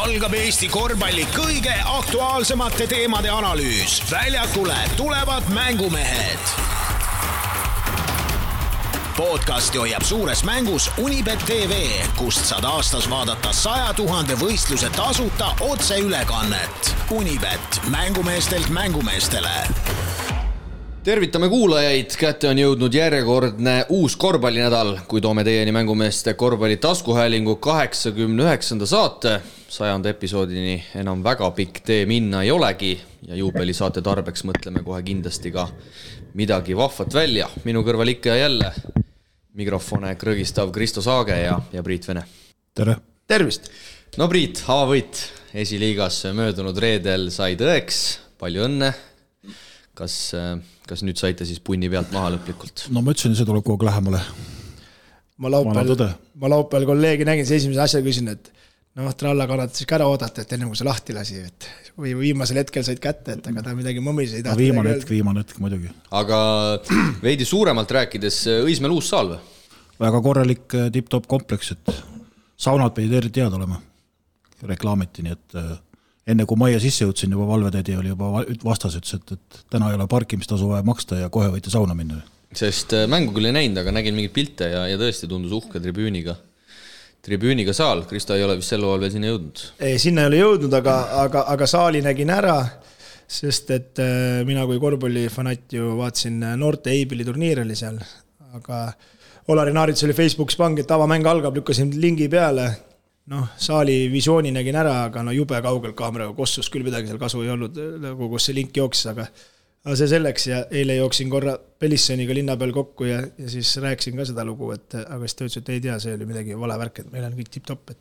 algab Eesti korvpalli kõige aktuaalsemate teemade analüüs. Väljakule tulevad mängumehed. Podcasti hoiab suures mängus Unibet TV, kust saad aastas vaadata 100 000 võistluse tasuta otseülekannet. Unibet, mängumeestelt mängumeestele. Tervitame kuulajaid, kätte on jõudnud järjekordne uus korvpallinädal, kui toome teieni mängumeeste korvpalli taskuhäälingu 89. saate. 100. episoodini enam väga pikk tee minna ei olegi ja juubelisaate tarbeks mõtleme kohe kindlasti ka midagi vahvat välja. Minu kõrval ikka ja jälle mikrofone krõgistav Kristo Saage ja Priit Vene. Tere! Tervist! No Priit, avavõit esiliigas möödunud reedel sai tõeks, palju õnne. Kas nüüd saite siis punni pealt maha lõplikult? No ma ütlesin, see tuleb kogu lähemale. Ma laupäeval kolleegi nägin, see esimese asja küsin, et tralla kannata siis ka ära oodata, et enne kui see lahti lasi. Või viimasel hetkel said kätte, et aga ta midagi mõmis ei tahta. Viimane hetk muidugi. Aga veidi suuremalt rääkides, Õismäel uus saal või? Väga korralik tip-top kompleks, et saunad pidid eriti teada olema. Reklaamiti, nii et enne kui majja sisse jõudsin, juba valvetädi oli juba vastas, et täna ei ole parkimistasu vaja maksta ja kohe võite sauna minna. Sest mängu küll ei näinud, aga nägin mingid pilte ja tõesti tundus uhke tribüüniga saal. Kristo ei ole vist sel ajal veel sinna jõudnud? Ei, sinna ei ole jõudnud, aga saali nägin ära, sest et mina kui korvpallifanat ju vaatasin noorte Eibili turniir oli seal, aga Olari Naarits oli Facebookis pangi, et avamäng algab, lükkasin lingi peale. Saali visiooni nägin ära, aga jube kaugelt kaameraga kossus, küll midagi seal kasu ei olnud, kus see link jooksis, aga see selleks ja eile jooksin korra Pelissoniga linna peal kokku ja siis rääkisin ka seda lugu, aga siis ta ütles, et ei tea, see oli midagi vale värk, et meil on kõik tip-top,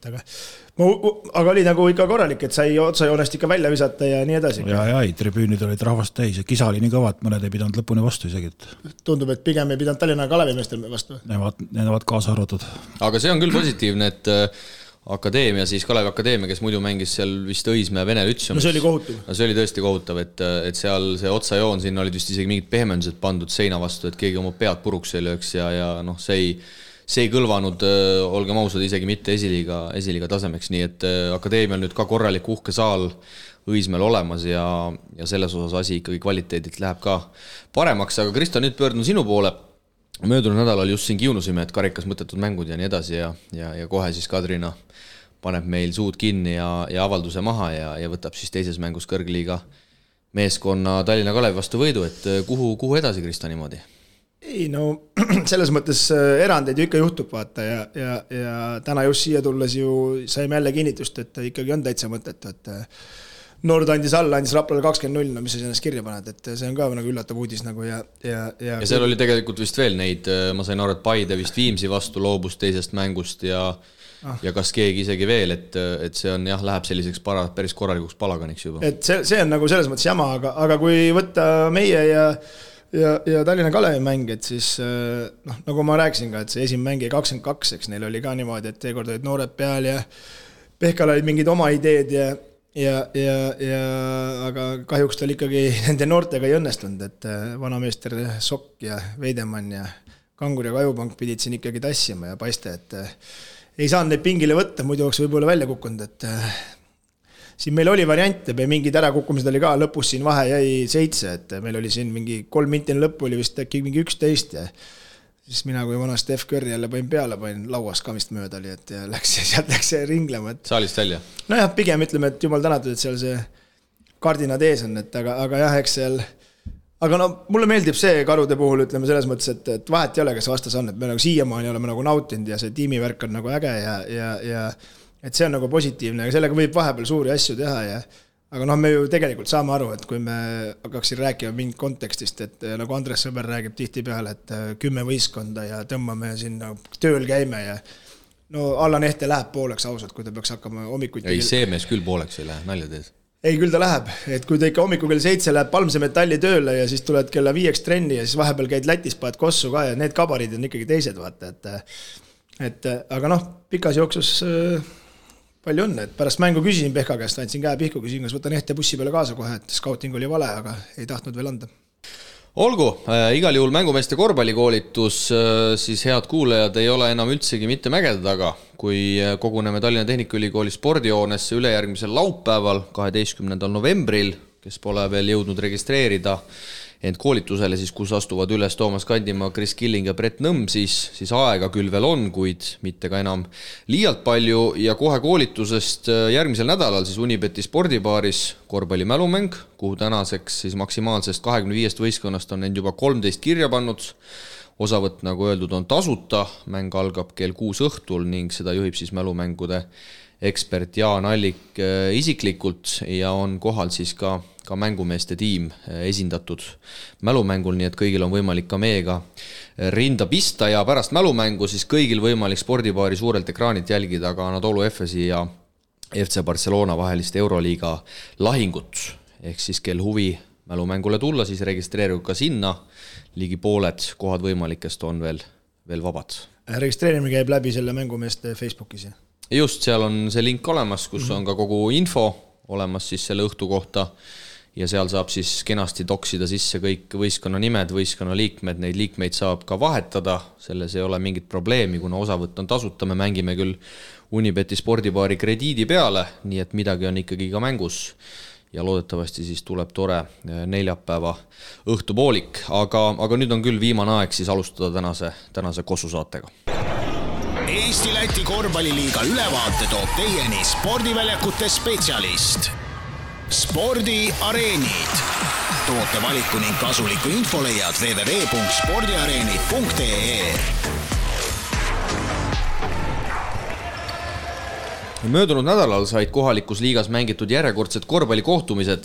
aga oli nagu ikka korralik, et sai otsajoonest ikka välja visata ja nii edasi. Ja tribüünid olid rahvast täis ja kisa oli nii kõva, et mõned ei pidanud lõpuni vastu isegi. Tundub, et pigem ei pidanud Tallinna Kalevimeestel vastu. Need kaasa arvatud. Aga see on küll positiivne, et Akadeemia, siis Kalevi Akadeemia, kes muidu mängis seal vist Õismäe Vene Lütseum. See oli kohutav. See oli tõesti kohutav, et seal see otsajoon, siin olid vist isegi mingid pehmendused pandud seina vastu, et keegi oma pead puruks ei lööks ja see ei kõlvanud, olgem ausad, isegi mitte esiliiga tasemeks, nii et Akadeemia on nüüd ka korralik uhke saal Õismäel olemas ja selles osas asi ikkagi kvaliteedilt läheb ka paremaks, aga Kristo, nüüd pöördun sinu poole. Möödunud nädalal just siin kiunusime, et karikas mõttetud mängud ja nii edasi ja kohe siis Kadrina paneb meil suud kinni ja avalduse maha ja võtab siis teises mängus kõrgliiga meeskonna Tallinna Kalevi vastu võidu, et kuhu edasi, Kristo, niimoodi? Ei, selles mõttes erandeid ju ikka juhtub vaata ja täna just siia tulles ju saime jälle kinnitust, et ikkagi on täitsa mõtet, et Nord andis Raplale 20-0, mis sa ennast kirja paned, et see on ka nagu üllatav uudis nagu ja seal oli tegelikult vist veel neid, ma sain aru, et Paide vist Viimsi vastu loobus teisest mängust ja kas keegi isegi veel, et see on läheb selliseks päris korralikuks palaganiks juba. Et see on nagu selles mõttes jama, aga kui võtta meie ja Tallinna Kalevi mäng, et siis nagu ma rääkisin ka, et see esimene mäng 22, eks neil oli ka niimoodi, et teekord olid noored peal ja Pehkal olid mingid oma ideed aga kahjuks tal ikkagi nende noortega ei õnnestunud, et vanameester Sokk ja Veidemann ja Kangur ja Kajupank pidid siin ikkagi tassima ja paiste, et ei saanud neid pingile võtta, muidu oleks võib-olla välja kukkunud, et siin meil oli variante, mingid ärakukkumised oli ka, lõpus siin vahe jäi 7, et meil oli siin mingi 3 mintini lõppu oli vist äkki mingi 11 ja siis mina kui vana Steph Curry jälle panin lauas kamist mööda oli, et sealt läks ringlema. Saalist välja? Nojah, pigem ütleme, et jumal tänatud, et seal see kardinad ees on, et aga jah, eks seal aga mulle meeldib see Karude puhul, ütleme selles mõttes, et vahet ei ole, kes vastas on, et me nagu siiamaani oleme nagu nautinud ja see tiimivärk on nagu äge ja et see on nagu positiivne, aga sellega võib vahepeal suuri asju teha aga me ju tegelikult saame aru, et kui me hakkaksin rääkima mingit kontekstist, et nagu Andres Sõber räägib tihti peale, et 10 võistkonda ja tõmbame sinna tööl käime ja Allan Ehte läheb pooleks ausalt, kui ta peaks hakkama hommikuti. Ei, see mees küll pooleks ei lähe, nalja teed. Ei, küll ta läheb, et kui ta ikka hommiku kell 7 läheb Palmse metalli tööle ja siis tuled kella 5 trenni ja siis vahepeal käid Lätis, paad kossu ka ja need kabarid on ikkagi teised, vaata, et aga pikas jooksus palju õnne, et pärast mängu küsisin Pehka käest, andsin käe pihku, küsin, kas võtan Ehte bussi peale kaasa kohe, et scouting oli vale, aga ei tahtnud veel anda. Olgu, igal juhul mängumeeste korvpallikoolitus, siis head kuulajad ei ole enam üldsegi mitte mägede taga, kui koguneme Tallinna Tehnikaülikooli spordihoonesse ülejärgmisel laupäeval, 12. novembril, kes pole veel jõudnud registreerida ent koolitusele, siis kus astuvad üles Toomas Kandimaa, Kris Killing ja Brett Nõmm, siis aega küll veel on, kuid mitte ka enam liialt palju ja kohe koolitusest järgmisel nädalal siis Unibeti spordibaaris korvpallimälumäng, kuhu tänaseks siis maksimaalsest 25 võistkonnast on end juba 13 kirja pannud. Osavõtt, nagu öeldud, on tasuta, mäng algab kell 6 õhtul ning seda juhib siis mälumängude ekspert Jaan Allik isiklikult ja on kohal siis ka mängumeeste tiim esindatud mälumängul, nii et kõigil on võimalik ka meiega rinda pista ja pärast mälumängu siis kõigil võimalik spordibaari suurelt ekraanilt jälgida ka Anadolu Efesi ja FC Barcelona vahelist Euroliiga lahingut. Ehk siis kel huvi mälumängule tulla, siis registreerigu ka sinna, ligi pooled kohad võimalikest on veel vabad. Registreerimine käib läbi selle mängumeeste Facebookis? Just, seal on see link olemas, kus on ka kogu info olemas siis selle õhtu kohta ja seal saab siis kenasti toksida sisse kõik võistkonna nimed, võistkonna liikmed, neid liikmeid saab ka vahetada, selles ei ole mingit probleemi, kuna osavõtt on tasuta, me mängime küll Unibeti spordibaari krediidi peale, nii et midagi on ikkagi ka mängus ja loodetavasti siis tuleb tore neljapäeva õhtupoolik, aga nüüd on küll viimane aeg siis alustada tänase kossusaatega. Eesti-Läti korvpalliliiga ülevaate toob teieni spordiväljakute spetsialist. Spordiareenid. Toote valiku ning kasuliku info leiad www.spordiareenid.ee. Möödunud nädalal said kohalikus liigas mängitud järjekordsed korvpallikohtumised,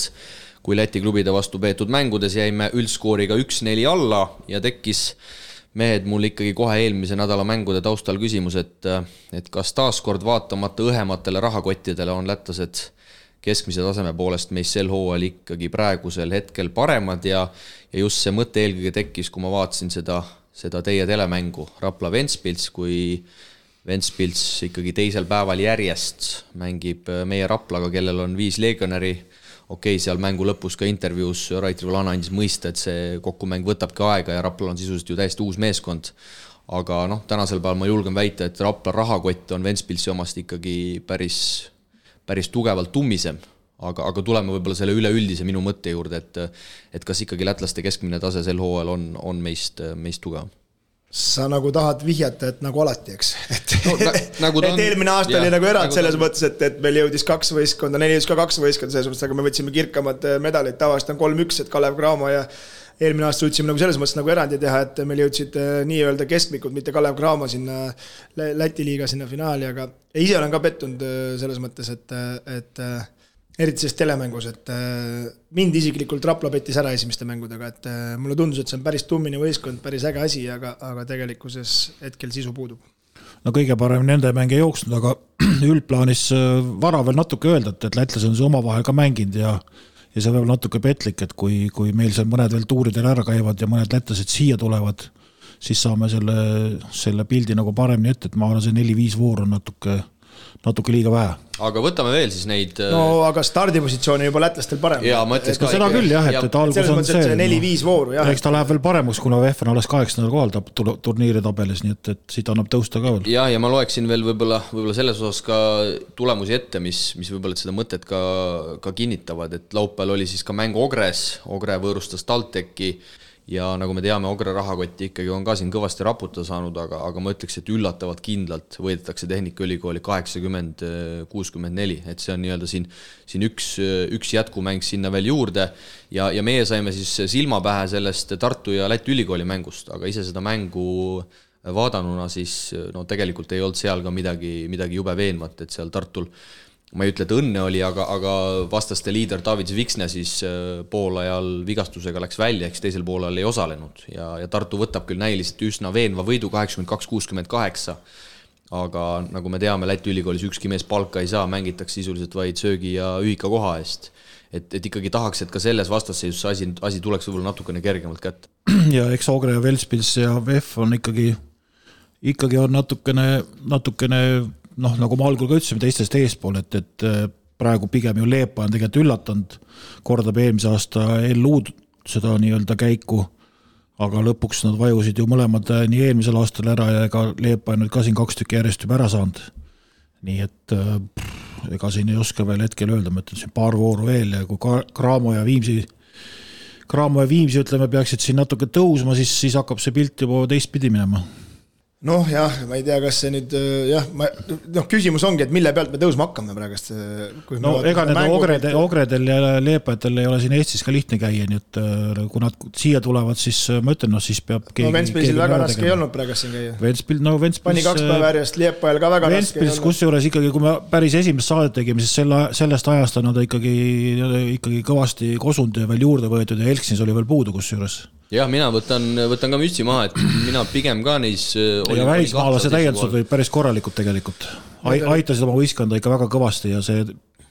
kui Läti klubide vastu peetud mängudes jäime üldskooriga 1-4 alla ja tekkis mehed mul ikkagi kohe eelmise nädala mängude taustal küsimus, et kas taaskord vaatamata õhematele rahakottidele on lätlased keskmise taseme poolest meis sel hooajal ikkagi praegusel hetkel paremad ja just see mõte eelkõige tekkis, kui ma vaatasin seda teie telemängu Rapla Ventspils, kui Ventspils ikkagi teisel päeval järjest mängib meie Raplaga, kellel on 5 legionäri. Okei, seal mängu lõpus ka intervjuus Rait Rivolana andis mõista, et see kokkumäng võtabki aega ja Raplal on sisuliselt ju täiesti uus meeskond. Aga tänasel päeval ma julgen väita, et Rapla rahakott on Ventspilsi omast ikkagi päris tugevalt tummisem. Aga tuleme võib-olla selle üleüldise minu mõtte juurde, et kas ikkagi lätlaste keskmine tase sel hooajal on meist tugevam. Sa nagu tahad vihjata, et nagu alati, eks? Nagu et eelmine aasta oli nagu erand selles mõttes, et meil jõudis 2 võistkonda, neil jõudis ka 2 võistkonda selles mõttes, aga me võtsime kirkamad medalid, tavaliselt on 3-1, et Kalev Cramo ja eelmine aasta suutsime nagu selles mõttes nagu erandi teha, et meil jõudsid nii-öelda keskmikud, mitte Kalev Cramo sinna Läti liiga sinna finaali, aga ise olen ka pettunud selles mõttes, et eriti selles telemängus, et mind isiklikult Rapla pettis ära esimeste mängudega, et mulle tundus, et see on päris tummine võistkond, päris äge asi, aga tegelikkuses hetkel sisu puudub. No kõige parem nende mäng ei jooksnud, aga üldplaanis vara veel natuke öelda, et lätlased on see omavahel ka mänginud ja see võib natuke petlik, et kui meil seal mõned veel tuuridel ära käivad ja mõned lätlased siia tulevad, siis saame selle pildi nagu paremini ette, et ma arvan, see 4-5 voor on natuke liiga vähe. Aga võtame veel siis neid... No aga stardipositsioon on juba lätlastel parem. Jaa, ma ütleks ka... Seda küll jah, et algus on see... 4-5 vooru, jah. Eks ta läheb veel paremuks, kuna VF on alles 8. kohal turniiri tabelis, nii et siit annab tõusta ka veel. Ja ma loeksin veel võib-olla selles osas ka tulemusi ette, mis võib-olla seda mõtet ka kinnitavad, et laupäeval oli siis ka mäng Ogres, Ogre võõrustas TalTechi ja nagu me teame, Ogre rahakotti ikkagi on ka siin kõvasti raputa saanud, aga ma ütleks, et üllatavalt kindlalt võidetakse Tehnikaülikooli 80-64, et see on nii-öelda siin üks jätkumäng sinna veel juurde ja meie saime siis silma pähe sellest Tartu ja Läti ülikooli mängust, aga ise seda mängu vaadanuna siis tegelikult ei olnud seal ka midagi jube veenvat, et seal Tartul ma ei ütle, et õnne oli, aga vastaste liider David Viksne siis poolajal vigastusega läks välja, eks teisel poolajal ei osalenud ja Tartu võtab küll näiliselt üsna veenva võidu 82-68, aga nagu me teame, Läti ülikoolis ükski mees palka ei saa, mängitakse sisuliselt vaid söögi ja ühika koha eest. Et ikkagi tahaks, et ka selles vastasseisus asi tuleks võib-olla natukene kergemalt kätte. Ja eks Ogre ja Ventspils ja VF on ikkagi on natukene nagu ma algul ka ütlesime teistest eespool, et praegu pigem ju Leepa on tegelikult üllatanud, kordab eelmise aasta LU seda nii-öelda käiku aga lõpuks nad vajusid ju mõlemad nii eelmisel aastal ära ja ega Leepa nüüd ka siin 2 tükki järjest juba ära saanud. Nii et ega siin ei oska veel hetkel öelda, ma ütlen siin paar vooru veel ja kui Cramo ja Viimsi ütleme, peaksid siin natuke tõusma, siis hakkab see pilt juba teistpidi minema. Noh jah, ma ei tea, kas see nüüd küsimus ongi, et mille pealt me tõusma hakkame praegust. No ega need ogredel ja leepajatel ei ole siin Eestis ka lihtne käia, nii et kui nad siia tulevad, siis ma ütlen, siis peab keegi... No Ventspilsil väga raske ei olnud praegust siin käia. Ventspils... Pani 2 päeva järjest Leepajal ka väga raske. Ventspils, kusjuures ikkagi, kui me päris esimest saadet tegime, siis sellest ajast on nad ikkagi kõvasti kosunud ja veel juurde võetud ja Elksins oli veel puudu kusjuures. Jah, mina võtan ka mütsi maha, et mina pigem ka neis... Ja välismaalase täiendused olid päris korralikult tegelikult. Aitasid oma võiskonda ikka väga kõvasti ja see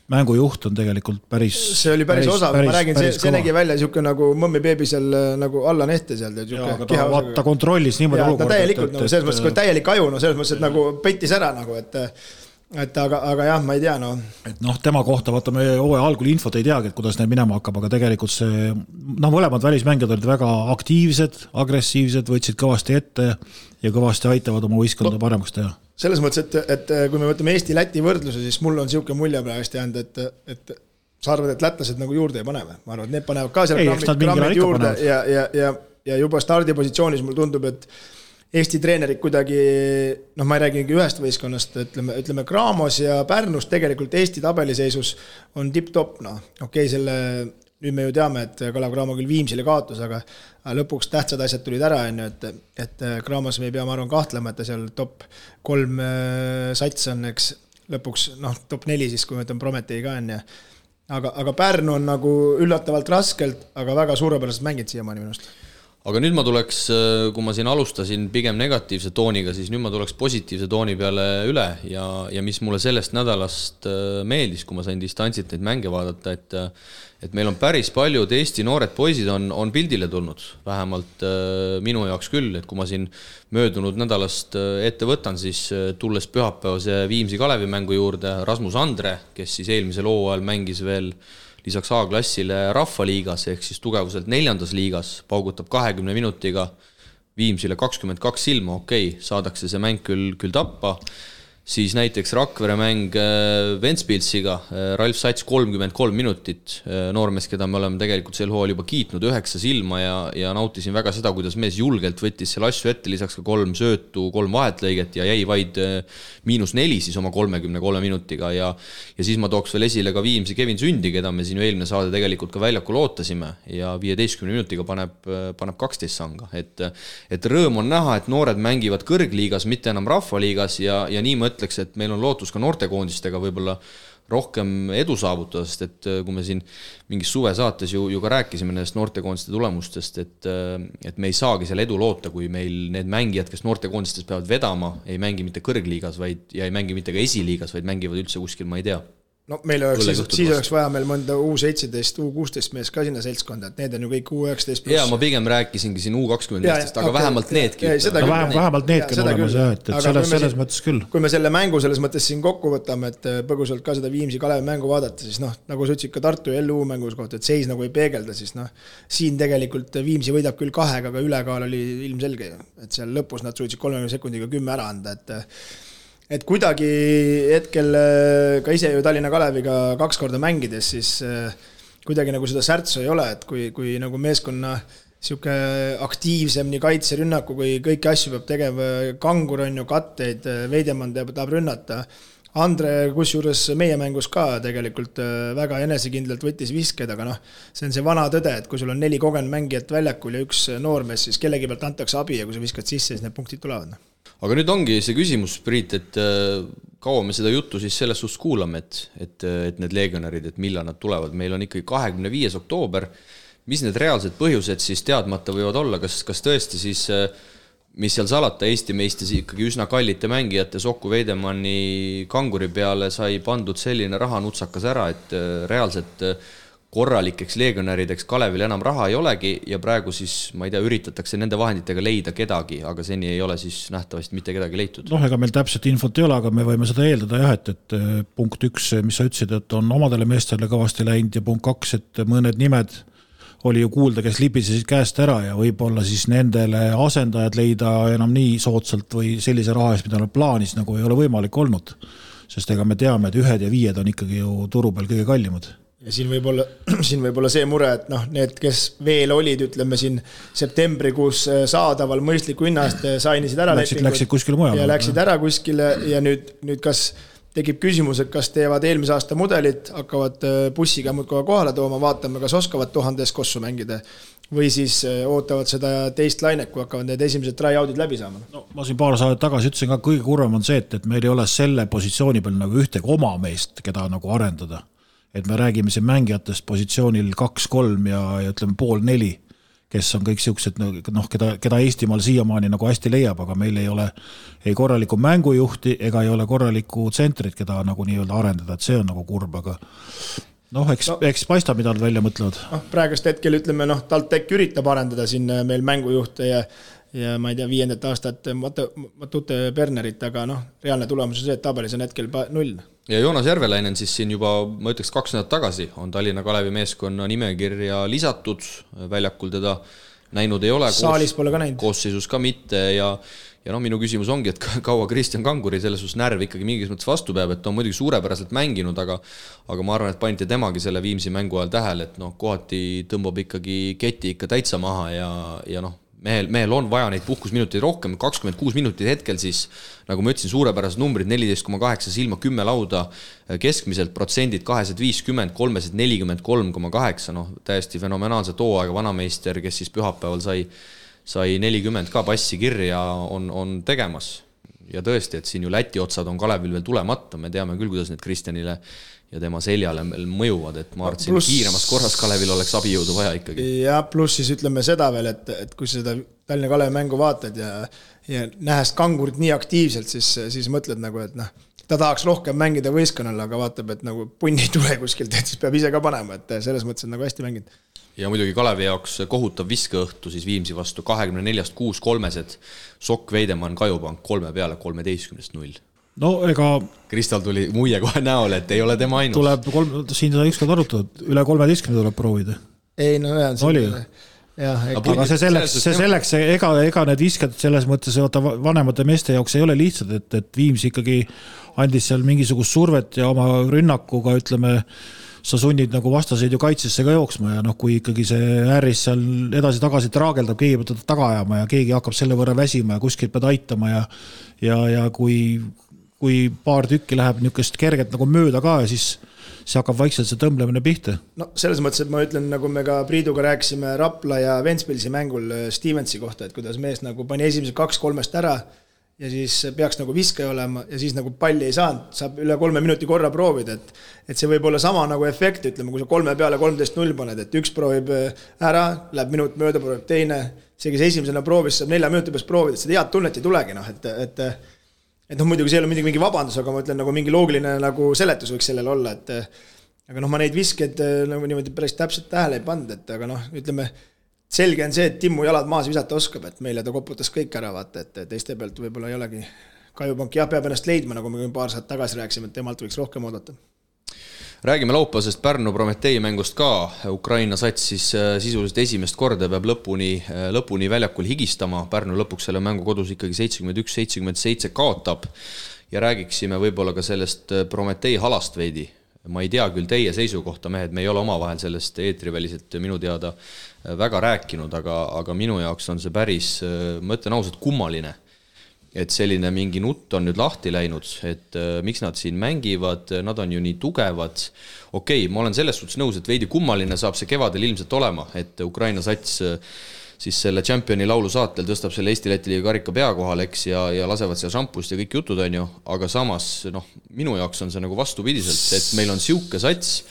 mängujuht on tegelikult päris... See oli päris osav, ma räägin, see nägi välja niisugune nagu Mõmmi Beebi seal nagu alla nehte seal. Ta kontrollis niimoodi olukorda. Täielikult, selles mõttes, kui täielik aju, selles mõttes, et nagu pettis ära nagu, et aga jah, ma ei tea, Et tema kohta vaatame hooaja algul infot ei teagi, et kuidas neil minema hakkab, aga tegelikult see, mõlemad välismängijad olid väga aktiivsed, agressiivsed, võtsid kõvasti ette ja kõvasti aitavad oma võistkonda paremaks teha. Selles mõttes, et kui me võtame Eesti-Läti võrdluse, siis mul on siuke mulje praegust jäänud, et sa arvad, et lätlased nagu juurde ei paneme. Ma arvan, et need panevad ka seal grammid juurde ja juba stardipositsioonis mul tundub, et Eesti treenerid kuidagi, ma ei räägi ühest võistkonnast, ütleme Cramos ja Pärnus tegelikult Eesti tabeliseisus on tip-top, selle, nüüd me ju teame, et Kalev Cramo küll Viimsile kaotus, aga lõpuks tähtsad asjad tulid ära, et Cramos me ei pea, ma arvan, kahtlema, et ta seal top 3 sats on, eks lõpuks, top 4 siis, kui me ütleme Prometei ka on, aga Pärnu on nagu üllatavalt raskelt, aga väga suurepäraselt mängid siiamaani minust. Aga nüüd ma tuleks, kui ma siin alustasin pigem negatiivse tooniga, siis nüüd ma tuleks positiivse tooni peale üle ja mis mulle sellest nädalast meeldis, kui ma sain distantsilt neid mänge vaadata, et meil on päris paljud Eesti noored poisid on pildile tulnud, vähemalt minu jaoks küll, et kui ma siin möödunud nädalast ette võtan, siis tulles pühapäevase Viimsi Kalevi mängu juurde Rasmus Andre, kes siis eelmisel hooajal mängis veel lisaks A-klassile Rahvaliigas ehk siis tugevuselt 4. liigas, paugutab 20 minutiga Viimsile 22 silma, saadakse see mäng küll tappa, siis näiteks Rakvere mäng Ventspilsiga, Ralf Sats 33 minutit, noormees, keda me oleme tegelikult sel hooajal juba kiitnud 9 silma ja nautisin väga seda, kuidas mees julgelt võttis selle asju ette, lisaks ka 3 söötu, 3 vahetlõiget ja jäi vaid -4 siis oma 33 minutiga ja siis ma tooks veel esile ka Viimsi Kevin Sündi, keda me siin eelmine saade tegelikult ka väljakul ootasime ja 15 minutiga paneb 12 sanga, et rõõm on näha, et noored mängivad kõrgliigas, mitte enam Rahvaliigas ja nii ma ütleks, et meil on lootus ka noortekoondistega võib-olla rohkem edu saavutada, sest et kui me siin mingis suvesaates ju ka rääkisime nendest noortekoondiste tulemustest, et me ei saagi seal edu loota, kui meil need mängijad, kes noortekoondistes peavad vedama, ei mängi mitte kõrgliigas ja ei mängi mitte ka esiliigas, vaid mängivad üldse kuskil, ma ei tea. Meil oleks, siis oleks vaja meil mõnda U17, U16 mees ka sinna seltskonda, et need on ju kõik U19+. Jaa, ma pigem rääkisingi siin U20 meestest, aga vähemalt needki. Vähemalt needki on olemas, et selles mõttes küll. Kui me selle mängu selles mõttes siin kokku võtame, et põgusalt ka seda Viimsi Kalevi mängu vaadata, siis nagu sa ütlesid ka Tartu ja LU mängus kohta, et seis nagu ei peegelda, siis siin tegelikult Viimsi võidab küll 2, aga ülekaal oli ilmselge, et seal lõpus nad suutsid 30 sekundiga 10 ära anda, et kuidagi hetkel ka ise ju Tallinna Kaleviga 2 korda mängides, siis kuidagi nagu seda särtsu ei ole, et kui nagu meeskonna siuke aktiivsem nii kaitserünnaku, kui kõiki asju peab tegema, Kangur on ju katteid, Veidemann tahab rünnata, Andre kusjuures meie mängus ka tegelikult väga enesekindlalt võttis visked, aga see on see vana tõde, et kui sul on 4 kogenud mängijat väljakul ja 1 noormees, siis kellegi pealt antakse abi ja kui sa viskad sisse, siis need punktid tulevad. Aga nüüd ongi see küsimus, Priit, et kaua me seda juttu siis selles suhtes kuulame, et need legionärid, et millal nad tulevad. Meil on ikkagi 25. oktoober. Mis need reaalsed põhjused siis teadmata võivad olla? Kas tõesti siis, mis seal salata, Eesti meistis ikkagi üsna kallite mängijate Soku Veidemanni Kanguri peale sai pandud selline rahanutsakas ära, et reaalselt korralikeks legionärideks Kalevil enam raha ei olegi ja praegu siis, ma ei tea, üritatakse nende vahenditega leida kedagi, aga seni ei ole siis nähtavasti mitte kedagi leitud. Ega meil täpselt infot ei ole, aga me võime seda eeldada jah, et punkt 1, mis sa ütlesid, et on omadele meestele kõvasti läinud ja punkt 2, et mõned nimed oli ju kuulda, kes libisesid käest ära ja võib-olla siis nendele asendajad leida enam nii soodsalt või sellise raha eest, mida nad plaanis, nagu ei ole võimalik olnud. Sest ega me teame, et 1 ja 5 on ikkagi ju turu peal kõige kallimad. Ja siin võib olla see mure, et need, kes veel olid, ütleme siin septembrikuus saadaval mõistliku hinnast, sainisid ära läksid kuskile mujale. Ja läksid ära kuskile ja nüüd kas tekib küsimus, et kas teevad eelmise aasta mudelit, hakkavad bussiga muudkoha kohale tooma, vaatame, kas oskavad 1000 kossu mängida või siis ootavad seda teist lainet, kui hakkavad need esimesed try-outid läbi saama. No, ma siin paar saadet tagasi ütlesin ka, kõige kurvem on see, et meil ei ole selle positsiooni peal nagu ühtegi oma meest, keda nagu arendada. Et me räägime siin mängijatest positsioonil 2-3 ja ütleme 3-4, kes on kõik siuksed, keda Eestimaal siiamaani nagu hästi leiab, aga meil ei ole ei korralikku mängujuhti ega ei ole korralikku tsentrit, keda nagu nii-öelda arendada, et see on nagu kurb, aga eks paista, mida nad välja mõtlevad. Praegust hetkel ütleme, TalTech üritab arendada siin meil mängujuhte ja ma ei tea, 5. aastat Matute Bernerit, aga reaalne tulemus on see, et tabelis on hetkel 0. Ja Joonas Järvelainen siis siin juba, ma ütleks 2 nädalat tagasi, on Tallinna Kalevi meeskonna nimekirja lisatud, väljakul teda näinud ei ole. Saalis pole ka näinud. Koosseisus ka mitte ja minu küsimus ongi, et kaua Kristjan Kanguri selles suhtes närv ikkagi mingis mõttes vastu peab, et on muidugi suurepäraselt mänginud, aga ma arvan, et panite temagi selle Viimsi mängu ajal tähele, et kohati tõmbab ikkagi keti ikka täitsa maha ja mehel on vaja neid puhkusminuteid rohkem, 26 minutit hetkel siis, nagu ma ütlesin, suurepärased numbrid, 14,8 silma 10 lauda, keskmiselt protsendid 250, 343,8, täiesti fenomenaalse tooaega vanameister, kes siis pühapäeval sai 40 ka passi kirja on tegemas. Ja tõesti, et siin ju Läti otsad on Kalevil veel tulemata, me teame küll, kuidas need Kristjanile ja tema seljale mõjuvad, et ma arvasin, kiiremas korras Kalevil oleks abijõudu vaja ikkagi. Ja pluss siis ütleme seda veel, et kui seda Tallinna Kalevi mängu vaatad ja nähes Kangurit nii aktiivselt, siis mõtled nagu, et ta tahaks rohkem mängida võistkonnal, aga vaatab, et nagu punni ei tule kuskilt, et siis peab ise ka panema, et selles mõttes on nagu hästi mänginud. Ja muidugi Kalevi jaoks kohutav viskeõhtu siis Viimsi vastu 24-6 kolmesed, Sokk, Veidemann, Kajupank 3 peale 13-0. No ega Kristal tuli muie kohe näole, et ei ole tema ainus. Tuleb siin seda ükskord arutada, üle 13 tuleb proovida. Ei, oli ju. Aga see selleks, ega need viskad selles mõttes vanemate meeste jaoks ei ole lihtsad, et Viimsi ikkagi andis seal mingisugust survet ja oma rünnakuga, ütleme, sa sunnid nagu vastaseid ju kaitsesse ka jooksma ja kui ikkagi see ääris seal edasi-tagasi traageldab, keegi peab teda taga ajama ja keegi hakkab selle võrra väsima ja kuskilt pead aitama ja kui paar tükki läheb niisugust kerget nagu mööda ka ja siis see hakkab vaikselt see tõmblemine pihta. Selles mõttes, et ma ütlen, nagu me ka Priiduga rääkisime Rapla ja Ventspilsi mängul Stevensi kohta, et kuidas mees nagu pani esimese 2-3 ära ja siis peaks nagu viskaja olema ja siis nagu palli ei saanud, saab üle 3 minuti korra proovida, et see võib olla sama nagu efekt, ütleme, kui sa 3 peale 13-0 paned, et üks proovib ära, läheb minut mööda, proovib teine, see, kes esimesena proovis, saab 4 minuti peast proovida, et seda head tunnet ei tulegi, et muidugi see ei ole mingi vabandus, aga ma ütlen, nagu mingi loogiline nagu seletus võiks sellel olla, aga ma neid viskeid nagu niimoodi päris täpselt tähele ei pannud, et aga ütleme, selge on see, et Timmu jalad maas visata oskab, et meile ta koputas kõik ära, vaata, et teiste pealt võib-olla ei olegi. Kajupank peab ennast leidma, nagu me paar saat tagasi rääkisime, et temalt võiks rohkem oodata. Räägime laupäevasest Pärnu Prometee mängust ka. Ukraina sats siis sisuliselt esimest korda peab lõpuni väljakul higistama. Pärnu lõpuks selle mängu kodus ikkagi 71-77 kaotab. Ja räägiksime võib-olla ka sellest Prometee halast veidi. Ma ei tea küll teie seisukohta, mehed, me ei ole omavahel sellest eetriväliselt minu teada väga rääkinud, aga minu jaoks on see päris, ma ütlen ausalt, kummaline, et selline mingi nutt on nüüd lahti läinud, et miks nad siin mängivad, nad on ju nii tugevad. Okei, ma olen selles suhtes nõus, et veidi kummaline saab see kevadel ilmselt olema, et Ukraina sats siis selle Championi laulu saatel tõstab selle Eesti-Läti liiga karika pea kohal, eks, ja lasevad seal šampust ja kõik jutud on ju, aga samas, minu jaoks on see nagu vastupidiselt, et meil on siuke sats,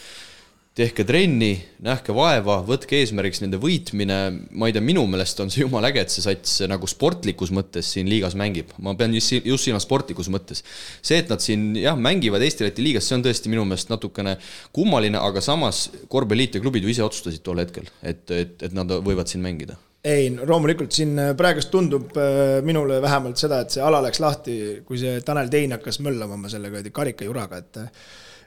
tehke trenni, nähke vaeva, võtke eesmärgiks nende võitmine, ma ei tea, minu meelest on see jumal äge, et see sats nagu sportlikus mõttes siin liigas mängib, ma pean just siin sportlikus mõttes. See, et nad siin mängivad Eesti-Läti liigas, see on tõesti minu meelest natukene kummaline, aga samas korvpalliliit ja klubid ju ise otsustasid tol hetkel, et nad võivad siin mängida. Ei, loomulikult siin praegust tundub minule vähemalt seda, et see ala läks lahti, kui see Tanel Tein hakkas möllama sellega karikajuraga,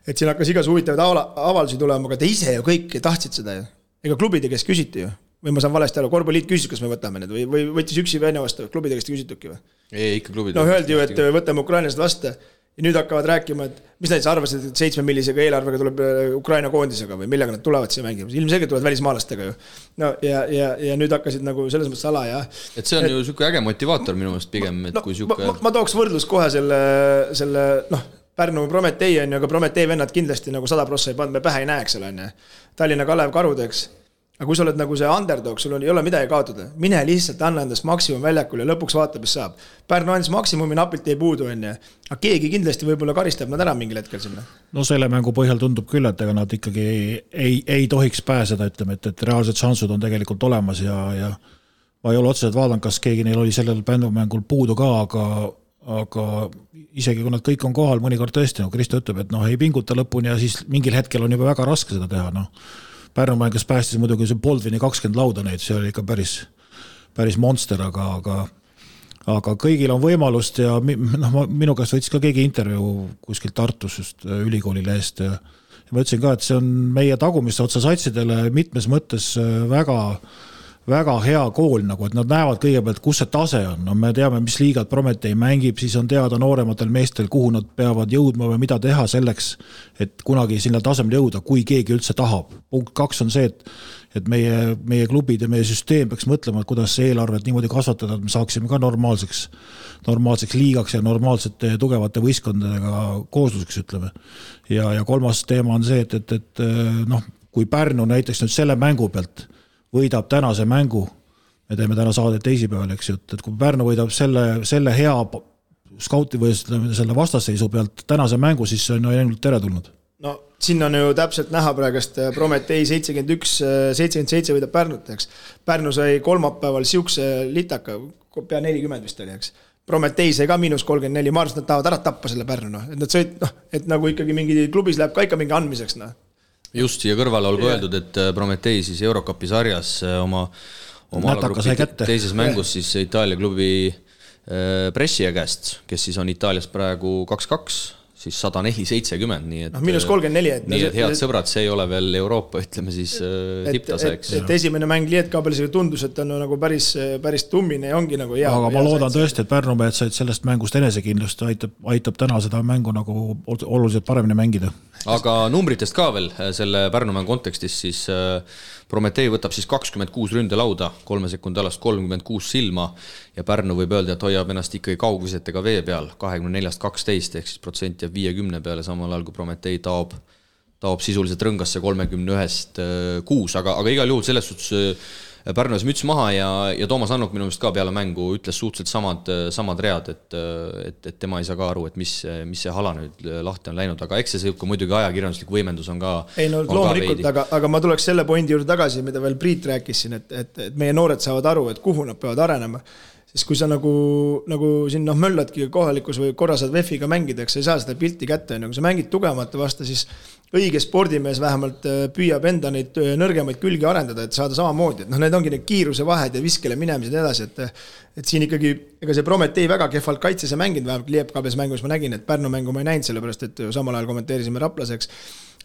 et siin hakkas igas huvitavaid avaldusi tulema, aga te ise ju kõik tahtsid seda ju. ega klubide käest küsiti ju. Või ma saan valesti aru, korvpalliliit küsis, kas me võtame need või võttis üksi venna vastu, klubide käest küsituki või? Ei, ikka klubide. No öeldi ju, et võtame ukrainlased vastu ja nüüd hakkavad rääkima, et mis nad arvasid, et 7 millisega eelarvega tuleb Ukraina koondisega või millega nad tulevad siia mängima. Ilmselgelt tulevad välismaalastega ju. No ja nüüd hakkasid nagu selles mõttes ala ja... Et see on ju siuke äge motivaator minu meelest pigem, et kui siuke... Ma tooks võrdlus kohe selle Pärnu Prometee on ju, aga Prometee vennad kindlasti nagu 100% ei pannud, me pähe ei näeks seal on. Tallinna Kalev Karudeks. Aga kui sa oled nagu see underdog, sul ei ole midagi kaotada. Mine lihtsalt anna endast maksimum väljakul ja lõpuks vaata, mis saab. Pärnu andis maksimumi, napilt ei puudu enne. Aga keegi kindlasti võib-olla karistab nad ära mingil hetkel sinna. No selle mängu põhjal tundub küll, et ega nad ikkagi ei tohiks pääseda, ütleme, et reaalsed šansud on tegelikult olemas ja ma ei ole otseselt vaadanud, kas keegi neil oli sellel mängul puudu ka, aga isegi kui nad kõik on kohal, mõnikord tõesti, Kristo ütleb, et ei pinguta lõpuni ja siis mingil hetkel on juba väga raske seda teha, Pärnu mängas päästis muidugi see Boldvini 20 lauda neid, see oli ikka päris monster, aga kõigil on võimalust ja minu käest võttis ka keegi intervjuu kuskil Tartus just ülikoolile eest ja ma ütlesin ka, et see on meie tagumiste otsa satsidele mitmes mõttes väga hea kool, nagu, et nad näevad kõigepealt, kus see tase on. Me teame, mis liigad Prometee mängib, siis on teada noorematel meestel, kuhu nad peavad jõudma või mida teha selleks, et kunagi sinna tasemel jõuda, kui keegi üldse tahab. Punkt 2 on see, et meie klubid ja meie süsteem peaks mõtlema, kuidas eelarvet niimoodi kasvatada, et me saaksime ka normaalseks liigaks ja normaalsete tugevate võistkondadega koosluseks, ütleme. Ja kolmas teema on see, et kui Pärnu näiteks nüüd selle mängu pealt võidab tänase mängu, me teeme täna saadet teisipäeval, eks ju, et kui Pärnu võidab selle hea skauti või selle vastasseisu pealt tänase mängu, siis see on ainult teretulnud. No siin on ju täpselt näha praegust Prometee 71-77 võidab Pärnut, eks. Pärnu sai kolmapäeval siukse litaka, pea 40 vist oli, eks. Prometee sai ka -34, ma arvan, et nad tahavad ära tappa selle Pärnu, et nad sõid, et nagu ikkagi mingi klubis läheb ka ikka mingi andmiseks, Just siia kõrvale olgu öeldud, et Prometee siis Eurocupi sarjas oma teises mängus siis Itaalia klubi Brescia käest, kes siis on Itaalias praegu 2-2, siis 104-70, nii et -34. Nii et head sõbrad, see ei ole veel Euroopa, ütleme siis tipptase, eks. Et esimene mäng Lietkabelisega tundus, et on nagu päris tummine ja ongi nagu hea. Aga ma loodan tõesti, et Pärnu mehed said sellest mängust enesekindlust, aitab täna seda mängu nagu oluliselt paremini mängida. Aga numbritest ka veel selle Pärnumäng kontekstis, siis Prometee võtab siis 26 ründelauda, 3 sekundi alast 36 silma ja Pärnu võib öelda, et hoiab ennast ikkagi kaugvisetega vee peal 24-12 ehk siis protsent jääb 50 peale, samal ajal kui Prometee taob sisuliselt rõngasse 31-6, aga igal juhul selles suhtes Pärnu ees müts maha ja Toomas Annuk minu meelest ka peale mängu ütles suhteliselt samad read, et tema ei saa ka aru, et mis see hala nüüd lahti on läinud, aga eks see muidugi ajakirjanduslik võimendus on ka loomulikult, aga ma tuleks selle pointi juurde tagasi, mida veel Priit rääkis siin, et meie noored saavad aru, et kuhu nad peavad arenema. Siis kui sa nagu siin mölladki kohalikus või korra saad VEF-iga mängida, eks sa ei saa seda pilti kätte, kui sa mängid tugevamate vastu, siis õige spordimees vähemalt püüab enda neid nõrgemaid külgi arendada, et saada samamoodi. Need ongi need kiiruse vahed ja viskele minemised edasi, et siin ikkagi, ega see Prometee väga kehvalt kaitses ja mänginud, vähemalt Liepkabes mängus ma nägin, et Pärnu mängu ma ei näinud, sellepärast et samal ajal kommenteerisime Raplaseks,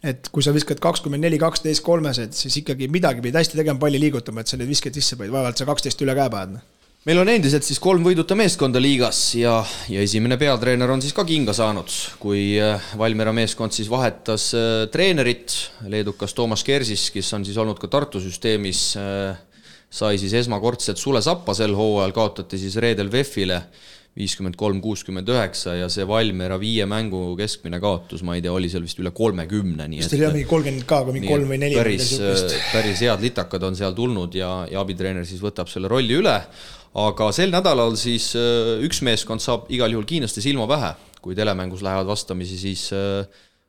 et kui sa viskad 24-12 kolmesed, siis ikkagi midagi pidi hästi tegema palli liigutama, et sa need visked sisse panid, vaevalt sa 12 üle käe paned. Meil on endiselt siis 3 võiduta meeskonda liigas ja esimene peatreener on siis ka kinga saanud, kui Valmiera meeskond siis vahetas treenerit, leedukas Toomas Kersis, kes on siis olnud ka Tartu süsteemis, sai siis esmakordselt Sule Sappa sel hooajal, kaotati siis reedel VEF-ile 53-69 ja see Valmiera 5 mängu keskmine kaotus, ma ei tea, oli seal vist üle 30. Vist oli mingi 30 ka, kui mingi 3 või 4. Päris head litakad on seal tulnud ja abitreener siis võtab selle rolli üle. Aga sel nädalal siis üks meeskond saab igal juhul Kiinlaste silma pähe, kui telemängus lähevad vastamisi siis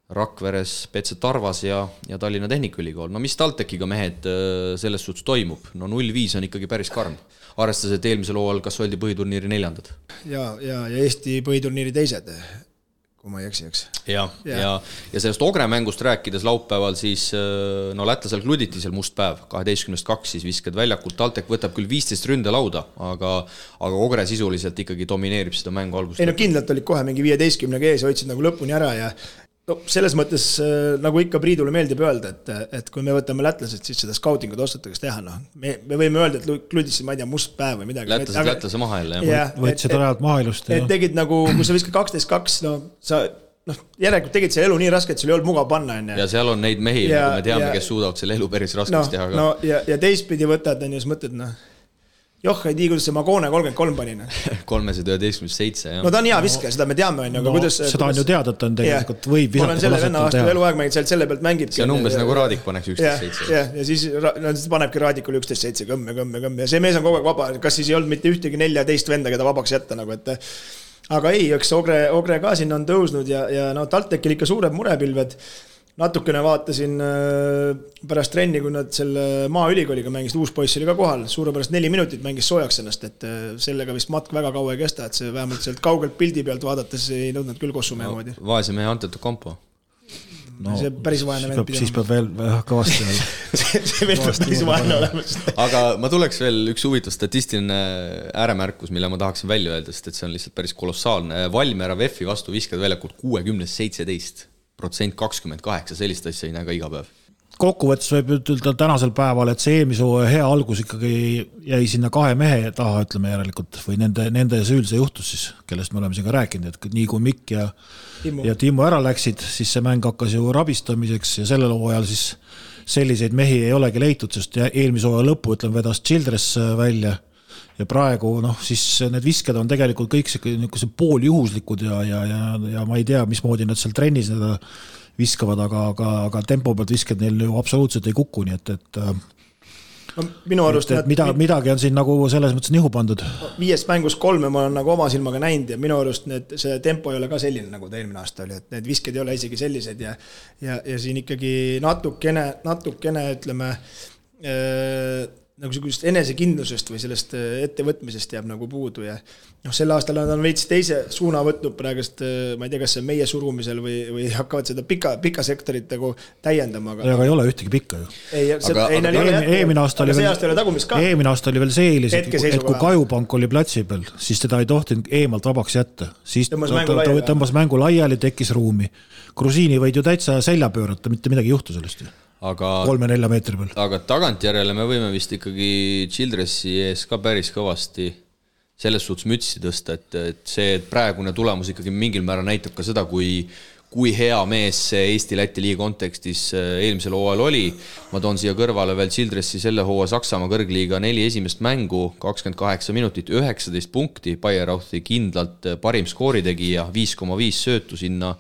Rakveres PC Tarvas ja Tallinna Tehnikaülikool. No mis TalTechiga mehed selles suhtes toimub? No 0-5 on ikkagi päris karm. Arvestades, et eelmisel hooajal kas oldi põhiturniiri 4. Ja Eesti põhiturniiri 2, kui ma ei eksi, eks. Ja sellest Ogre mängust rääkides laupäeval siis, no lätlasel kluditi seal must päev, 12-2 siis viskad väljakult, TalTech võtab küll 15 ründelauda, aga Ogre sisuliselt ikkagi domineerib seda mängu algust. Ei no kindlalt olid kohe mingi 15 ees, hoidsid nagu lõpuni ära ja No selles mõttes, nagu ikka Priidule meeldib öelda, et kui me võtame lätlased, siis seda scoutingut ostatakse teha, noh. Me võime öelda, et Kludisse, ma ei tea, must päev või midagi. Lätlase maha jälle, jah. Võtsid rajalt maha ilust. Et tegid nagu, kui sa viskad 12-2, no sa, järelikult tegid see elu nii raske, et sul ei olnud mugav panna. Ja seal on neid mehi, nagu me teame, kes suudavad selle elu päris raskeks teha. No, ja teistpidi võtad, ja siis mõtled, joh, ei tii, kuidas see Magone 33 panina. 311-7, jah. No ta on hea viske, seda me teame, aga kuidas... Seda on ju teada, et on tegelikult võib visata. Olen selle venna vastu eluaeg mängid, selle pealt mängib. See on umbes nagu Raadik paneks 11-7. Ja siis panebki Raadikule 11-7, kõmme. Ja see mees on kogu aeg vaba, kas siis ei olnud mitte ühtegi 14 venda, keda vabaks jätta, nagu et... Aga ei, eks Ogre ka sinna on tõusnud ja talt tekil ikka suured murepilved. Natukene vaatasin pärast trenni, kui nad selle maaülikooliga mängisid, uus poiss oli ka kohal, suurepärast 4 minutit mängis soojaks ennast, et sellega vist matk väga kaua ei kesta, et see vähemalt sealt kaugelt pildi pealt vaadates ei nõudnud küll kossumehe moodi. Vaese mehe Antetu Kompo. No, see päris vaene vend pidama. Siis peab veel kõvasti veel. see veel päris vaene olemas. Aga ma tuleks veel üks huvitav statistiline ääremärkus, mille ma tahaksin välja öelda, sest et see on lihtsalt päris kolossaalne. Valmiera VEF-i vastu viskad väljakult 60-17%, 28, sellist asja ei näe ka iga päev. Kokkuvõttes võib ütelda tänasel päeval, et see eelmise hea algus ikkagi jäi sinna 2 mehe taha, ütleme järelikult, või nende süül see juhtus siis, kellest me oleme siin ka rääkinud, et nii kui Mikk ja Timo ära läksid, siis see mäng hakkas ju rabistamiseks ja sellel hooajal siis selliseid mehi ei olegi leitud, sest eelmise hooaja lõppu, ütleme, vedas Childress välja ja praegu, siis need visked on tegelikult kõik see pooljuhuslikud ja ma ei tea, mismoodi nad seal trennis seda viskavad, aga tempo pealt visked neil ju absoluutselt ei kuku, nii et minu arust midagi on siin nagu selles mõttes nihu pandud. 5 mängus 3 ma olen nagu oma silmaga näinud ja minu arust see tempo ei ole ka selline, nagu ta eelmine aasta oli, et need visked ei ole isegi sellised ja siin ikkagi natukene ütleme nagu sellist enesekindlusest või sellest ettevõtmisest jääb nagu puudu ja sel aastal nad on veits teise suuna võtnud praegust, ma ei tea, kas see meie surumisel või hakkavad seda pika sektorit nagu täiendama. Aga ei ole ühtegi pikka ju. Eelmine aasta oli veel see eelis, et kui Kajupank oli platsi peal, siis teda ei tohtinud eemalt vabaks jätta. Siis tõmbas mängu laiali, tekkis ruumi. Grusiini võid ju täitsa selja pöörata, mitte midagi juhtu sellest ju. 3-4 meetri peal. Aga tagantjärele me võime vist ikkagi Childressi ees ka päris kõvasti selles suhtes mütsi tõsta, et see praegune tulemus ikkagi mingil määral näitab ka seda, kui hea mees see Eesti-Läti liiga kontekstis eelmisel hooajal oli. Ma toon siia kõrvale veel Childressi selle hooaja Saksamaa kõrgliiga 4 esimest mängu, 28 minutit, 19 punkti, Bayerauthi kindlalt parim skooritegija, 5,5 söötu sinna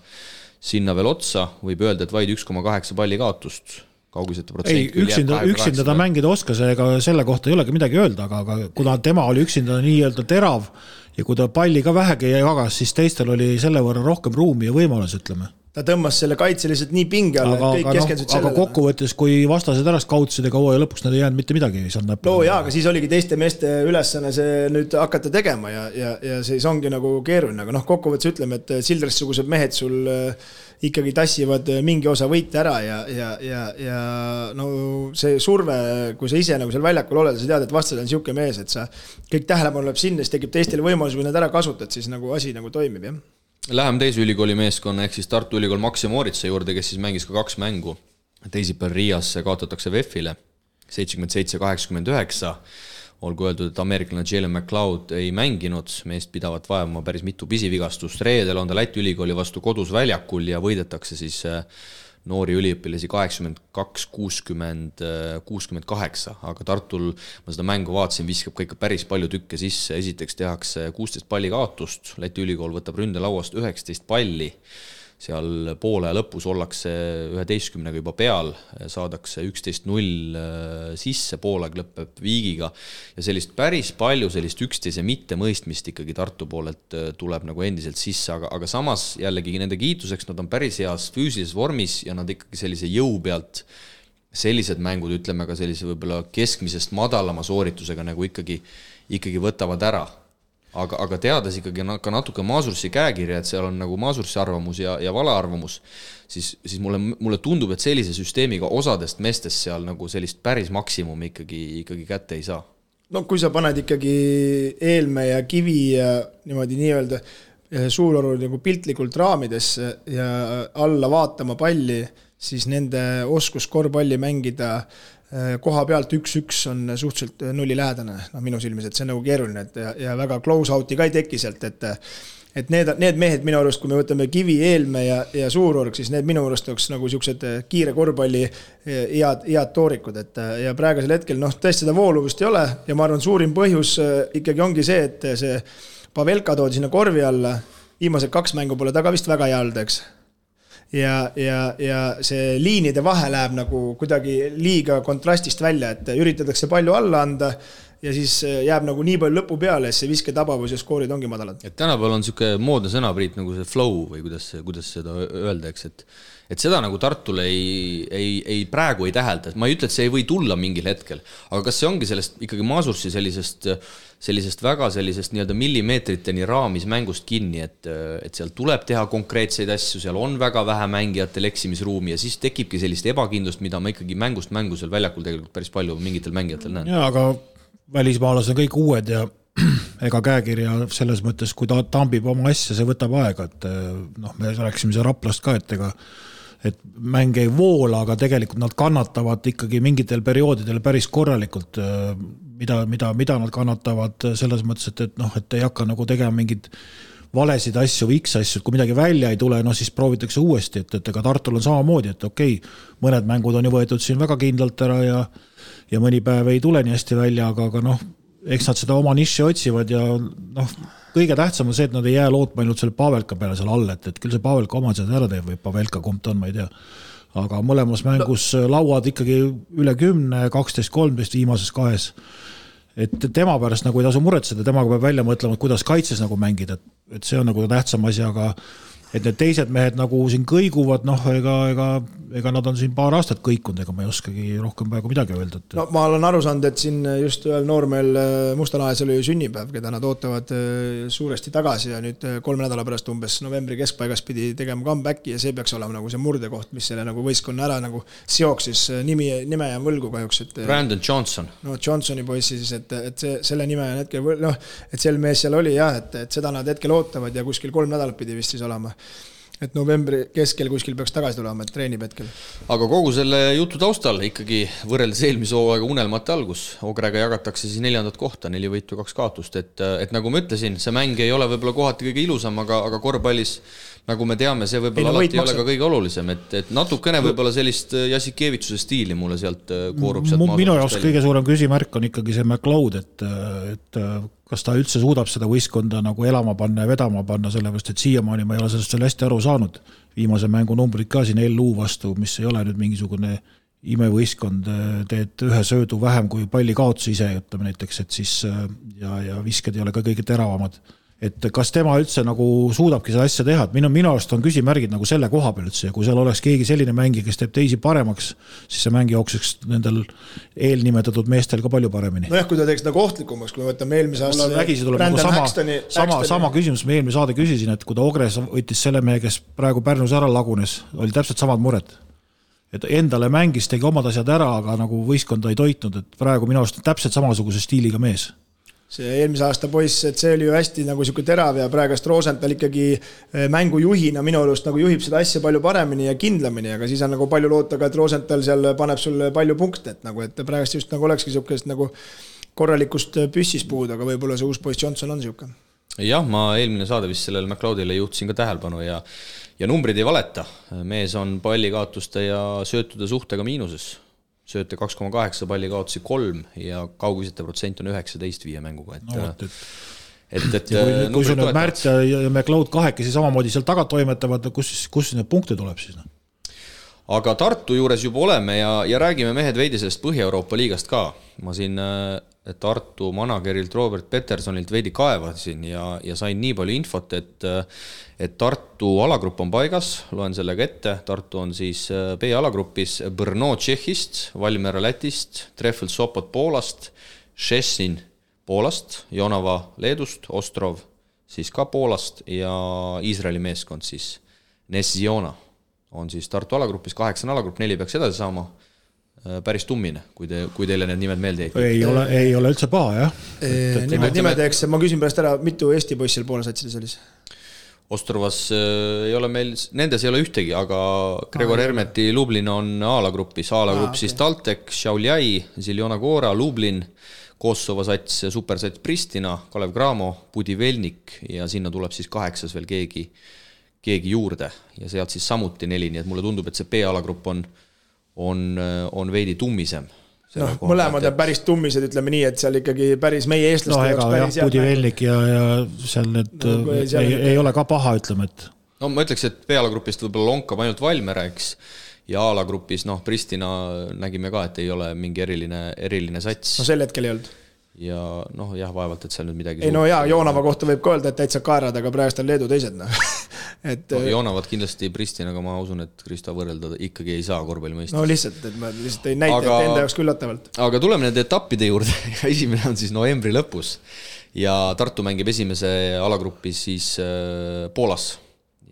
veel otsa, võib öelda, et vaid 1,8 palli kaotust. Üksinda ta mängida oskas, ega selle kohta ei olegi midagi öelda, aga kuna tema oli üksinda nii-öelda terav ja kui ta palli ka vähegi jagas, siis teistel oli selle võrra rohkem ruumi ja võimalus, ütleme. Ta tõmbas selle kaitseliselt nii pinge alla, et kõik keskendused sellele. Aga kokkuvõttes, kui vastased ära kautsid ega hooaja lõpuks nad ei jäänud mitte midagi. Aga siis oligi teiste meeste ülesanne see nüüd hakata tegema ja siis ongi nagu keeruline, aga kokkuvõttes ütleme, et Childress-sugused mehed sul ikkagi tassivad mingi osa võite ära ja see surve, kui sa ise nagu seal väljakul oled, sa tead, et vastasel on siuke mees, et sa kõik tähelepanu läheb sinna, siis tekib teistele võimalus, kui nad ära kasutad, siis nagu asi nagu toimib, jah. Läheme teise ülikooli meeskonna ehk siis Tartu Ülikool Maxi Moritsa juurde, kes siis mängis ka 2 mängu. Teisipäeval Riias kaotatakse VEF-ile 77-89. Olgu öeldud, et ameeriklane Jalen McLeod ei mänginud, meest pidavat vajama päris mitu pisivigastust. Reedel on ta Läti ülikooli vastu kodus väljakul ja võidetakse siis noori üliõpilasi 82-60-68, aga Tartul, ma seda mängu vaatasin, viskab ka ikka päris palju tükke sisse. Esiteks tehakse 16 palli kaotust, Läti ülikool võtab ründelauast 19 palli, seal poole lõpus ollakse 11 juba peal, saadakse 11-0 sisse, poolega lõpeb viigiga ja sellist päris palju sellist üksteise mitte mõistmist ikkagi Tartu poolelt tuleb nagu endiselt sisse, aga samas jällegi nende kiituseks nad on päris heas füüsilises vormis ja nad ikkagi sellise jõu pealt sellised mängud, ütleme ka sellise võib-olla keskmisest madalama sooritusega nagu ikkagi võtavad ära. Aga teades ikkagi ka natuke Maasursi käekirja, et seal on nagu Maasursi arvamus ja valearvamus, siis mulle tundub, et sellise süsteemiga osadest meestest seal nagu sellist päris maksimumi ikkagi kätte ei saa. No kui sa paned ikkagi Eelme ja Kivi ja niimoodi nii-öelda Suuroru nagu piltlikult raamidesse ja alla vaatama palli, siis nende oskus korvpalli mängida koha pealt 1-1 on suhteliselt nulli lähedane, minu silmis, et see on nagu keeruline, ja väga close out'i ka ei teki sealt, et need mehed minu arust, kui me võtame Kivi, Eelme ja Suurorg, siis need minu arust oleks nagu siuksed kiire korvpalli head toorikud, ja praegusel hetkel tõesti seda vooluvust ei ole ja ma arvan, suurim põhjus ikkagi ongi see, et see Pavelka toodi sinna korvi alla, viimased 2 mängu pole taga vist väga hea olnud, eks. Ja see liinide vahe läheb nagu kuidagi liiga kontrastist välja, et üritatakse palju alla anda ja siis jääb nagu nii palju lõpu peale, see visketabavus ja skoorid ongi madalad. Et tänapäeval on siuke moodne sõna, Priit, nagu see flow või kuidas seda öelda, eks, et seda nagu Tartule ei praegu ei tähelda, et ma ei ütle, et see ei või tulla mingil hetkel, aga kas see ongi sellest ikkagi Masursi sellisest väga sellisest nii-öelda millimeetriteni raamis mängust kinni, et seal tuleb teha konkreetseid asju, seal on väga vähe mängijatel eksimisruumi ja siis tekibki sellist ebakindlust, mida ma ikkagi mängust seal väljakul tegelikult päris palju mingitel mängijatel näen. Jaa, aga välismaalased on kõik uued ja ega käekirja selles mõttes, kui ta tambib oma asja, see võtab aega, et me rääksime see Raplast ka, et mäng ei voola, aga tegelikult nad kannatavad ikkagi mingitel perioodidel päris korralikult, mida nad kannatavad selles mõttes, et ei hakka nagu tegema mingid valesid asju või X-asju, et kui midagi välja ei tule, siis proovitakse uuesti, et ega Tartul on samamoodi, et okei, mõned mängud on ju võetud siin väga kindlalt ära ja mõni päev ei tule nii hästi välja, aga eks nad seda oma niši otsivad ja kõige tähtsam on see, et nad ei jää lootma ainult selle Pavelka peale seal all, et küll see Pavelka oma seda ära teeb või Pavelka kumb ta on, ma ei tea. Aga mõlemas mängus lauad ikkagi üle 10, 12, 13 viimases 2. Et tema pärast nagu ei tasu muretseda, temaga peab välja mõtlema, et kuidas kaitses nagu mängida, et see on nagu tähtsam asi, aga et need teised mehed nagu siin kõiguvad, ega nad on siin paar aastat kõikunud, ega ma ei oskagi rohkem praegu midagi öelda. No ma olen aru saanud, et siin just ühel noormeel Mustalahes oli sünnipäev, keda nad ootavad suuresti tagasi ja nüüd 3 nädala pärast umbes novembri keskpaigas pidi tegema comebacki ja see peaks olema nagu see murdekoht, mis selle nagu võistkonna ära nagu seoks, siis nime ja võlgu kahjuks. Brandon Johnson. Johnsoni poissi siis, et selle nime on hetkel, et sel mees seal oli jah, et seda nad hetkel ootavad ja kuskil 3 nädalat pidi vist siis olema. Et novembri keskel kuskil peaks tagasi tulema, et treenib hetkel. Aga kogu selle jutu taustal ikkagi võrreldes eelmise hooaega unelmate algus. Ogrega jagatakse siis 4. kohta, 4 võitu 2 kaotust. Et nagu ma ütlesin, see mäng ei ole võib-olla kohati kõige ilusam, aga korvpallis, nagu me teame, see võib-olla alati ei ole ka kõige olulisem. Et natukene võib-olla sellist Jasikevitsuse stiili mulle sealt koorub sealt minu jaoks kõige suurem küsimärk on ikkagi see McLeod, et kas ta üldse suudab seda võistkonda nagu elama panna ja vedama panna, sellepärast, et siiamaani ma ei ole sellest hästi aru saanud. Viimase mängu numbrid ka siin LU vastu, mis ei ole nüüd mingisugune imevõistkond, teed ühe söödu vähem kui palli kaotus ise, ütleme näiteks, et siis ja visked ei ole ka kõige teravamad. Et kas tema üldse nagu suudabki seda asja teha, et minu arust on küsimärgid nagu selle koha peal üldse ja kui seal oleks keegi selline mängi, kes teeb teisi paremaks, siis see mängi jookseks nendel eelnimetatud meestel ka palju paremini. Jah, kui ta teeks nagu ohtlikumaks, kui me võtame eelmise aasta vägisi tuleb nagu sama küsimus, ma eelmise saade küsisin, et kui ta Ogres võttis selle mehe, kes praegu Pärnus ära lagunes, oli täpselt samad mured. Et endale mängis, tegi omad asjad ära, aga nagu võistkonda ei toitnud, et praegu minu arust täpselt samasuguse stiiliga mees. See eelmise aasta poiss, et see oli ju hästi nagu siuke terav ja praegast Rosenthal ikkagi mängujuhina minu arust nagu juhib seda asja palju paremini ja kindlamini, aga siis on nagu palju loota ka, et Rosenthal seal paneb sulle palju punkte, et nagu, et praegast just nagu olekski siukest nagu korralikust püssis puud, aga võib-olla see uus poiss Johnson on siuke. Jah, ma eelmine saade vist sellele McLeodile juhtisin ka tähelepanu ja numbrid ei valeta. Mees on pallikaotuste ja söötude suhtega miinuses. Sööte 2,8, palli kaotusi 3 ja kaugisete protsent on 19 viie mänguga. Kui sul nüüd Märt ja McLeod kahekesi samamoodi seal taga toimetavad, kus need punkte tuleb siis? Aga Tartu juures juba oleme ja räägime mehed veidi sellest Põhja-Euroopa liigast ka. Ma siin Tartu managerilt Robert Petersonilt veidi kaevasin ja sain nii palju infot, et Tartu alagrupp on paigas, loen sellega ette. Tartu on siis B-alagrupis Brno Tšehhist, Valmiera Lätist, Treffel Sopot Poolast, Šešin Poolast, Jonava Leedust, Ostrov siis ka Poolast ja Iisraeli meeskond siis Nesiona on siis Tartu alagrupis, 8 alagrupp, 4 peaks edasi saama. Päris tummine, kui teile need nimed meelde jäid. Ei ole üldse paha, jah. Nimedeks, ma küsin pärast ära, mitu Eesti poissil Poola satsidis oli? Ostrovas ei ole meil, nendes ei ole ühtegi, aga Gregor Hermeti Lublin on A-gruppis, A-grupp siis Taltek, Šiauliai, Ziljona Gora, Lublin, Kosovo sats, supersats Pristina, Kalev Cramo, Budivelnik ja sinna tuleb siis 8 veel keegi juurde ja sealt siis samuti 4, nii et mulle tundub, et see B-alagrupp on veidi tummisem. Mõlemad on päris tummised, ütleme nii, et seal ikkagi päris meie eestlaste jaoks päris jah, Budivelnik ja seal need ei ole ka paha, ütleme, et no ma ütleks, et B-alagrupist võib-olla lonkab ainult Valmere, eks, ja A-lagrupis, Pristina nägime ka, et ei ole mingi eriline sats. No sel hetkel ei olnud. Ja jah, vaevalt, et seal nüüd midagi ei Joonava kohta võib ka öelda, et täitsa kaerad, aga praegu on Leedu teised. Joonavad kindlasti Pristinaga, ma usun, et Kristo võrrelda ikkagi ei saa korvpallimõistes. No lihtsalt, et ma lihtsalt ei näita, et enda jaoks küllatavalt. Aga tuleme nende etappide juurde. Esimene on siis novembri lõpus ja Tartu mängib esimese alagruppi siis Poolas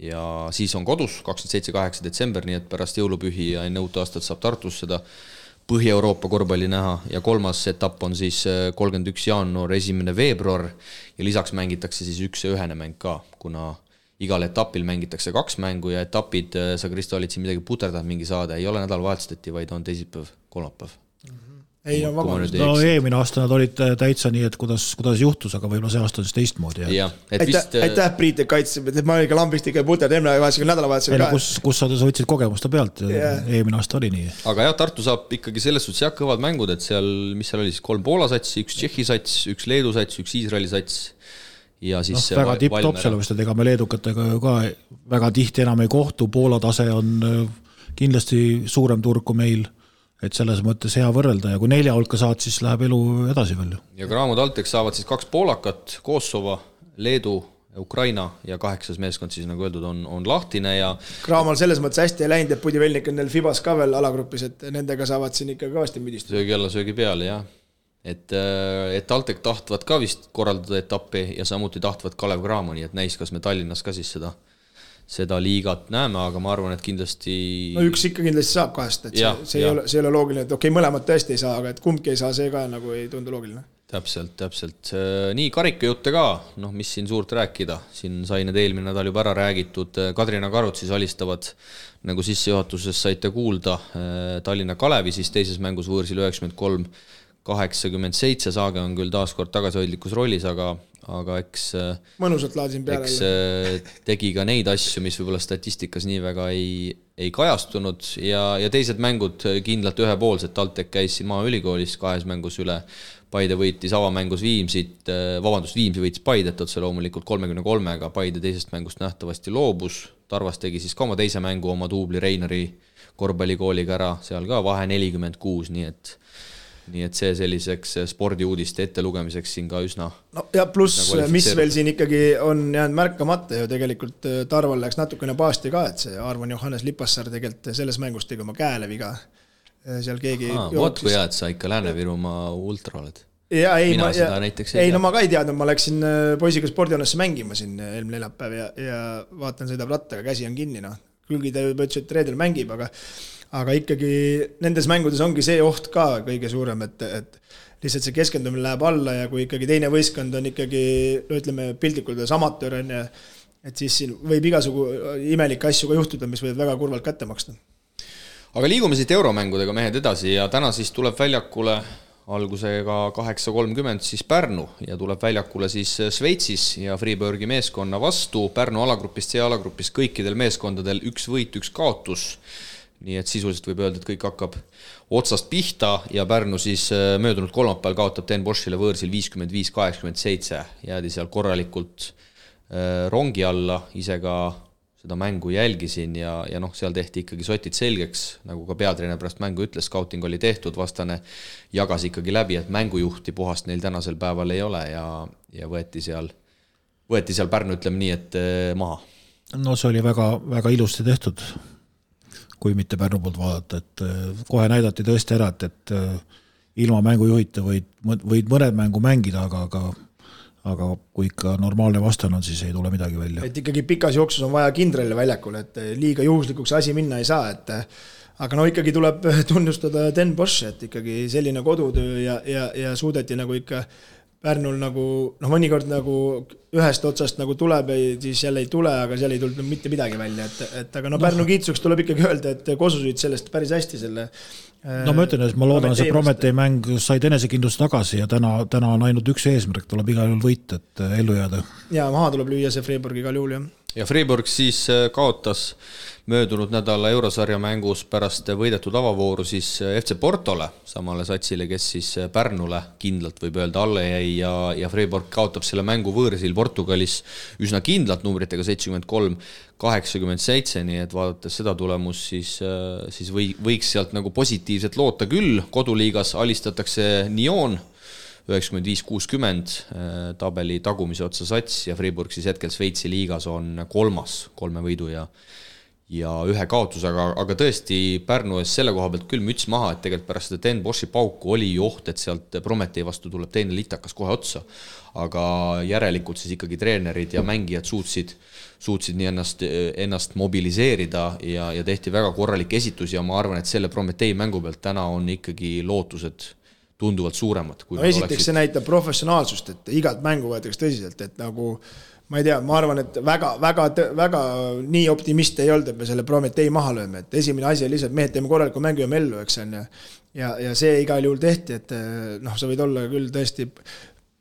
ja siis on kodus 27-8 detsember, nii et pärast jõulupühi ja enne uut aastat saab Tartus seda Põhja-Euroopa korvpalli näha ja kolmas etapp on siis 31 jaanuar, 1. veebruar ja lisaks mängitakse siis 1 mäng ka, kuna igal etapil mängitakse 2 mängu ja etapid, sa Kristo olid siin midagi puterdanud mingi saade, ei ole nädalavahetustati, vaid on teisipäev, kolmapäev. Ei, no vabandust. No eelmine aasta nad olid täitsa nii, et kuidas juhtus, aga võib-olla see aasta on siis teistmoodi. Aitäh Priit, et kaitseb, et ma olin ka lambist ikka puter nädalavahetusel ka. Kus sa võtsid kogemusta pealt, eelmine aasta oli nii. Aga jah, Tartu saab ikkagi selles suhtes kõvad mängud, et seal, mis seal oli siis 3 Poola sats, 1 Tšehhi sats, 1 Leedu sats, 1 Iisraeli sats ja siis väga tipp-top sellest, et ega me leedukatega ka väga tihti enam ei kohtu, Poola tase on kindlasti suurem turg kui meil, et selles mõttes hea võrrelda ja kui 4 hulka saad, siis läheb elu edasi veel. Ja Cramo Taltek saavad siis 2 poolakat, Kosovo, Leedu, Ukraina ja 8 meeskond siis nagu öeldud on lahtine ja Cramo'l selles mõttes hästi ei läinud, et Budivelnik on neil Fibas ka veel alagrupis, et nendega saavad siin ikka kõvasti müdistada. Söögi alla, söögi peale, jah. Et Taltek tahtvad ka vist korraldada etappi ja samuti tahtvad Kalev Cramo, nii et näis, kas me Tallinnas ka siis seda liigat näeme, aga ma arvan, et kindlasti no üks ikka kindlasti saab 2, et see ei ole loogiline, et okei, mõlemad tõesti ei saa, aga et kumbki ei saa, see ka nagu ei tundu loogiline. Täpselt. Nii karikajutte ka, mis siin suurt rääkida, siin sai need eelmine nädal juba ära räägitud, Kadrina Karud siis alistavad, nagu sissejuhatuses saite kuulda, Tallinna Kalevi siis teises mängus võõrsil 93-87, Saage on küll taaskord tagasihoidlikus rollis, aga eks mõnusalt laadsin peale tegi ka neid asju, mis võib-olla statistikas nii väga ei kajastunud ja teised mängud kindlalt ühepoolsed, Taltek käis siin Maaülikoolis 2 mängus üle, Paide võitis avamängus Viimsi võitis Paidet otse loomulikult 33-ga, Paide teisest mängust nähtavasti loobus, Tarvas tegi siis ka oma teise mängu oma duubli Reinari korvpallikooliga ära, seal ka vahe 46, nii et see selliseks spordiuudiste ettelugemiseks siin ka üsna no ja pluss, mis veel siin ikkagi on jäänud märkamata ju tegelikult Tarval läks natukene paasti ka, et see Arvan Johannes Lipassaar tegelikult selles mängus tegi oma käele viga. Seal keegi Võt kui hea, et sa ikka Lääne-Virumaa ultra oled. No ma ka ei teadnud, ma läksin poisiga spordihoonesse mängima siin eelmine neljapäev ja vaatan sõidab rattaga, käsi on kinni, külgi ta juba ütles, et reedel mängib, aga ikkagi nendes mängudes ongi see oht ka kõige suurem, et lihtsalt see keskendumine läheb alla ja kui ikkagi teine võistkond on ikkagi, ütleme piltlikult amatöör, et siis siin võib igasugu imelikke asju ka juhtuda, mis võivad väga kurvalt kätte maksta. Aga liigume siit euromängudega mehed edasi ja täna siis tuleb väljakule algusega 8.30 siis Pärnu ja tuleb väljakule siis Šveitsis ja Freeburgi meeskonna vastu. Pärnu alagrupist, C-alagrupist kõikidel meeskondadel 1 võit, 1 kaotus. Nii et sisuliselt võib öelda, et kõik hakkab otsast pihta ja Pärnu siis möödunud kolmapäeval kaotab Den Boschile võõrsil 55-87. Jäädi seal korralikult rongi alla, ise ka seda mängu jälgisin ja seal tehti ikkagi sotid selgeks, nagu ka peatreener pärast mängu ütles, scouting oli tehtud, vastane jagas ikkagi läbi, et mängujuhti puhast neil tänasel päeval ei ole ja võeti seal Pärnu, ütleme nii, et maha. No see oli väga, väga ilusti tehtud, kui mitte Pärnu poolt vaadata, et kohe näidati tõesti ära, et ilma mängujuhita võid mõned mängu mängida, aga kui ikka normaalne vastan on, siis ei tule midagi välja. Et ikkagi pikas jooksus on vaja kindralile väljakul, et liiga juhuslikuks asi minna ei saa, aga ikkagi tuleb tunnustada Den Bosch, et ikkagi selline kodutöö ja suudeti nagu ikka Pärnul nagu, mõnikord nagu ühest otsast nagu tuleb, siis jälle ei tule, aga seal ei tulnud mitte midagi välja, et aga Pärnu kiitsuks tuleb ikkagi öelda, et Kosusid sellest päris hästi selle ma ütlen, et ma loodan, see Prometee mäng said enesekindlust tagasi ja täna on ainult üks eesmärk, tuleb igal juhul võit, et ellu jääda. Ja maha tuleb lüüa see Freiburg igal juhul, jah. Ja Freiburg siis kaotas möödunud nädala eurosarja mängus pärast võidetud avavooru siis FC Portole, samale satsile, kes siis Pärnule kindlalt võib öelda alla jäi ja Freiburg kaotab selle mängu võõrsil Portugalis üsna kindlalt numbritega 73-87, nii et vaadates seda tulemust, siis võiks sealt nagu positiivselt loota küll. Koduliigas alistatakse Nyon 95-60 tabeli tagumise otsa sats ja Freiburg siis hetkel Šveitsi liigas on 3. 3 võidu ja ühe kaotus, aga tõesti Pärnu ees selle koha pealt küll müts maha, et tegelikult pärast seda Den Boši pauku oli oht, et sealt Prometee vastu tuleb teine litakas kohe otsa, aga järelikult siis ikkagi treenerid ja mängijad suutsid nii ennast mobiliseerida ja tehti väga korralik esitus ja ma arvan, et selle Prometee mängu pealt täna on ikkagi lootused tunduvalt suuremad. Esiteks see näitab professionaalsust, et igat mängu võetakse tõsiselt, et nagu ma ei tea, ma arvan, et väga nii optimist ei olnud, et me selle Prometee maha lööme, et esimene asi on lihtsalt mehed teeme korraliku mängu ja mellu, eks on ja see igal juhul tehti, et sa võid olla küll tõesti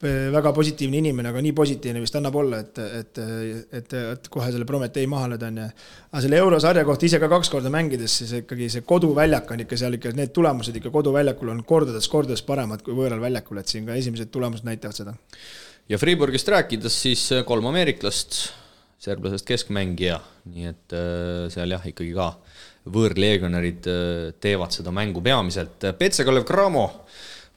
väga positiivne inimene, aga nii positiivne vist annab olla, et kohe selle Prometee maha lööda on aga selle eurosarja kohta ise ka 2 korda mängides, siis ikkagi see koduväljak on ikka seal ikka, need tulemused ikka koduväljakul on kordades paremad kui võõral väljakul, et siin ka esimesed tulemused näitavad seda. Ja Freiburgist rääkides siis 3 ameeriklast, serblasest keskmängija, nii et seal jah, ikkagi ka võõrleegionerid teevad seda mängu peamiselt. PC Kalev Cramo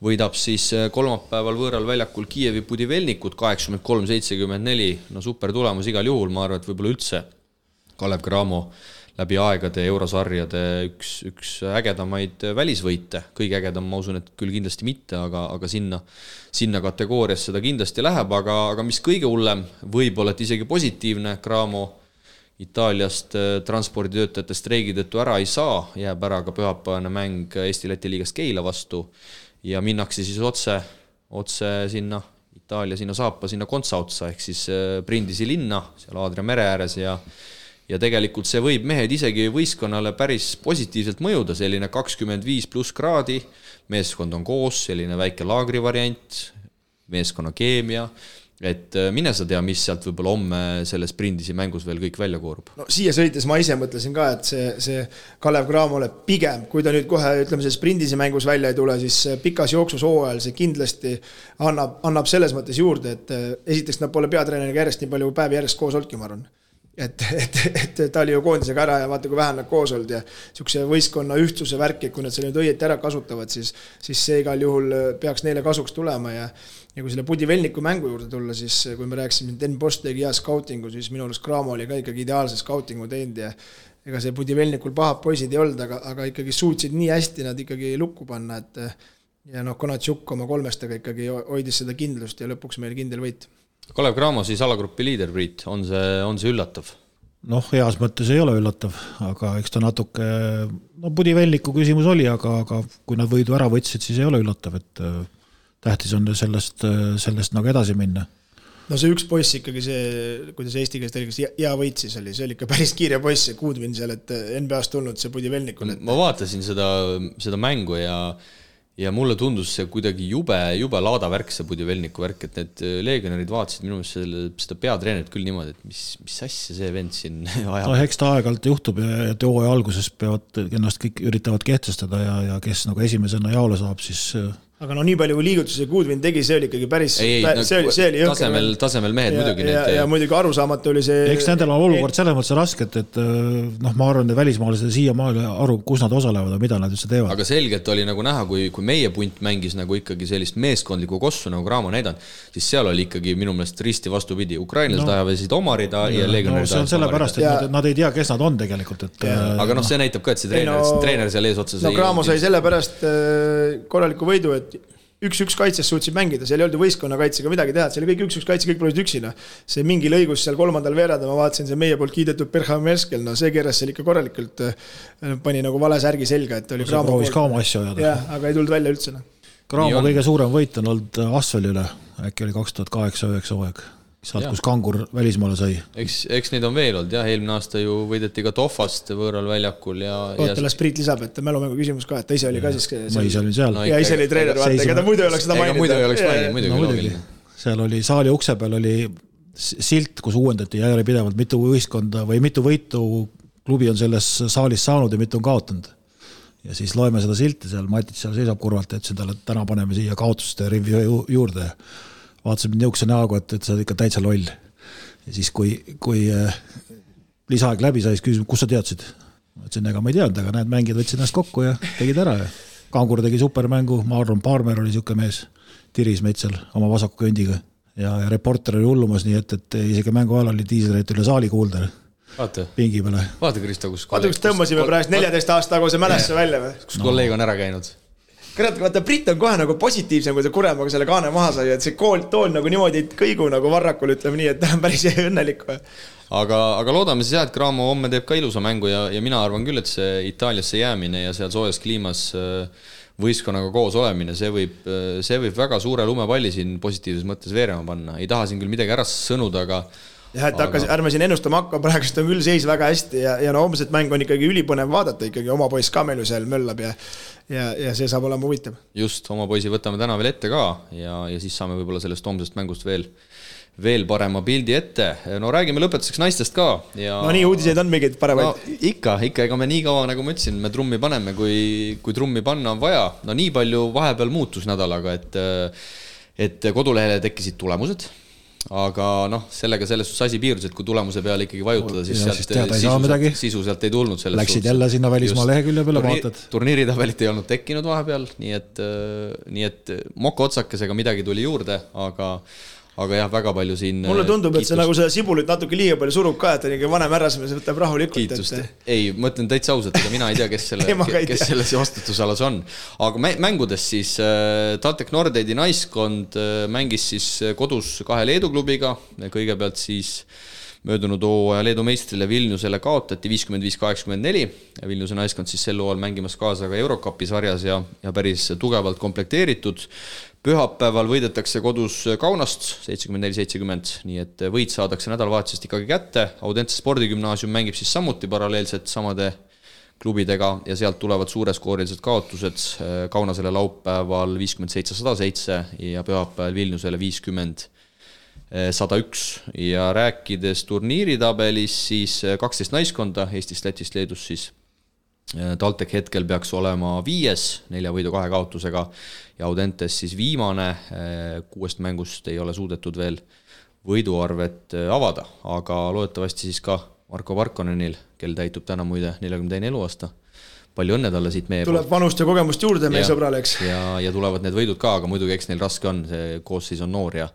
võidab siis kolmapäeval võõral väljakul Kiievi Budivelnikut 83-74, super tulemus igal juhul, ma arvan, et võib-olla üldse Kalev Cramo läbi aegade eurosarjade üks ägedamaid välisvõite, kõige ägedam, ma usun, et küll kindlasti mitte, aga sinna kategoorias seda kindlasti läheb, aga mis kõige hullem, võib-olla et isegi positiivne, Cramo Itaaliast transporditöötajate streigi tõttu ära ei saa, jääb ära ka pühapäevane mäng Eesti-Läti liigast Keila vastu ja minnakse siis otse sinna Itaalia, sinna saapa, sinna Kontsaotsa, ehk siis Brindisi linna, seal Aadria mere ääres ja tegelikult see võib mehed isegi võistkonnale päris positiivselt mõjuda, selline 25+ kraadi, meeskond on koos, selline väike laagri variant, meeskonna keemia, et mine sa tea, mis sealt võib-olla homme selles Brindisi mängus veel kõik välja koorub. No siia sõites ma ise mõtlesin ka, et see Kalev Cramole pigem, kui ta nüüd kohe ütleme selles Brindisi mängus välja ei tule, siis pikas jooksus hooajal see kindlasti annab selles mõttes juurde, et esiteks nad pole peatreeneriga järjest nii palju päevi järjest koos olnudki, ma arvan. Et ta oli ju koondisega ära ja vaata, kui vähem nad koos olnud ja niisuguse võistkonna ühtsuse värki, kui nad selle nüüd õieti ära kasutavad, siis see igal juhul peaks neile kasuks tulema ja kui selle Budivelniku mängu juurde tulla, siis kui me rääksime, Den Bosch tegi hea scoutingu, siis minu arust Cramo oli ka ikkagi ideaalse scoutingu teinud ja ega see Budivelnikul pahad poisid ei olnud, aga ikkagi suutsid nii hästi nad ikkagi lukku panna, et ja Konatšuk oma 3-stega ikkagi hoidis seda kindlust ja lõpuks meil kindel võit. Kalev Cramo siis alagrupi liider, Priit, on see üllatav? Heas mõttes ei ole üllatav, aga eks ta natuke, Budivelniku küsimus oli, aga kui nad võidu ära võtsid, siis ei ole üllatav, et tähtis on sellest nagu edasi minna. See üks poiss ikkagi see, kuidas Eesti käest oli, hea võit siis oli, see oli ikka päris kiire poiss, see Kuudvin seal, et NBA-st tulnud see Budivelnikul. Ma vaatasin seda mängu ja mulle tundus see kuidagi jube laada värk, see Budivelniku värk, et need leegionerid vaatasid minu meelest seda peatreenerit küll niimoodi, et mis asja see vend siin ajab. Eks ta aeg-alt juhtub ja hooaja alguses peavad ennast kõik üritavad kehtestada ja kes nagu esimesena jaole saab, siis aga nii palju kui liigutusi Kuudvin tegi, see oli ikkagi päris see oli tasemel mehed muidugi ja muidugi arusaamatu oli see. Eks nendel on olukord selles mõttes raske, et ma arvan, et välismaalased siiamaale aru, kus nad osalevad ja mida nad üldse teevad. Aga selgelt oli nagu näha, kui meie punt mängis nagu ikkagi sellist meeskondlikku kossu nagu Cramo näidanud, siis seal oli ikkagi minu meelest risti vastupidi. Ukrainlased ajavesid omarida ja leegionärid see on sellepärast, et nad ei tea, kes nad on tegelikult. Aga see näitab ka, et see treener seal ees otsas Cramo sai sellepärast korraliku võidu, et 1-1 kaitses suutsid mängida, seal ei olnud võistkonna kaitsega midagi teha, see oli kõik 1-1 kaitse, kõik pole üksina. See mingi lõigus seal 3. veerada, ma vaatasin, see meie poolt kiidetud Berham Merskel, see keeras seal ikka korralikult, pani nagu vale särgi selga, et oli Cramo proovis ka oma asja ajada. Aga ei tulnud välja üldse. Graamo kõige suurem võit on olnud Asveli üle, äkki oli 2008-2009 hooaeg, sealt kus Kangur välismaale sai. Eks neid on veel olnud, jah, eelmine aasta ju võideti ka Tohvast võõral väljakul ja... Ootala Priit lisab, et mälumängu küsimus ka, et ta ise oli ka siis... Ma ise olin seal. Ja ise oli treener, vaata, ega ta muidu ei oleks seda maininud. Muidu ei oleks maininud, muidugi. Seal oli saali ukse peal oli silt, kus uuendati järjepidevalt mitu võistkonda või mitu võitu klubi on selles saalis saanud ja mitu on kaotanud. Ja siis loeme seda silti seal, Matit seal seisab kurvalt, et talle täna paneme siia kaotuste rivi juurde. Vaatasin niukse näogu, et sa oled ikka täitsa loll. Ja siis kui lisaaeg läbi sai, siis küsisin, kus sa teadsid? Ma ütlesin, ega ma ei teadnud, aga näed, mängid võtsid ennast kokku ja tegid ära. Kangur tegi supermängu, Marlon Parmer oli siuke mees, tiris meid seal oma vasaku kõndiga. Ja reporter oli hullumas, nii et isegi mängu ajal oli diiselreit üle saali kuulda. Pingi peale. Vaata, Kristo, kus tõmbasime praegu 14 aasta taguse mälesse välja või? Kus kolleeg on ära käinud? Vaata, Brit on kohe nagu positiivsem, kui ta Kuremaga selle kaane maha sai, et see tool nagu niimoodi kõigu nagu varrakul, ütleme nii, et ta on päris õnnelik. Aga loodame siis jah, et Graamo homme teeb ka ilusa mängu ja mina arvan küll, et see Itaaliasse jäämine ja seal soojas kliimas võistkonnaga koos olemine, see võib väga suure lumepalli siin positiivses mõttes veerema panna. Ei taha siin küll midagi ära sõnuda, aga jah, et ärme siin ennustama hakka, praegust on küll seis väga hästi ja no homset mäng on ikkagi ülipõnev vaadata, ikkagi oma poiss ka meil ju seal möllab ja see saab olema huvitav. Just, oma poisi võtame täna veel ette ka ja siis saame võib-olla sellest homsest mängust veel parema pildi ette. No räägime lõpetuseks naistest ka. Ja... No nii uudised on mingid paremaid. No, ikka, ega me nii kaua, nagu ma ütlesin, me trummi paneme, kui trummi panna on vaja. No nii palju vahepeal muutus nädalaga, et kodulehele tekkisid tulemused. Aga noh, sellega selles asi piirus, et kui tulemuse peale ikkagi vajutada, siis sisu sealt ei tulnud. Läksid jälle sinna välismaa lehekülje peale, vaatad. Turniiritabelit ei olnud tekkinud vahepeal, nii et moka otsakesega midagi tuli juurde, aga jah, väga palju siin mulle tundub, et see nagu seda sibulit natuke liiga palju surub ka, et on vanem ärrasmees võtab rahulikult. Kiitust. Ei, mõtlen täitsa ausalt, ega mina ei tea, kes selles vastutusalas on. Aga mängudes siis TalTech Nordeidi naiskond mängis siis kodus 2 Leedu klubiga. Kõigepealt siis möödunud hooaja Leedu meistrile Vilniusele kaotati 55-84. Vilniuse naiskond siis sel hooajal mängimas kaasa ka Eurocupi sarjas ja päris tugevalt komplekteeritud. Pühapäeval võidetakse kodus Kaunast 74-70, nii et võit saadakse nädalavahetusest ikkagi kätte. Audentse spordigümnaasium mängib siis samuti paralleelselt samade klubidega ja sealt tulevad suureskoorilised kaotused. Kaunasele laupäeval 57-107 ja pühapäeval Vilniusele 50-101. Ja rääkides turniiritabelis siis 12 naiskonda Eestist, Lätist, Leedus siis TalTech hetkel peaks olema 5, 4 võidu 2 kaotusega ja Audentes siis viimane 6 mängust ei ole suudetud veel võiduarvet avada, aga loodetavasti siis ka Marko Parkonenil, kel täitub täna muide 42 eluaasta. Palju õnne talle siit meie tuleb vanust ja kogemust juurde meie sõbrale, eks. Ja tulevad need võidud ka, aga muidugi eks neil raske on, see koosseis on noor ja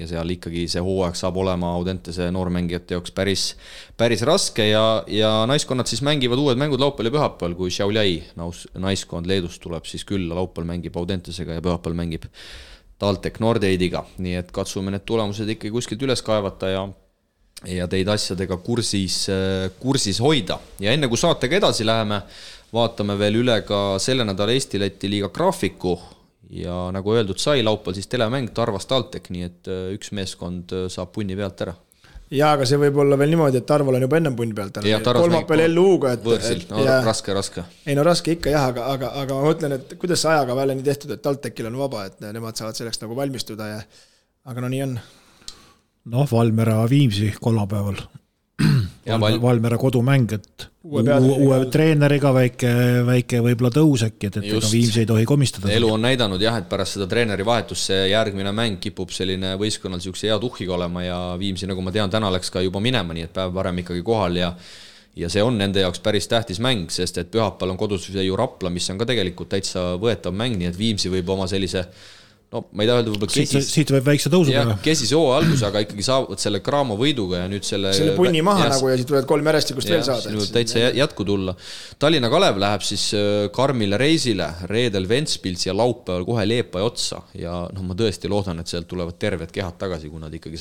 seal ikkagi see hooaeg saab olema Audentese noormängijate jaoks päris raske ja naiskonnad siis mängivad uued mängud laupäeval ja pühapäeval, kui Šiauliai naiskond Leedust tuleb siis külla, laupäeval mängib Audentesega ja pühapäeval mängib TalTech Nordeidiga, nii et katsume need tulemused ikkagi kuskilt üles kaevata ja teid asjadega kursis hoida. Ja enne kui saatega edasi läheme, vaatame veel üle ka selle nädala Eesti-Läti liiga graafiku. Ja nagu öeldud sai, laupäeval siis telemäng Tarvas TalTech, nii et üks meeskond saab punni pealt ära. Ja, aga see võib olla veel niimoodi, et Tarval on juba ennem punni pealt ära. Kolmapäeval LU-ga. Võõrsil, raske. Ei no raske ikka jah, aga ma mõtlen, et kuidas see ajaga välja nii tehtud, et TalTechil on vaba, et nemad saavad selleks nagu valmistuda aga no nii on. Noh, Valmera Viimsi kolmapäeval. Valmera kodumäng, et uue treeneriga väike võib-olla tõus äkki, et Viimsi ei tohi komistada. Elu on näidanud jah, et pärast seda treeneri vahetust see järgmine mäng kipub selline võistkonnal siukse hea tuhhiga olema ja Viimsi, nagu ma tean, täna läks ka juba minema, nii et päev varem ikkagi kohal ja see on nende jaoks päris tähtis mäng, sest et pühapäeval on kodus ju Rapla, mis on ka tegelikult täitsa võetav mäng, nii et Viimsi võib oma sellise ma ei taha öelda võib-olla siit võib väikse tõusu teha. Kesis hooa algus, aga ikkagi saavad selle Graamo võiduga ja nüüd selle punni maha nagu ja siit tulevad 3 järjestikust veel saada. Täitsa jätku tulla. Tallinna Kalev läheb siis Karmile reisile, reedel Ventspils ja laupäeval kohe Leepa ja otsa ja ma tõesti loodan, et sealt tulevad terved kehad tagasi, kui nad ikkagi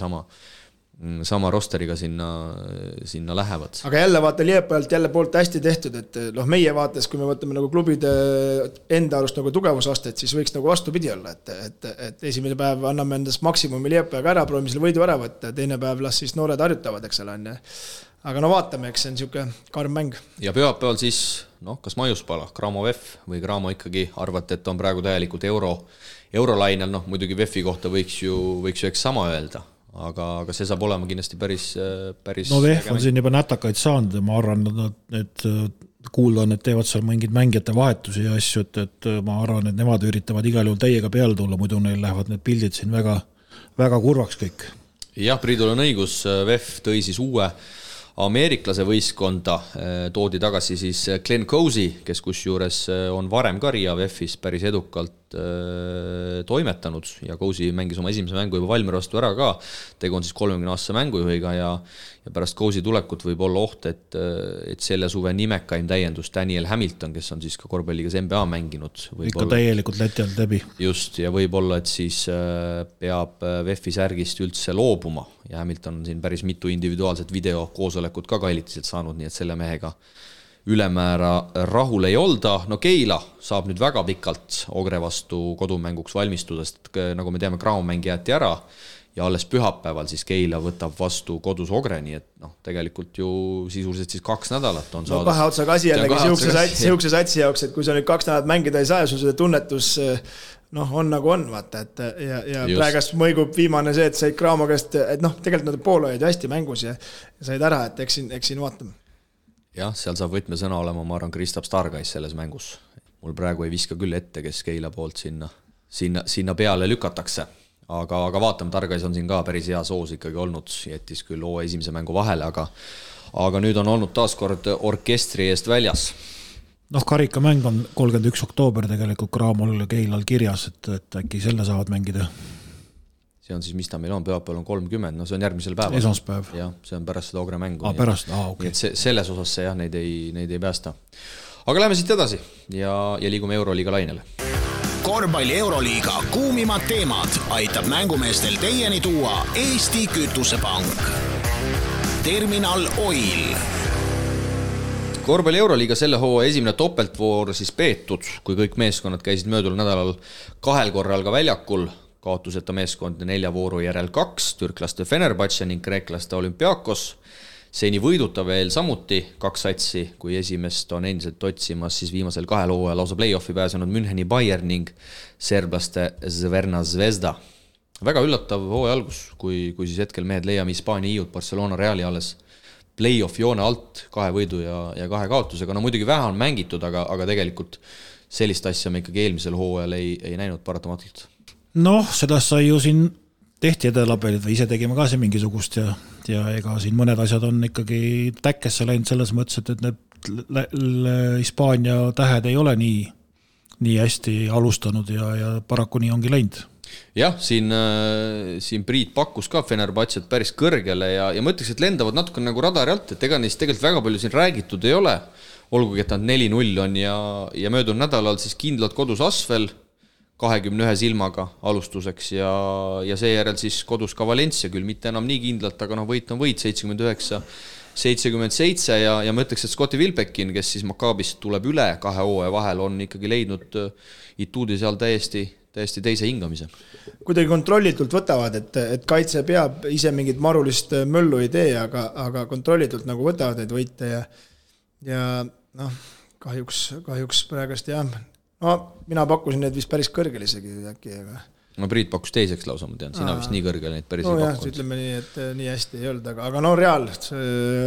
sama rosteriga sinna lähevad. Aga jälle vaata Liepajalt jälle poolt hästi tehtud, et meie vaates, kui me võtame nagu klubide enda arust nagu tugevusastet, siis võiks nagu vastupidi olla, et esimene päev anname endast maksimumi Liepajaga ära, proovime selle võidu ära võtta, teine päev las siis noored harjutavad, eks ole on. Aga no vaatame, eks see on niisugune karm mäng. Ja pühapäeval siis, kas Maiuspala, Graamo VEF või Graamo ikkagi arvate, et on praegu täielikult eurolainel, muidugi VEF-i kohta võiks ju eks sama öelda. Aga see saab olema kindlasti päris no VEF on siin juba nätakaid saanud ja ma arvan, et kuulda on, et teevad seal mingid mängijate vahetusi ja asju, et ma arvan, et nemad üritavad igal juhul täiega peale tulla, muidu neil lähevad need pildid siin väga, väga kurvaks kõik. Jah, Priidul on õigus, VEF tõi siis uue ameeriklase võistkonda, toodi tagasi siis Glenn Cousy, kes kusjuures on varem ka Riia VEF-is päris edukalt toimetanud ja Cousy mängis oma esimese mängu juba Valmiera vastu ära ka, tegu on siis 30-aastase mängujuhiga ja pärast Cousy tulekut võib olla oht, et selle suve nimekaim täiendus Daniel Hamilton, kes on siis ka korvpalligas NBA mänginud. Ikka täielikult Läti alt läbi. Just, ja võib-olla, et siis peab VEF-i särgist üldse loobuma ja Hamilton on siin päris mitu individuaalset videokoosolekut ka kailitiselt saanud, nii et selle mehega ülemäära rahul ei olda. No Keila saab nüüd väga pikalt Ogre vastu kodumänguks valmistuda, sest nagu me teame, Graamo-mäng jäeti ära ja alles pühapäeval siis Keila võtab vastu kodus Ogre, nii et tegelikult ju sisuliselt siis 2 nädalat on saadud. Kahe otsaga asi jällegi siukse satsi jaoks, et kui sa nüüd 2 nädalat mängida ei saa ja sul seda tunnetus on nagu on, vaata, et ja praegast mõigub viimane see, et said Graamo käest, et tegelikult nad pool olid hästi mängus ja said ära, et eks siin vaatame. Jah, seal saab võtmesõna olema, ma arvan, Kristaps Stargais selles mängus. Mul praegu ei viska küll ette, kes Keila poolt sinna peale lükatakse. Aga vaatame, Targais on siin ka päris hea soos ikkagi olnud, jättis küll esimese mängu vahele, aga nüüd on olnud taaskord orkestri eest väljas. Karikamäng on 31. oktoober tegelikult Graamol ja Keilal kirjas, et äkki selle saavad mängida. See on siis, mis ta meil on, pühapäeval on 30, see on järgmisel päeval. Esmaspäev. Jah, see on pärast seda Ogre mängu. Pärast, okei. Okay. Selles osas see neid ei päästa. Aga läheme siit edasi ja liigume Euroliiga lainele. Korvpalli Euroliiga kuumimad teemad aitab mängumeestel teieni tuua Eesti Kütusepank. Terminal Oil. Korvpalli Euroliiga selle hooaja esimene topeltvoor siis peetud, kui kõik meeskonnad käisid möödunud nädalal 2 korral ka väljakul. Kaotuseta meeskond 4 vooru järel 2, türklaste Fenerbahce ning kreeklaste Olympiakos. Seni võiduta veel samuti 2 satsi, kui esimest on endiselt otsimas siis viimasel 2 hooajal lausa play-offi pääsenud Müncheni Bayern ning serblaste Zverna Zvezda. Väga üllatav hooaja algus, kui siis hetkel mehed leiame Hispaania iiud Barcelona Reali alles play-off joone alt 2 võidu ja 2 kaotusega. No muidugi vähe on mängitud, aga tegelikult sellist asja me ikkagi eelmisel hooajal ei näinud paratamatult. Seda sai ju siin tehti edelapelid või ise tegime ka siin mingisugust ja ega siin mõned asjad on ikkagi täkkesse läinud selles mõttes, et need Hispaania tähed ei ole nii hästi alustanud ja paraku nii ongi läinud. Jah, siin Priit pakkus ka Fenerbahcet päris kõrgele ja ma ütleks, et lendavad natuke nagu radari alt, et ega neist tegelikult väga palju siin räägitud ei ole, olgugi et nad 4-0 on ja möödunud nädalal siis kindlalt kodus Asvel 21 silmaga alustuseks ja seejärel siis kodus ka Valencia, küll mitte enam nii kindlalt, aga võit on võit 79-77 ja ma ütleks, et Scotti Wilbekin, kes siis Maccabist tuleb üle 2 hooaja vahel, on ikkagi leidnud ituudi seal täiesti teise hingamise. Kuidagi kontrollitult võtavad, et kaitse peab ise mingit marulist möllu ei tee, aga kontrollitult nagu võtavad neid võite ja kahjuks praegust jah. Mina pakkusin need vist päris kõrgel isegi äkki, aga... Priit pakkus teiseks lausa, ma tean, sina vist nii kõrgel neid päris ei pakkunud. Ütleme nii, et nii hästi ei olnud, aga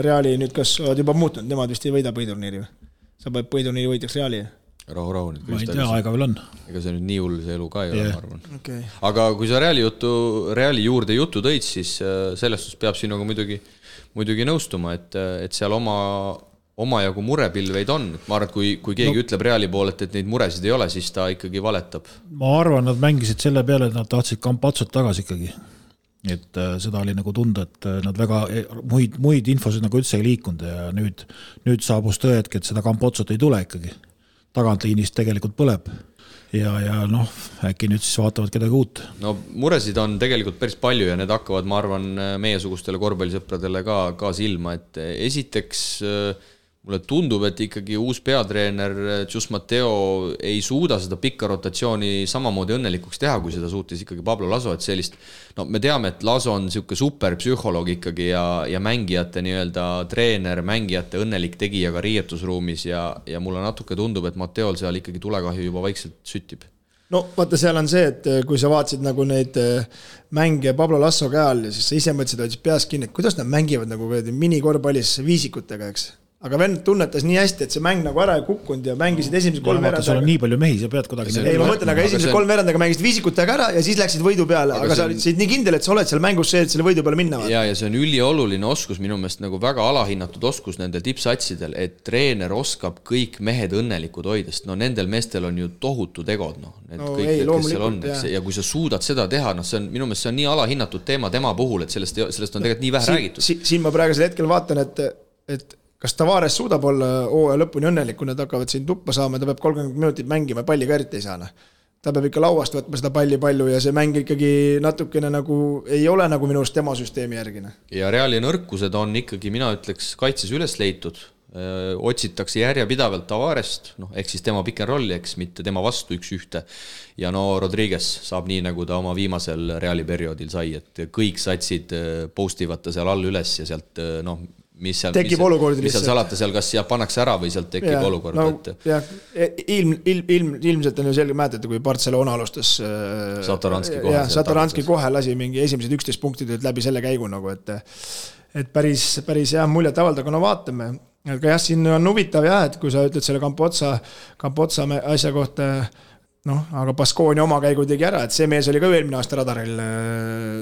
Reali nüüd kas oled juba muutunud, nemad vist ei võida põhiturniiri või? Sa peab põhiturniiri võidjaks Reali? Rahu nüüd. Ma ei tea, aega veel on. Ega see nüüd nii hull see elu ka ei ole, ma arvan. Okay. Aga kui sa Reali juurde juttu tõid, siis sellest peab sinuga muidugi nõustuma, et seal omajagu murepilveid on. Ma arvan, et kui keegi ütleb Reali pool, et neid muresid ei ole, siis ta ikkagi valetab. Ma arvan, nad mängisid selle peale, et nad tahtsid Campazzot tagasi ikkagi. Et seda oli nagu tunda, et nad väga muid infosid nagu üldse ei liikunud ja nüüd saabus tõetki, et seda Campazzot ei tule ikkagi. Tagantliinist tegelikult põleb ja noh, äkki nüüd siis vaatavad kedagi uut. No muresid on tegelikult päris palju ja need hakkavad, ma arvan, meiesugustele korvpallisõpradele ka silma, et esiteks mulle tundub, et ikkagi uus peatreener Jus Mateo ei suuda seda pikka rotatsiooni samamoodi õnnelikuks teha, kui seda suutis ikkagi Pablo Laso, et sellist, no me teame, et Laso on siuke superpsühholoog ikkagi ja mängijate nii-öelda treener, mängijate õnnelik tegija ka riietusruumis ja mulle natuke tundub, et Mateol seal ikkagi tulekahju juba vaikselt süttib. No vaata, seal on see, et kui sa vaatasid nagu neid mänge Pablo Lasso käel ja siis sa ise mõtlesid, et peas kinni, et kuidas nad mängivad nagu minikorvpallis viisikutega, eks? Aga vend tunnetas nii hästi, et see mäng nagu ära ei kukkunud ja mängisid esimese 3 veerandaga. Sul on nii palju mehi, sa pead kuidagi... Ei, ma mõtlen, aga esimese 3 veerandaga mängisid viisikutega ära ja siis läksid võidu peale, aga sa olid nii kindel, et sa oled seal mängus see, et selle võidu peale minna. Ja see on ülioluline oskus, minu meelest nagu väga alahinnatud oskus nendel tippsatsidel, et treener oskab kõik mehed õnnelikud hoidest. No nendel meestel on ju tohutu tegod, kõik, kes seal on. Ja kui sa suudad seda teha, see on, minu meelest see on nii alahinnatud teema tema puhul, et sellest on tegelikult nii vähe räägitud. Siin ma praegusel hetkel vaatan, et kas Tavares suudab olla hooaja lõpuni õnnelik, kui nad hakkavad siin tuppa saama, ta peab 30 minutit mängima, palli ka eriti ei saa. Ta peab ikka lauast võtma seda palli palju ja see mäng ikkagi natukene nagu ei ole nagu minu arust tema süsteemi järgine. Ja Reali nõrkused on ikkagi, mina ütleks, kaitses üles leitud. Otsitakse järjepidavalt Tavarest, ehk siis tema pick and rolli, eks mitte tema vastu 1-1. Ja Rodriguez saab nii, nagu ta oma viimasel Reali perioodil sai, et kõik satsid postivad ta seal all üles ja sealt, mis seal salata seal, kas pannakse ära või sealt tekib olukord. Ilmselt on ju selge mäletada, kui Barcelona alustas Satoranski kohe lasi mingi esimesed 11 punktid läbi selle käigu, nagu, et päris hea muljet avalda, kuna vaatame. Aga jah, siin on huvitav jah, et kui sa ütled selle Campotsa asja kohta, aga Baskonia oma käigu tegi ära, et see mees oli ka eelmine aasta radaril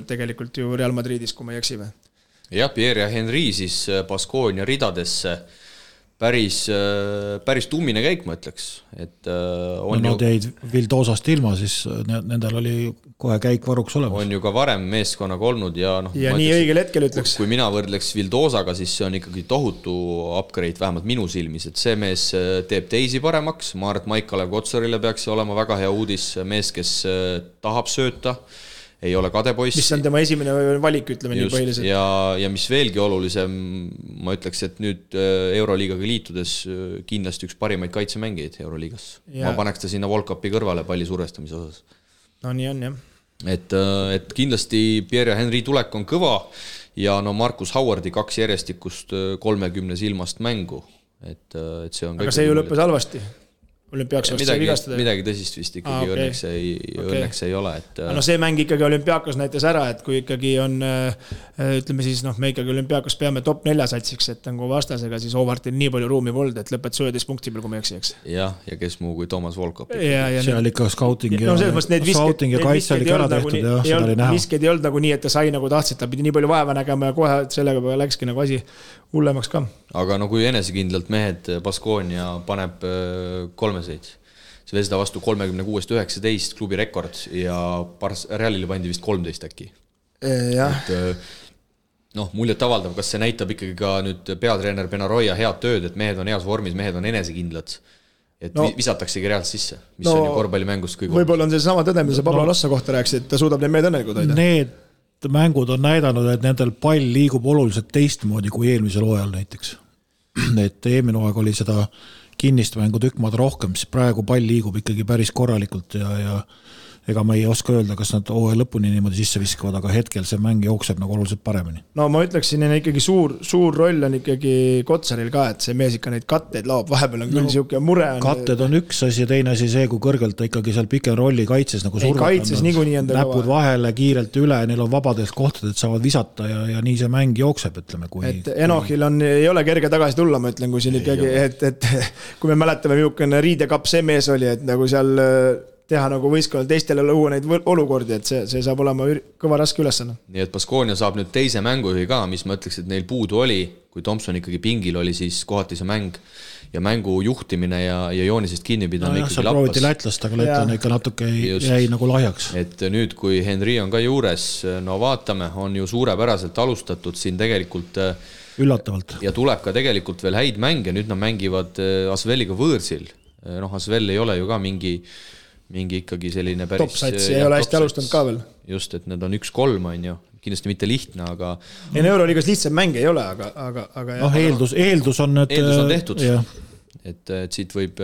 tegelikult ju Real Madridis, kui ma ei eksi või. Ja Pierre ja Henry siis Baskonia ridadesse päris tummine käik, ma ütleks. Nad jäid Vildosast ilma, siis nendel oli kohe käik varuks olemas. On ju ka varem meeskonnaga olnud ja nii õigel hetkel ütleks. Kui mina võrdleks Vildosaga, siis see on ikkagi tohutu upgrade, vähemalt minu silmis, et see mees teeb teisi paremaks. Ma arvan, et Maikalev Kotsarile peaks olema väga hea uudis, mees, kes tahab sööta, ei ole kadepoiss. Mis on tema esimene valik, ütleme nii põhiliselt. Ja mis veelgi olulisem, ma ütleks, et nüüd Euroliigaga liitudes kindlasti üks parimaid kaitsemängijaid Euroliigas. Ma paneks ta sinna Volkapi kõrvale palli survestamise osas. No nii on, jah. Et kindlasti Pierre ja Henry tulek on kõva ja Marcus Howardi 2 järjestikust 30 silmast mängu. Et see on aga see ju lõppes halvasti. Olümpiakos vigastada. Midagi tõsist vist ikkagi õnneks ei ole. See mäng ikkagi Olümpiakos näitas ära, et kui ikkagi on, ütleme siis, me ikkagi Olümpiakos peame top 4 satsiks, et nagu vastasega, siis Howardil nii palju ruumi polnud, et lõpet 11 punkti peal, kui me eksiks. Ja kes muu kui Toomas Volkop. Seal ikka scouting ja kaitse oli ära tehtud ja seda oli näha. Visked ei olnud nagu nii, et ta sai nagu tahtsid, ta pidi nii palju vaeva nägema ja kohe sellega läkski nagu asi hullemaks ka. Aga kui enesekindlalt mehed Baskonia paneb 3 seid. See Vesda vastu 36-19 klubi rekord ja Realile pandi vist 13 äkki. Jah. Muljet avaldav, kas see näitab ikkagi ka nüüd peatreener Benaroya head tööd, et mehed on heas vormis, mehed on enesekindlad. Et visataksegi reaalselt sisse, mis on ju korvpallimängust kõige. Võib-olla on see sama tõde, mida sa Pablo Lasso kohta rääksid, et ta suudab need mehed õnnelikud hoida. Need mängud on näidanud, et nendel pall liigub oluliselt teistmoodi kui eelmisel hooajal näiteks. Et eelmine hooaeg oli seda kinnist mängu tükkmaad rohkem, siis praegu pall liigub ikkagi päris korralikult ja ega ma ei oska öelda, kas nad hooaja lõpuni niimoodi sisse viskavad, aga hetkel see mäng jookseb nagu oluliselt paremini. No ma ütleksin, et ikkagi suur roll on ikkagi Kotsaril ka, et see mees ikka neid katteid laob, vahepeal on küll siuke mure. Katted on üks asi ja teine asi see, kui kõrgelt ta ikkagi seal pick and rolli kaitses nagu kaitses niikuinii enda näpud vahele kiirelt üle, neil on vabadelt kohtadelt, saavad visata ja nii see mäng jookseb, ütleme. Et Enohil ei ole kerge tagasi tulla, ma ütlen, kui siin ikkagi, et kui me mäletame, milline riidekapp see mees oli, et nagu seal teha nagu võistkonnal teistele luua neid olukordi, et see saab olema kõva raske ülesanne. Nii et Baskonia saab nüüd teise mängujuhi ka, mis ma ütleks, et neil puudu oli, kui Thompson ikkagi pingil oli, siis kohati see mäng ja mängu juhtimine ja joonisest kinnipidamine ikkagi lappas. Prooviti lätlast, aga lätlane ikka natuke jäi nagu lahjaks. Et nüüd, kui Henry on ka juures, vaatame, on ju suurepäraselt alustatud siin tegelikult üllatavalt. Ja tuleb ka tegelikult veel häid mänge, nüüd nad mängivad Asveliga võõrsil. Asvel ei ole ju ka mingi ikkagi selline päris top-sats ei ole hästi alustanud ka veel. Just, et need on 1-3 on ju, kindlasti mitte lihtne, aga Euroliigas lihtsam mäng ei ole, aga eeldus on, et eeldus on tehtud, et siit võib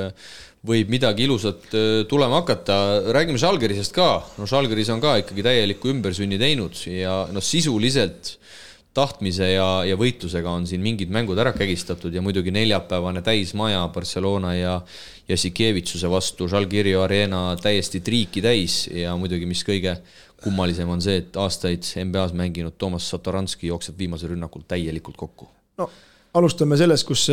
midagi ilusat tulema hakata. Räägime Žalgirisest ka, Žalgiris on ka ikkagi täielikku ümbersünni teinud ja sisuliselt tahtmise ja võitlusega on siin mingid mängud ära kägistatud ja muidugi neljapäevane täismaja Barcelona ja Sikevitsuse vastu Žalgirio Arena täiesti triiki täis ja muidugi mis kõige kummalisem on see, et aastaid NBA-s mänginud Toomas Satoranski jookseb viimase rünnakul täielikult kokku. No, alustame sellest, kus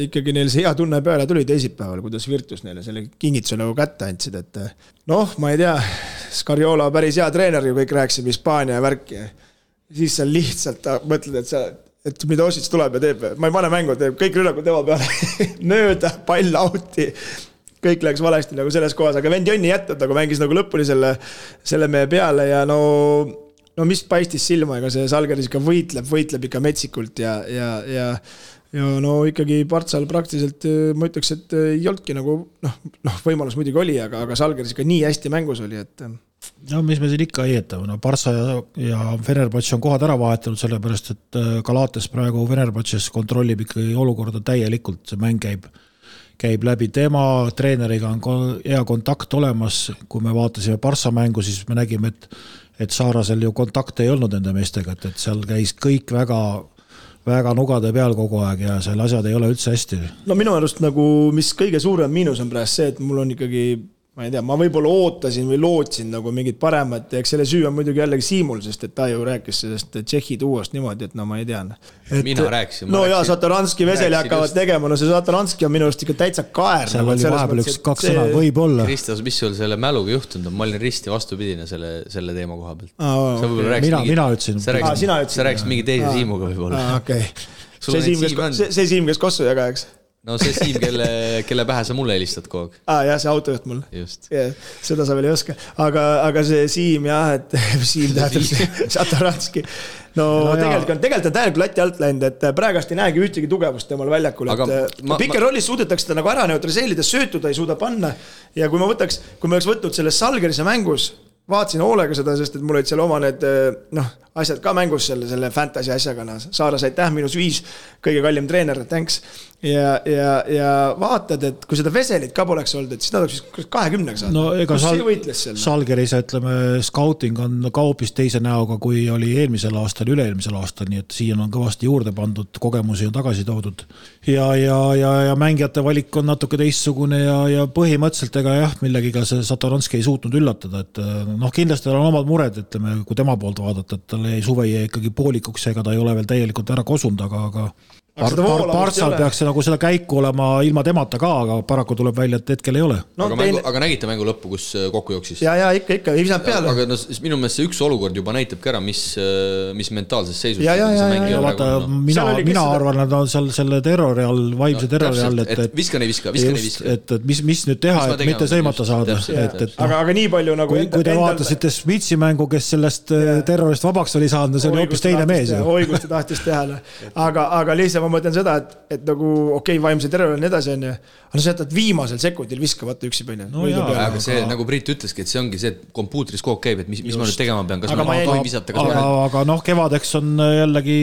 ikkagi neil see hea tunne peale tuli teisipäeval, kuidas Virtus neile selle kingituse nagu kätte andsid, et ma ei tea, Scariola päris hea treener ju kõik rääkisime Hispaania ja värki. Siis sa lihtsalt mõtled, et mida Osits tuleb ja teeb. Ma ei pane mängu, teeb kõik rünnakud tema peale. Nööda, pall auti. Kõik läks valesti nagu selles kohas, aga vend Jonni jätnud, nagu mängis nagu lõpuni selle meie peale ja no mis paistis silma, ega see Žalgiris ikka võitleb ikka metsikult ja no ikkagi Partsal praktiliselt ma ütleks, et ei olnudki nagu võimalus muidugi oli, aga Žalgiris ikka nii hästi mängus oli, et no mis me siin ikka heietame, Barca ja Fenerbahce on kohad ära vahetanud, sellepärast et Galates praegu Fenerbahces kontrollib ikkagi olukorda täielikult, see mäng käib läbi tema, treeneriga on hea kontakt olemas, kui me vaatasime Barca mängu, siis me nägime, et Saarasel ju kontakte ei olnud nende meestega, et seal käis kõik väga nugade peal kogu aeg ja seal asjad ei ole üldse hästi. No minu arust nagu, mis kõige suurem miinus on praegu see, et mul on ikkagi ma ei tea, ma võib-olla ootasin või lootsin nagu mingid paremat, eks selle süü on muidugi jällegi Siimul, sest et ta ju rääkis sellest Tšehhi tuuast niimoodi, et no ma ei tea. Mina rääkisin. No jaa, Satoranski Veseli hakkavad tegema, no see Satoranski on minu arust ikka täitsa kaer. Seal oli vahepeal kaks sõna, võib-olla. Kristas, mis sul selle mäluga juhtunud on? Ma olin risti vastupidine selle teema koha pealt. Mina ütlesin. Sa rääkisid mingi teise Siimuga võib-olla. Okei. See Siim, kes kossu jaga, eks? No see Siim, kelle pähe sa mulle helistad kogu aeg. Jah, see autojuht mul. Just. Seda sa veel ei oska. Aga see Siim, jah, et Siim tähendab Satoranski. No tegelikult on täielikult lati alt läinud, et praegast ei näegi ühtegi tugevust temal väljakul. Pikker rollis suudetakse ta nagu ära neutraliseerida, söötuda ei suuda panna. Ja kui me oleks võtnud selles Žalgirise mängus, vaatasin hoolega seda, sest et mul olid seal oma need asjad ka mängus selle fantasy asjaga. Saaras aitäh, -5, kõige kallim treener, thanks. Ja vaatad, et kui seda Veselit ka poleks olnud, et siis nad oleks 20 saanud. No ega Žalgirise, ütleme, scouting on ka hoopis teise näoga, kui oli eelmisel aastal, üle-eelmisel aastal, nii et siin on kõvasti juurde pandud, kogemusi on tagasi toodud. Ja mängijate valik on natuke teistsugune ja põhimõtteliselt ega jah, millegiga see Satoranski ei suutnud üllatada, et kindlasti on omad mured, ütleme, kui tema poolt vaadata, et tal ei suve ega poolikuks, ega ta ei ole veel täielikult ära kosunud, aga Partsal peaks nagu seda käiku olema ilma temata ka, aga paraku tuleb välja, et hetkel ei ole. Aga nägite mängu lõppu, kus kokku jooksis? Ja ikka, ei saanud peale. Aga minu meelest see üks olukord juba näitabki ära, mis mentaalses seisus. Mina arvan, et on seal selle terrori all, vaimse terrori all, et viskan ei viska. Et mis nüüd teha, et mitte sõimata saada. Aga nii palju nagu... Kui te vaatasite Smitsi mängu, kes sellest terrorist vabaks oli saanud, see oli hoopis teine mees. Oigusti tahtis teha. Aga lihtsalt ma mõtlen seda, et nagu vaimse terror on edasi, aga sa jätad viimasel sekundil viskavata üksi põine. Aga see, nagu Priit ütleski, et see ongi see, et kompuutris kogu käib, et mis ma nüüd tegema pean, kas ma tohin visata. Aga kevadeks on jällegi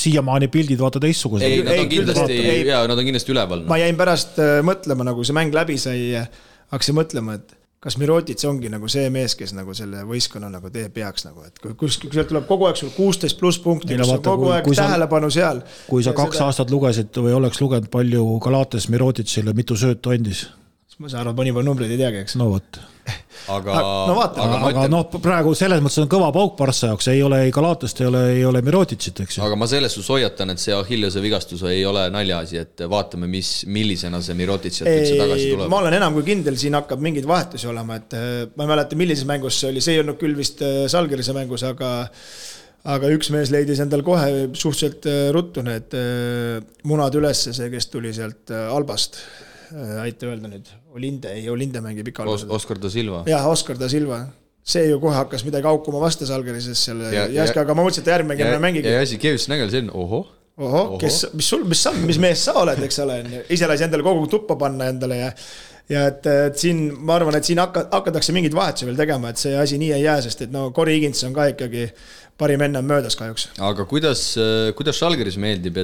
siiamaani pildid vaata teistsugused. Nad on kindlasti üleval. Ma jäin pärast mõtlema, nagu see mäng läbi sai, hakkasin mõtlema, et kas Mirotic ongi nagu see mees, kes nagu selle võistkonna nagu tee peaks nagu, et kui sealt tuleb kogu aeg sul 16+ punkti, kus on kogu aeg tähelepanu seal. Kui sa 2 aastat lugesid või oleks lugenud palju Galates Miroticile, mitu söötu andis? Ma saan arvata, mõni numbreid ei teagi, eks? No võt. Aga praegu selles mõttes on kõva pauk Barca jaoks, ei ole Galatest, ei ole Miroticit, eks ju. Aga ma selles hoiatan, et see Achilleuse vigastus ei ole naljaasi, et vaatame, millisena see Mirotic üldse tagasi tuleb. Ma olen enam kui kindel, siin hakkab mingid vahetusi olema, et ma ei mäleta, millises mängus see oli, see ei olnud küll vist Žalgirise mängus, aga üks mees leidis endal kohe suhteliselt ruttu need munad ülesse, see, kes tuli sealt Albast. Aita öelda nüüd, Olinde mängib ikka albased. Oskar da Silva. Jah, Oskar da Silva. See ju kohe hakkas midagi aukuma vasta Žalgirises selle jäske, aga ma mõtlesin, et järgmängime mängigi. Ja Sikevits nägel see on, mis mees sa oled, eks ole, ise lasi endale kogu tuppa panna endale ja ja et siin, ma arvan, et siin hakatakse mingid vahetusi veel tegema, et see asi nii ei jää, sest et no Corey Higgins on ka ikkagi parim enne möödas kahjuks. Aga kuidas Žalgiris meeldib,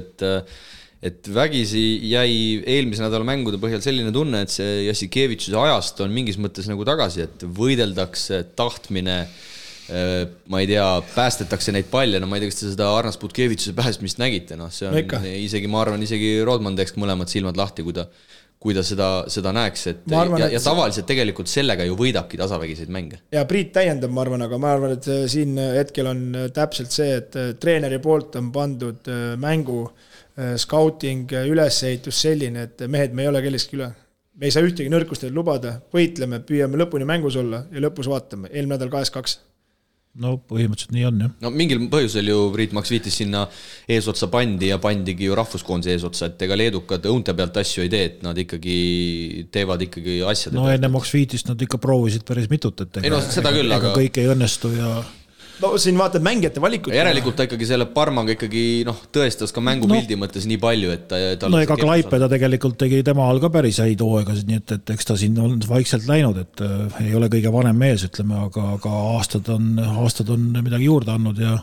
et vägisi jäi eelmise nädala mängude põhjal selline tunne, et see Jassikevitšuse ajast on mingis mõttes nagu tagasi, et võideldakse tahtmine, ma ei tea, päästetakse neid palle, no ma ei tea, kas te seda Arnas Butkevitšuse päästmist nägite, no see on isegi, ma arvan, isegi Rodman teeks mõlemad silmad lahti, kui ta seda näeks, et ja tavaliselt tegelikult sellega ju võidabki tasavägiseid mänge. Ja Priit täiendab, ma arvan, aga ma arvan, et siin hetkel on täpselt see, et treeneri poolt on pandud mängu scouting, ülesehitus selline, et mehed, me ei ole kelleski üle. Me ei saa ühtegi nõrkust lubada, võitleme, püüame lõpuni mängus olla ja lõpus vaatame. Eelmine nädal 2-2. No põhimõtteliselt nii on, jah. No mingil põhjusel ju Priit Maks viitis sinna eesotsa pandi ja pandigi ju rahvuskoondise eesotsa, et ega leedukad õunte pealt asju ei tee, et nad ikkagi teevad ikkagi asjade no enne Maks viitist nad ikka proovisid päris mitut, et seda küll, aga kõik ei õnnestu ja no siin vaatad mängijate valikut. Järelikult ta ikkagi selle Parmaga ikkagi tõestas ka mängupildi mõttes nii palju, et no ega Klaipeda tegelikult tegi tema all ka päris häid hooaegasid, nii et eks ta siin on vaikselt läinud, et ei ole kõige vanem mees, ütleme, aga aastad on midagi juurde andnud ja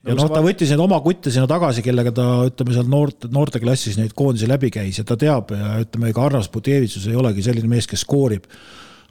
ta võttis neid oma kutte sinna tagasi, kellega ta, ütleme, seal noorte klassis neid koondisi läbi käis ja ta teab ja ütleme, ega Arnas Butkevitšus ei olegi selline mees, kes skoorib,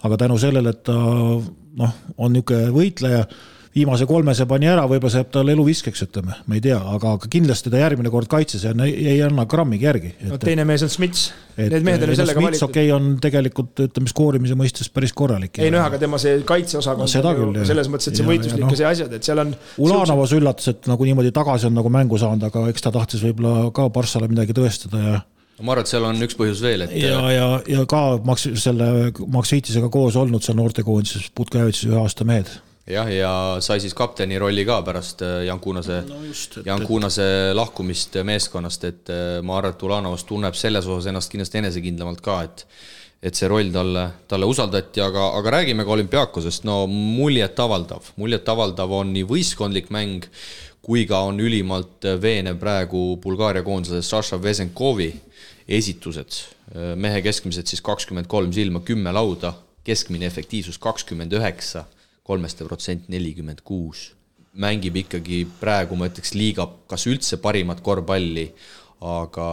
aga tänu sellele, et ta on niisugune võitleja, viimase 3 pani ära, võib-olla saab tal elu viskeks, ütleme, ma ei tea, aga kindlasti ta järgmine kord kaitses ja ei anna grammigi järgi. No teine mees on Smits. Need mehed on sellega valitud. Smits on tegelikult, ütleme, skoorimise mõistes päris korralik. Ei, aga tema see kaitseosakond on selles mõttes, et see võitluslik ja see asjad, et seal on Ulanovas üllatus, et nagu niimoodi tagasi on nagu mängu saanud, aga eks ta tahtis võib-olla ka Barssale midagi tõestada ja ma arvan, et seal on üks põhjus veel, et ja ka Maks Viitisega koos olnud seal noortekoondises Butkevitšus 1 aasta mehed. Jah, ja sai siis kapteni rolli ka pärast Jan Kuunase lahkumist meeskonnast, et ma arvan, et Ulanovas tunneb selles osas ennast kindlasti enesekindlamalt ka, et see roll talle usaldati, aga räägime ka Olümpiakosest, no muljet avaldav on nii võistkondlik mäng, kui ka on ülimalt veenev praegu Bulgaaria koondise Saša Vesenkovi esitused. Mehe keskmised siis 23 silma, 10 lauda, keskmine efektiivsus 29%, 3% 46. Mängib ikkagi praegu, ma ütleks, liiga kas üldse parimat korvpalli, aga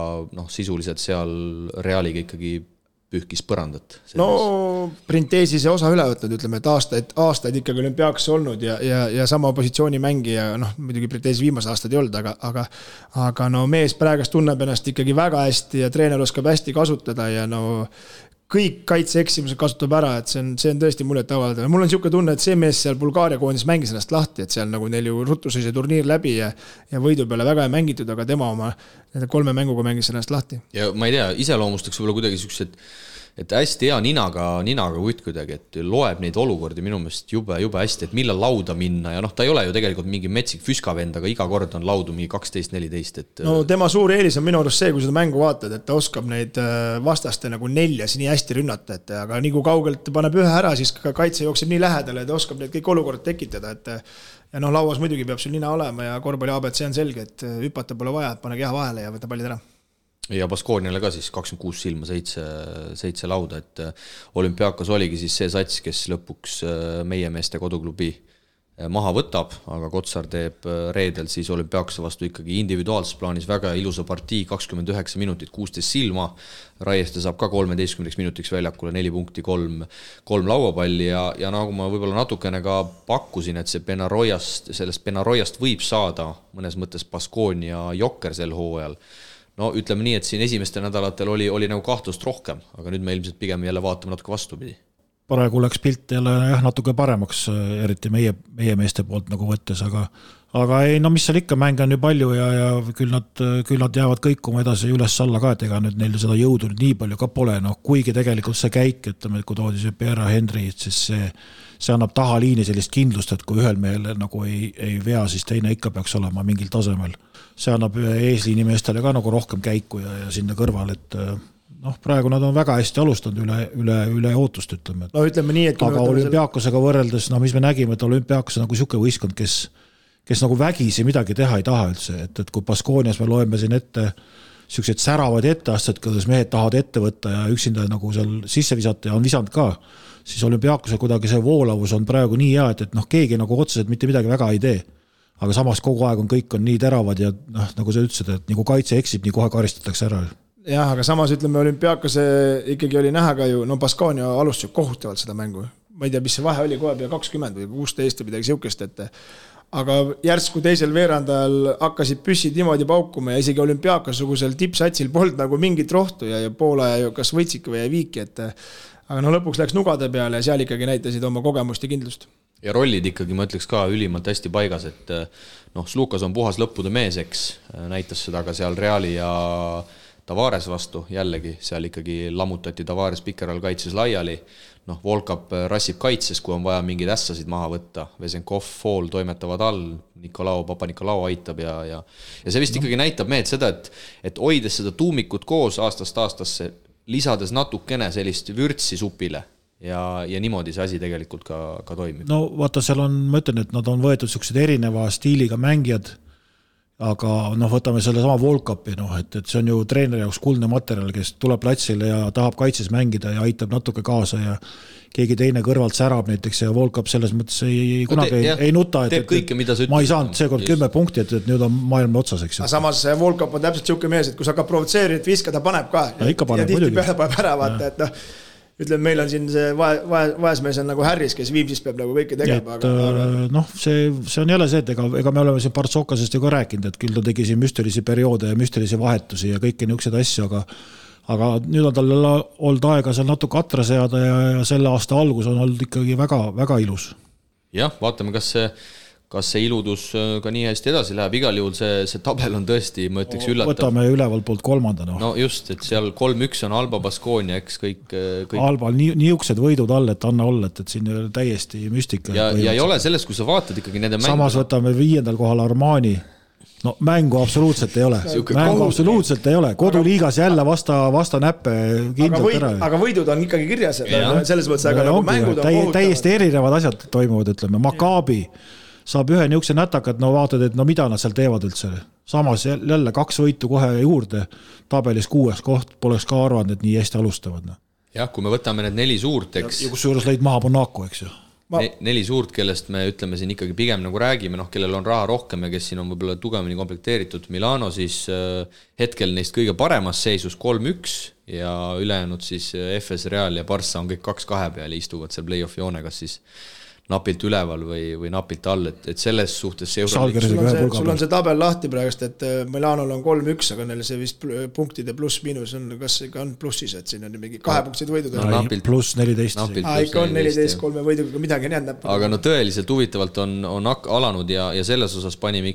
sisuliselt seal Realiga ikkagi pühkis põrandat. No Printeesi see osa üle võtnud, ütleme, et aastaid ikkagi Olümpiakos olnud ja sama positsiooni mängija, muidugi Printeesi viimased aastad ei olnud, aga mees praegast tunneb ennast ikkagi väga hästi ja treener oskab hästi kasutada ja kõik kaitseeksimused kasutab ära, et see on tõesti muljet avaldav. Mul on niisugune tunne, et see mees seal Bulgaaria koondis mängis ennast lahti, et seal nagu neil ju ruttus see turniir läbi ja võidu peale väga ei mängitud, aga tema oma 3 mänguga mängis ennast lahti. Ja ma ei tea, iseloomustaks võib-olla kuidagi siuksed, et hästi hea ninaga kutt kuidagi, et loeb neid olukordi minu meelest jube hästi, et millal lauda minna ja ta ei ole ju tegelikult mingi metsik füskavend, aga iga kord on laudu mingi 12-14. Et no tema suur eelis on minu arust see, kui seda mängu vaatad, et ta oskab neid vastaste nagu 4 nii hästi rünnata, aga nii kui kaugelt paneb ühe ära, siis ka kaitse jookseb nii lähedale, et oskab neid kõik olukorrad tekitada, et ja lauas muidugi peab sul nina olema ja korvpalli ABC on selge, et hüpata pole vaja, pane keha vahele ja võta pallid ära. Ja Baskooniale ka siis 26 silma, 7 lauda, et Olümpiakos oligi siis see sats, kes lõpuks meie meeste koduklubi maha võtab, aga Kotsar teeb reedel siis Olümpiakose vastu ikkagi individuaalses plaanis väga ilusa partii, 29 minutit, 16 silma, Raieste saab ka 13 minutiks väljakule 4 punkti, 3 lauapalli ja nagu ma võib-olla natukene ka pakkusin, et sellest Benaroiast võib saada mõnes mõttes Baskoonia jokker sel hooajal. No ütleme nii, et siin esimestel nädalatel oli nagu kahtlust rohkem, aga nüüd me ilmselt pigem jälle vaatame natuke vastupidi. Praegu läks pilt jälle natuke paremaks, eriti meie meeste poolt nagu võttes, aga ei, mis seal ikka, mänge on ju palju ja küll nad jäävad kõikuma edasi üles-alla ka, et ega nüüd neil seda jõudu nii palju ka pole, kuigi tegelikult see käik, ütleme, kui toodi see Pierre Henry, siis see annab tahaliini sellist kindlust, et kui ühel mehel nagu ei vea, siis teine ikka peaks olema mingil tasemel. See annab eesliini meestele ka nagu rohkem käiku ja sinna kõrval, et praegu nad on väga hästi alustanud üle ootust, ütleme. No ütleme nii, et aga Olümpiakosega võrreldes, mis me nägime, et Olümpiakos on nagu siuke võistkond, kes nagu vägisi midagi teha ei taha üldse, et kui Baskoonias me loeme siin ette sellised säravad etteasted, kuidas mehed tahavad ette võtta ja üksinda nagu seal sisse visata ja on visanud ka, siis Olümpiaakose kuidagi see voolavus on praegu nii hea, et keegi nagu otseselt mitte midagi väga ei tee. Aga samas kogu aeg kõik on nii teravad ja nagu sa ütlesid, et nagu kaitse eksib, nii kohe karistatakse ära. Jah, aga samas ütleme Olümpiaakose ikkagi oli näha ka ju, Baskonia alustas kohutavalt seda mängu. Ma ei tea, mis see vahe oli kohe pea 20 või 16 või midagi siukest, aga järsku teisel veerandajal hakkasid püssid niimoodi paukuma ja isegi Olümpiaakosugusel tippsatsil polnud nagu mingit rohtu ja Poola kas võitsid või jäi viiki, aga lõpuks läks nugade peale ja seal ikkagi näitasid oma kogemust ja kindlust. Ja rollid ikkagi, ma ütleks ka ülimalt hästi paigas, et Slukas on puhas lõppude meeseks, näitas seda ka seal Reali ja Tavares vastu, jällegi seal ikkagi lammutati Tavares Pikeral kaitses laiali, Volkap rassib kaitses, kui on vaja mingeid ässasid maha võtta, Vesenkov, Fool toimetavad all, Papa-Nikolau aitab ja see vist ikkagi näitab mehed seda, et hoides seda tuumikut koos aastast aastasse, lisades natukene sellist vürtsi supile ja niimoodi see asi tegelikult ka toimib. No vaata, seal on, ma ütlen, et nad on võetud sellised erineva stiiliga mängijad, aga võtame selle sama Volkapi, et see on ju treeneri jaoks kuldne materjal, kes tuleb platsile ja tahab kaitses mängida ja aitab natuke kaasa ja keegi teine kõrvalt särab näiteks ja Volkap selles mõttes kunagi ei nuta, teeb kõike, mida sa ütled. Ma ei saanud seekord 10 punkti, et nüüd on maailma otsas, eks. Aga samas Volkap on täpselt siuke mees, et kui sa hakkab provotseerida, et viska, ta paneb ka. Ja ikka paneb, ja tihti peale paneb ära, vaata, et ütleme, meil on siin see vaesmees on nagu Harris, kes Viimsis peab nagu kõike tegema. See on jälle see, et ega me oleme siin Partsokasest ju ka rääkinud, et küll ta tegi siin müstelisi perioode ja müstelisi vahetusi ja kõiki niisugused asju, aga nüüd on tal olnud aega seal natuke atra seada ja selle aasta algus on olnud ikkagi väga, väga ilus. Jah, vaatame, kas see iludus ka nii hästi edasi läheb, igal juhul see tabel on tõesti, ma ütleks, üllatav. Võtame üleval poolt 3. No just, et seal 3-1 on Alba Baskonia, eks kõik... Albal niisugused võidud all, et anna olla, et siin ei ole täiesti müstika. Ja ei ole sellest, kui sa vaatad ikkagi nende mängu... Samas võtame 5. kohal Armani. No mängu absoluutselt ei ole. Mängu absoluutselt ei ole. Koduliigas jälle vasta näppe kindlalt ära. Aga võidud on ikkagi kirjas. Selles mõttes, aga nagu mängud on kohutavad. Täiesti erinevad asjad toimuvad, ütleme. Maccabi saab ühe niisuguse nätakad, vaatad, et mida nad seal teevad üldse. Samas jälle 2 võitu kohe juurde, tabelis 6 koht, poleks ka arvanud, et nii hästi alustavad. Jah, kui me võtame need 4 suurt, eks... Ja kus juures lõid maha Monaco, eks ju. 4 suurt, kellest me ütleme siin ikkagi pigem nagu räägime, kellel on raha rohkem ja kes siin on võib-olla tugevini komplekteeritud. Milano siis hetkel neist kõige paremas seisus 3-1 ja ülejäänud siis FS Real ja Barça on kõik 2-2 peal ja istuvad seal play-off joonegas siis napilt üleval või napilt all, et selles suhtes see sul on see tabel lahti praegust, et Milanol on 3-1, aga neil see vist punktide pluss-miinus on, kas ikka on plussis, et siin on mingi 2 punktid võidud. Pluss 14. Ikka on 14, 3 võiduga midagi on jäänud. Aga tõeliselt huvitavalt on alanud ja selles osas panime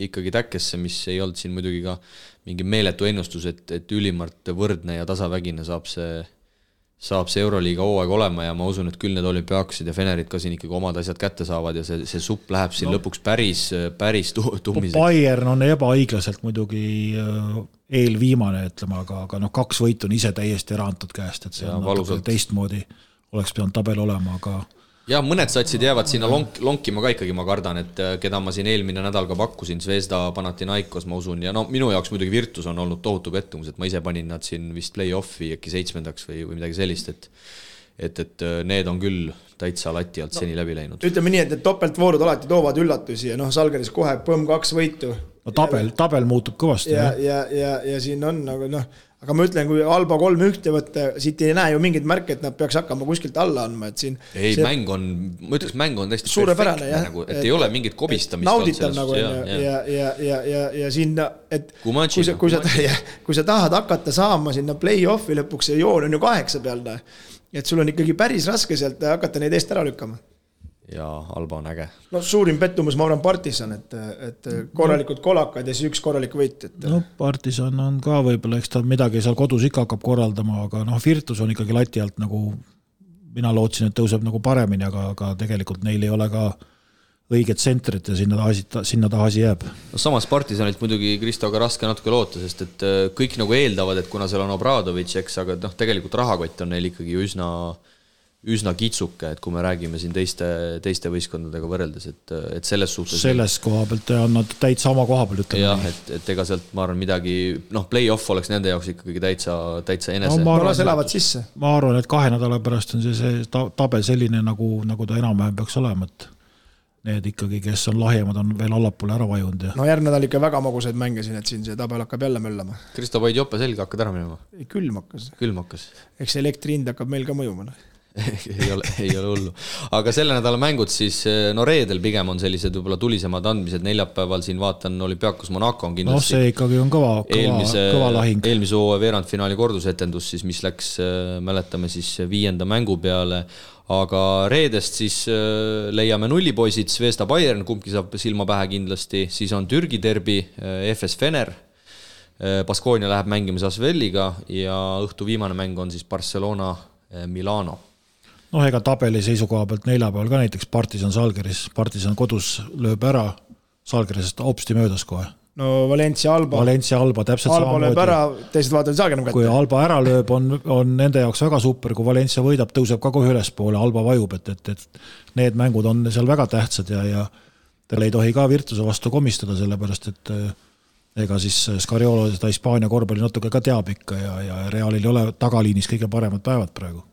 ikkagi täkkesse, mis ei olnud siin muidugi ka mingi meeletu ennustus, et ülimalt võrdne ja tasavägine saab see Euroliiga hooaeg olema ja ma usun, et küll need Olümpiaaksid ja Fenerid ka siin ikkagi omad asjad kätte saavad ja see supp läheb siin lõpuks päris tummiseks. Bayern on ebaõiglaselt muidugi eelviimane, ütleme, aga 2 võitu on ise täiesti ära antud käest, et see on teistmoodi oleks pidanud tabel olema, aga... Ja mõned satsid jäävad sinna lonkima ka ikkagi, ma kardan, et keda ma siin eelmine nädal ka pakkusin, Zvezda, Panathinaikos, ma usun, ja minu jaoks muidugi Virtus on olnud tohutu pettumus, et ma ise panin nad siin vist play-offi äkki 7. või midagi sellist, et need on küll täitsa lati alt seni läbi läinud. Ütleme nii, et topeltvoorud alati toovad üllatusi ja Salgeris kohe põmm 2 võitu. Tabel muutub kõvasti. Ja siin on nagu aga ma ütlen, kui Alba 3-1 võtta, siit ei näe ju mingid märke, et nad peaks hakkama kuskilt alla andma, et siin... Ei, ma ütleks, mäng on täiesti suurepärane, perfektne, et ei ole mingit kobistamist. Nauditav nagu ja siin, et kui sa tahad hakata saama sinna play-offi lõpuks, see joon on ju 8 peal, et sul on ikkagi päris raske sealt hakata neid eest ära lükkama. Ja Alba on äge. Suurim pettumus, ma arvan, Partisan, et korralikud kolakad ja siis 1 korralik võit. Partisan on ka võib-olla, eks ta midagi seal kodus ikka hakkab korraldama, aga Virtus on ikkagi lati alt nagu, mina lootsin, et tõuseb nagu paremini, aga tegelikult neil ei ole ka õiget tsentrit ja sinna taha asi jääb. Samas Partisanilt muidugi Kristoga raske natuke loota, sest et kõik nagu eeldavad, et kuna seal on Obradovic, eks, aga tegelikult rahakott on neil ikkagi üsna kitsuke, et kui me räägime siin teiste võistkondadega võrreldes, et selles suhtes... Selles koha pealt on nad täitsa oma koha peal, ütleme. Jah, et ega sealt, ma arvan, midagi, play-off oleks nende jaoks ikkagi täitsa enese. No, las elavad sisse. Ma arvan, et 2 nädala pärast on see tabel selline, nagu ta enam-vähem peaks olema, et need ikkagi, kes on lahjemad, on veel allapoole ära vajunud. No järgmine nädal ikka väga magusaid mänge siin, et siin see tabel hakkab jälle möllama. Kristo Paid jope selge hakkad ära minema? Külm hakkas. Eks elektri hind hakkab meil ka mõjuma. ei ole hullu. Aga selle nädala mängud siis, reedel pigem on sellised võib-olla tulisemad andmised, neljapäeval siin vaatan Olümpiakos Monaco on kindlasti. See ikkagi on kõva lahing. Eelmise hooaja veerandfinaali kordusetendus, siis, mis läks, mäletame siis 5. mängu peale, aga reedest siis leiame nullipoisid, Zvezda Bayern, kumbki saab silma pähe kindlasti, siis on Türgi derbi, FS Fener, Baskonia läheb mängimas Asvelliga ja õhtu viimane mäng on siis Barcelona Milano. Ega tabeli seisukoha pealt neljapäeval ka näiteks Partisan Salgeris. Partisan kodus lööb ära Salgerisest hopsti möödas kohe. No Valencia Alba täpselt Alba samamoodi. Lööb ära, teised vaatavad Salgerim kätte. Kui Alba ära lööb, on nende jaoks väga super, kui Valencia võidab, tõuseb ka kohe ülespoole, Alba vajub, et need mängud on seal väga tähtsad ja tal ei tohi ka Virtuse vastu komistada, sellepärast, et ega siis Scariolo seda Hispaania korvpalli natuke ka teab ikka ja Realil ei ole tagaliinis kõige paremad päevad praegu.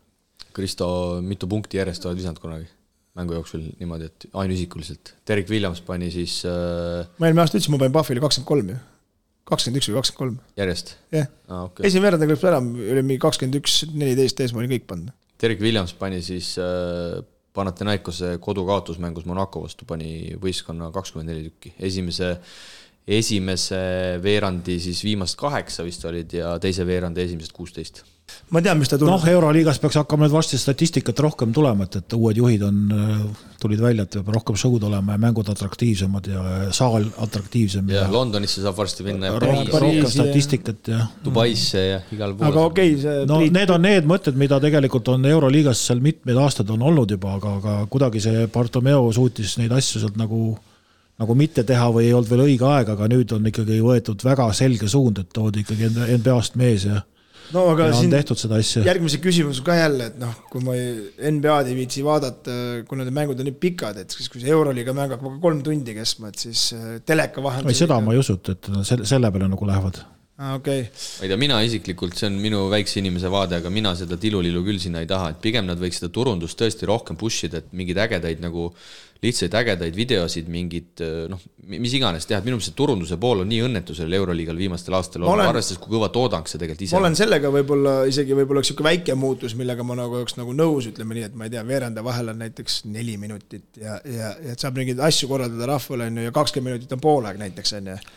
Kristo, mitu punkti järjest oled visanud kunagi mängu jooksul niimoodi, et ainuisikuliselt? Derek Williams pani siis... Ma eelmine aasta ütlesin, ma panin Buffili 23 ju. 21 või 23. Järjest? Jah. Okay. Esimene veerand lõpuks ära, oli 21-14 ees, ma olin kõik pannud. Derek Williams pani siis Panathinaikose kodukaotusmängus Monaco vastu, pani võistkonna 24 tükki. Esimese veerandi siis viimast 8 vist olid ja teise veerandi esimesed 16. Ma tean, mis ta tuleb. Euroliigas peaks hakkama nüüd varsti statistikat rohkem tulema, et uued juhid tulid välja, et peab rohkem show'd olema ja mängud atraktiivsemad ja saal atraktiivsem. Ja Londonisse saab varsti minna rohkem statistikat ja Dubaisse ja igal pool. Aga okei, need on need mõtted, mida tegelikult on Euroliigas seal mitmed aastad on olnud juba, aga kuidagi see Bartomeu suutis neid asju sealt nagu mitte teha või ei olnud veel õige aeg, aga nüüd on ikkagi võetud väga selge suund, et toodi ikkagi NBA-st mees ja aga on tehtud seda asja. Järgmise küsimus ka jälle, et kui ma NBA-d ei viitsi vaadata, kui need mängud on nii pikad, et kui see Euroliiga mäng hakkab 3 tundi kestma, et siis teleka vahendus... Ei, seda ma ei usut, et selle peale nagu lähevad. Okay. Ma ei tea, mina isiklikult, see on minu väikse inimese vaade, aga mina seda tilulilu küll sinna ei taha, et pigem nad võiks seda turundust tõesti rohkem pushida, et mingid ägedaid nagu lihtsaid ägedaid videosid, mingid, mis iganes teha, et minu see turunduse pool on nii õnnetusel Euroliigal viimastel aastal arvestades, kui kõva toodang see tegelikult ise. Ma olen sellega võib-olla üks väike muutus, millega ma oleks nõus, ütleme nii, et ma ei tea, veeranda vahel on näiteks 4 minutit ja et saab mingeid asju korraldada rahvale ja 20 minutit on poolaeg näiteks.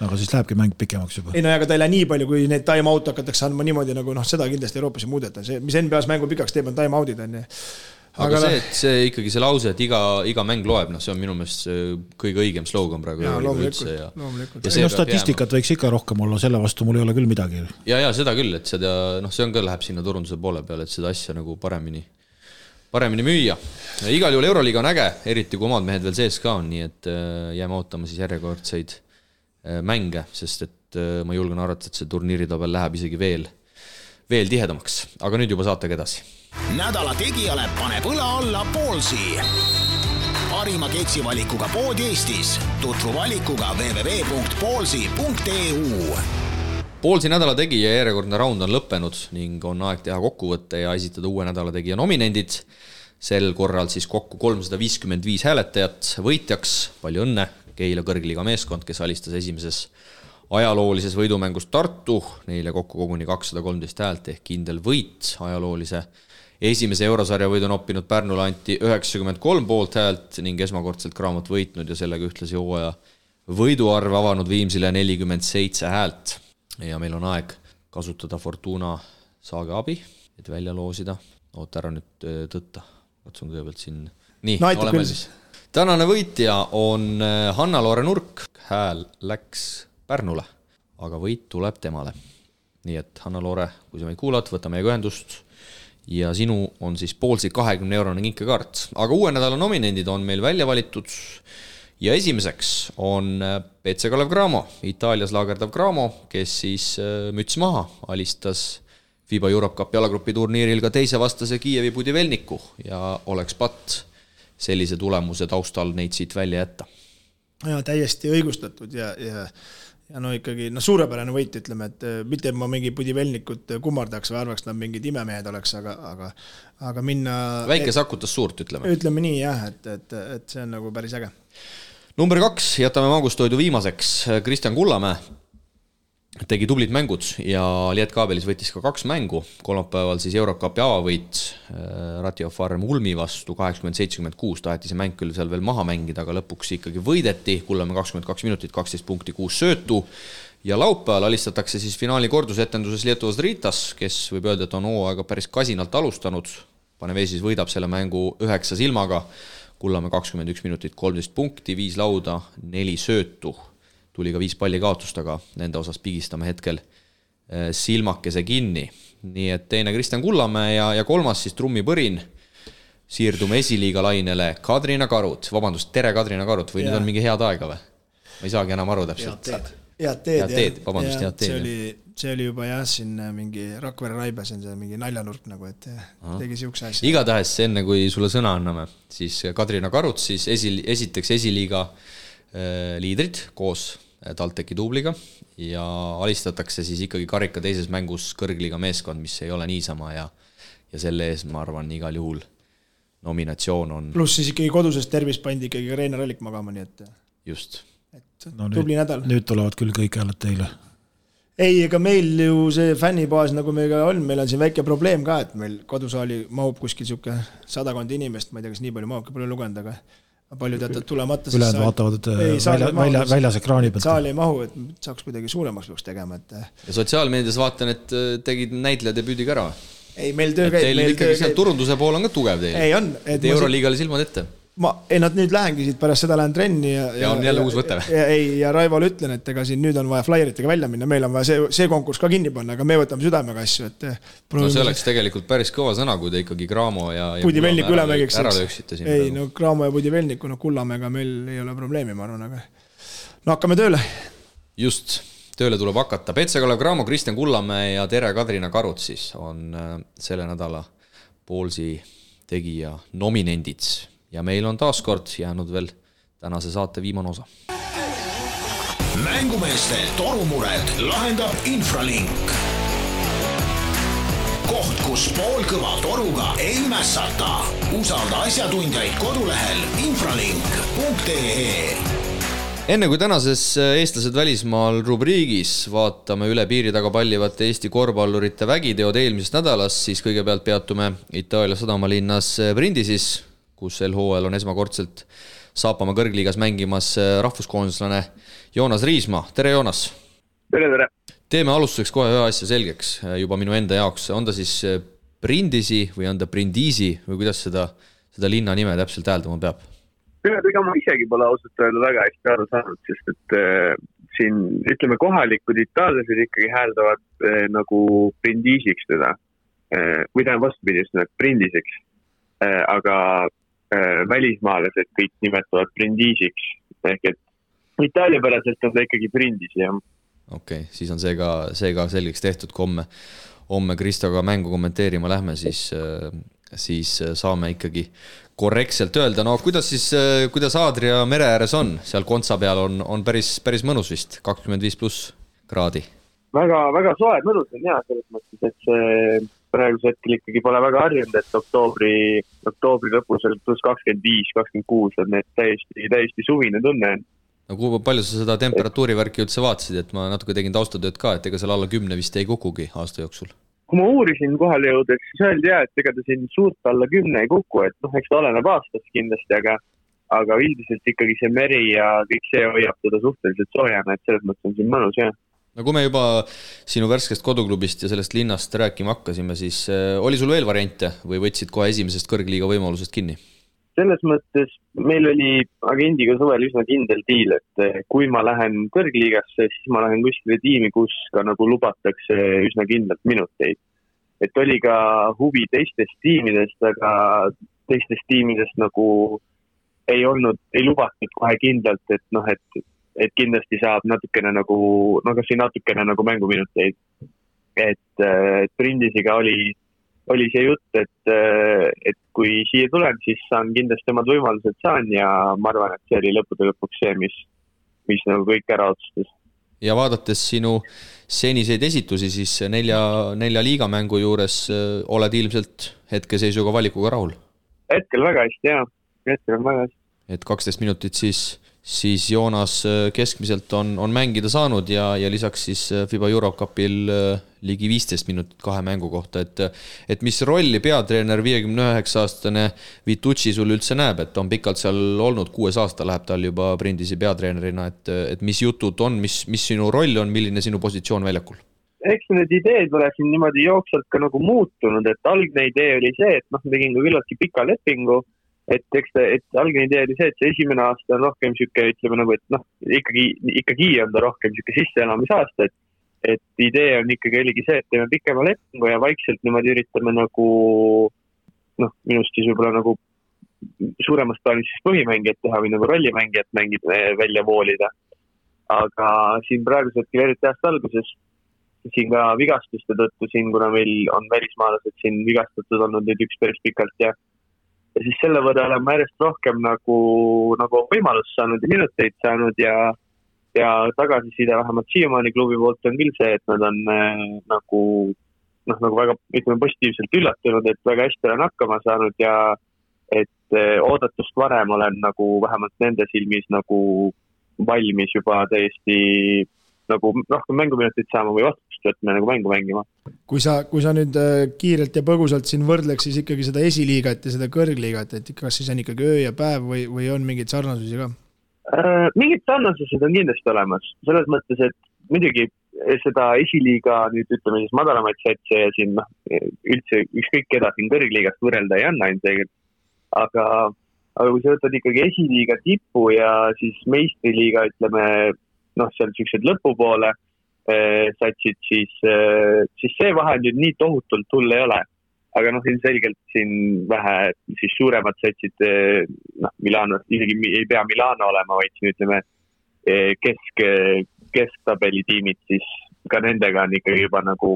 Aga siis lähebki mäng pikemaks juba. Ei aga ta ei lähe nii palju, kui need time-out hakatakse andma niimoodi, nagu seda kindlasti Euroopas ei muudeta. See, mis NBA-s mängu pikaks teeb, on time-outid. Aga see ikkagi see lause, et iga mäng loeb, see on minu meelest kõige õigem slogan praegu. Statistikat võiks ikka rohkem olla, selle vastu mul ei ole küll midagi. Ja seda küll, et see on ka läheb sinna turunduse poole peale, et seda asja nagu paremini müüa. Igal juhul Euroliiga on äge, eriti kui omad mehed veel sees ka on, nii et jääme ootama siis järjekordseid mänge, sest et ma julgen arvata, et see turniiritabel läheb isegi veel tihedamaks. Aga nüüd juba saatega edasi. Nädala tegijale paneb õla alla Poolsi. Parima keksivalikuga pood Eestis. Tutvu valikuga www.poolsi.eu. Poolsi nädala tegija järjekordne raund on lõppenud ning on aeg teha kokkuvõtte ja esitada uue nädala tegija nominendid. Sel korral siis kokku 355 hääletajat. Võitjaks, palju õnne, Keila kõrgliiga meeskond, kes alistas esimeses ajaloolises võidumängus Tartu. Neile kokku koguni 213 häält ehk kindel võit ajaloolise. Esimese eurosarja võidu on oppinud Pärnule anti 93 poolt häält ning esmakordselt Graamot võitnud ja sellega ühtlasi hooaja võiduarve avanud Viimsile 47 häält. Ja meil on aeg kasutada Fortuna saage abi, et välja loosida. Oota ära nüüd tõtta. Katsun kõigepealt siin. Nii, oleme siis. Tänane võitja on Hanna-Loore Nurk. Hääl läks Pärnule, aga võit tuleb temale. Nii et Hanna-Loore, kui sa meid kuulad, võta meiega ühendust. Ja sinu on siis Poolsi 20-eurone kinkekaart. Aga uue nädala nominendid on meil välja valitud ja esimeseks on PC Kalev Cramo, Itaalias laagerdav Cramo, kes siis müts maha alistas FIBA Europe Cup jalagrupi turniiril ka teise vastase Kiievi Budivelniku ja oleks patt sellise tulemuse taustal neid siit välja jätta. Ja täiesti õigustatud ja no ikkagi suurepärane võit, ütleme, et mitte ma mingi Budivelnikut kummardaks või arvaks, nad mingid imemehed oleks, aga minna... Väike sakutas suurt, ütleme. Ütleme nii, jah, et see on nagu päris äge. Number 2, jätame Mangustoidu viimaseks. Kristjan Kullamäe tegi tublid mängud ja Lietkaabelis võttis ka 2 mängu. Kolmapäeval siis Eurocupi avavõit Ratio Farm Ulmi vastu 80-76. Taheti see mäng küll seal veel maha mängida, aga lõpuks ikkagi võideti. Kullamäe 22 minutit, 12 punkti, 6 söötu. Ja laupäeval alistatakse siis finaali kordusetenduses Lietuvas Ritas, kes võib öelda, et on hooaega päris kasinalt alustanud. Panevesis võidab selle mängu 9 silmaga. Kullamäe 21 minutit, 13 punkti, 5 lauda, 4 söötu. Tuli ka 5 palli kaotust, aga nende osas pigistame hetkel silmakese kinni. Nii et teine Kristjan Kullamäe ja 3. siis trummipõrin. Siirdume esiliiga lainele Kadrina Karut. Vabandust, tere Kadrina Karut, või nüüd on mingi head aega või? Ma ei saagi enam aru täpselt. Head teed. Vabandust, head teed. See oli juba siin mingi Rakvere Raibas on see mingi naljanurk nagu, et tegi siukse asja. Igatahes enne, kui sulle sõna anname, siis Kadrina Karut siis esiteks esiliiga liidrid koos TalTechi duubliga ja alistatakse siis ikkagi karika teises mängus kõrgliga meeskond, mis ei ole niisama ja selle ees, ma arvan, igal juhul nominatsioon on. Pluss siis ikkagi kodusest tervis pandi ikkagi Reinar Allik magama, nii et just. Tubli nädal. Nüüd tulevad küll kõik hääled teile. Ei, ega meil ju see fännibaas nagu meiga on, meil on siin väike probleem ka, et meil kodusaali mahub kuskil siuke 100 inimest, ma ei tea, kas nii palju mahub, pole lugenud, aga palju teatad tulemata. Ülejad vaatavad väljas ekraani pealt. Saal ei mahu, et saaks kuidagi suuremaks peaks tegema. Ja sotsiaalmeedias vaatan, et tegid näitlejad ja püüdiga ära. Ei, meil töö käib. Teil ikkagi seal turunduse pool on ka tugev teil. Ei on. Euroliigale silmad ette. Nad nüüd lähengi siit pärast seda lähen trenni ja on jälle uus võte. Ja Raivole ütlen, et ega siin nüüd on vaja flyeritega välja minna, meil on vaja see konkurss ka kinni panna, aga me võtame südamega asju. No see oleks tegelikult päris kõva sõna, kui te ikkagi Graamo ja Budivelniku ülemägiks ära lööksite siin. Ei, no Graamo ja Budivelniku, Kullamäega meil ei ole probleemi, ma arvan, aga no hakkame tööle. Just, tööle tuleb hakata. Petse-Kalev Graamo, Kristjan Kullamäe ja tere Kadrina Karut siis on selle nädala Poolsi tegija nominendid. Ja meil on taaskord jäänud veel tänase saate viimane osa. Mängumeeste torumured lahendab Infralink. Koht, kus poolkõva toruga ei mässata. Usalda asjatundjaid kodulehel infralink.ee. Enne kui tänases eestlased välismaal rubriigis vaatame üle piiri taga pallivate Eesti korvpallurite vägiteod eelmisest nädalast, siis kõigepealt peatume Itaalia sadamalinnas Brindisis, kus LHL on esmakordselt Saapama kõrgliigas mängimas rahvuskoondislane Joonas Riismaa. Tere Joonas! Tere! Teeme alustuseks kohe ühe asja selgeks juba minu enda jaoks. On ta siis Brindisi või on ta Brindisi või kuidas seda linna nime täpselt hääldama peab? Ega ma isegi pole ausalt öelda väga hästi aru saanud, sest et siin ütleme kohalikud itaallased ikkagi hääldavad nagu Brindisiks teda. Või tähendab vastupidi just Brindisiks. Aga välismaalased kõik nimetavad Brindisiks ehk et itaaliapäraselt on ta ikkagi Brindisi, jah. Okei, siis on see ka selgeks tehtud, kui homme Kristoga mängu kommenteerima lähme, siis saame ikkagi korrektselt öelda. No kuidas Aadria mere ääres on? Seal Kontsa peal on päris mõnus vist, 25+ kraadi. Väga soe mõnus on jah, selles mõttes, et see praegusel hetkel ikkagi pole väga harjunud, et oktoobri lõpus oli plus 25, 26 on need täiesti suvine tunne. No kui palju sa seda temperatuurivärki üldse vaatasid, et ma natuke tegin taustatööd ka, et ega seal alla 10 vist ei kukugi aasta jooksul? Kui ma uurisin kohale jõudes, siis öeldi jah, et ega ta siin suurt alla 10 ei kuku, et eks ta oleneb aastast kindlasti, aga üldiselt ikkagi see meri ja kõik see hoiab teda suhteliselt soojana, et selles mõttes on siin mõnus jah. No kui me juba sinu värskest koduklubist ja sellest linnast rääkima hakkasime, siis oli sul veel variante või võtsid kohe esimesest kõrgliiga võimalusest kinni? Selles mõttes meil oli agendiga suvel üsna kindel diil, et kui ma lähen kõrgliigasse, siis ma lähen kuskile tiimi, kus ka nagu lubatakse üsna kindlalt minuteid. Et oli ka huvi teistest tiimidest, aga teistest tiimidest nagu ei lubatud kohe kindlalt, et kindlasti saab natukene nagu mänguminuteid. et Prindisiga oli see jutt, et kui siia tulen, siis saan kindlasti omad võimalused saan ja ma arvan, et see oli lõppude lõpuks see, mis nagu kõik ära otsustas. Ja vaadates sinu seniseid esitusi, siis 4 liigamängu juures oled ilmselt hetkeseisuga valikuga rahul? Hetkel väga hästi, jah. Hetkel on väga hästi. Et 12 minutit siis Joonas keskmiselt on mängida saanud ja lisaks siis FIBA Eurocupil ligi 15 minutit 2 mängu kohta, et mis rolli peatreener 59-aastane Vitucci sul üldse näeb, et on pikalt seal olnud, 6 aasta läheb tal juba Prindisi peatreenerina, et mis jutud on, mis sinu roll on, milline sinu positsioon väljakul? Eks need ideed ole siin niimoodi jooksvalt ka nagu muutunud, et algne idee oli see, et tegin ka küllaltki pika lepingu, et algne idee oli see, et see esimene aasta on rohkem siuke, ütleme nagu, et ikkagi on ta rohkem siuke sisseelamisaasta, et idee on ikkagi oligi see, et teeme pikema lepingu ja vaikselt niimoodi üritame nagu, minust siis võib-olla nagu suuremast plaanis siis põhimängijat teha või nagu rollimängijat välja voolida. Aga siin praegusel hetkel eriti aasta alguses, siin ka vigastuste tõttu siin, kuna meil on välismaalased siin vigastatud olnud nüüd üks päris pikalt ja siis selle võrra olen ma järjest rohkem nagu võimalust saanud ja minuteid saanud ja tagasiside vähemalt siiamaani klubi poolt on küll see, et nad on nagu väga, ütleme, positiivselt üllatunud, et väga hästi olen hakkama saanud ja et oodatust varem olen nagu vähemalt nende silmis nagu valmis juba täiesti nagu rohkem mänguminutit saama või vastust võtme nagu mängu mängima. Kui sa nüüd kiirelt ja põgusalt siin võrdleks siis ikkagi seda esiliigat ja seda kõrgliigat, et kas siis on ikkagi öö ja päev või on mingeid sarnasusi ka? Mingid sarnasused on kindlasti olemas. Selles mõttes, et muidugi seda esiliiga nüüd ütleme siis madalamaid satse ja siin üldse ükskõik keda siin kõrgliigast võrrelda ei anna ilmselgelt. Aga kui sa võtad ikkagi esiliiga tipu ja siis meistriliiga, ütleme, seal sellised lõpupoole satsid, siis see vahe nüüd nii tohutult hull ei ole. Aga ilmselgelt siin vähe siis suuremad satsid, Milano, isegi ei pea Milano olema, vaid siin ütleme kesktabeli tiimid, siis ka nendega on ikkagi juba nagu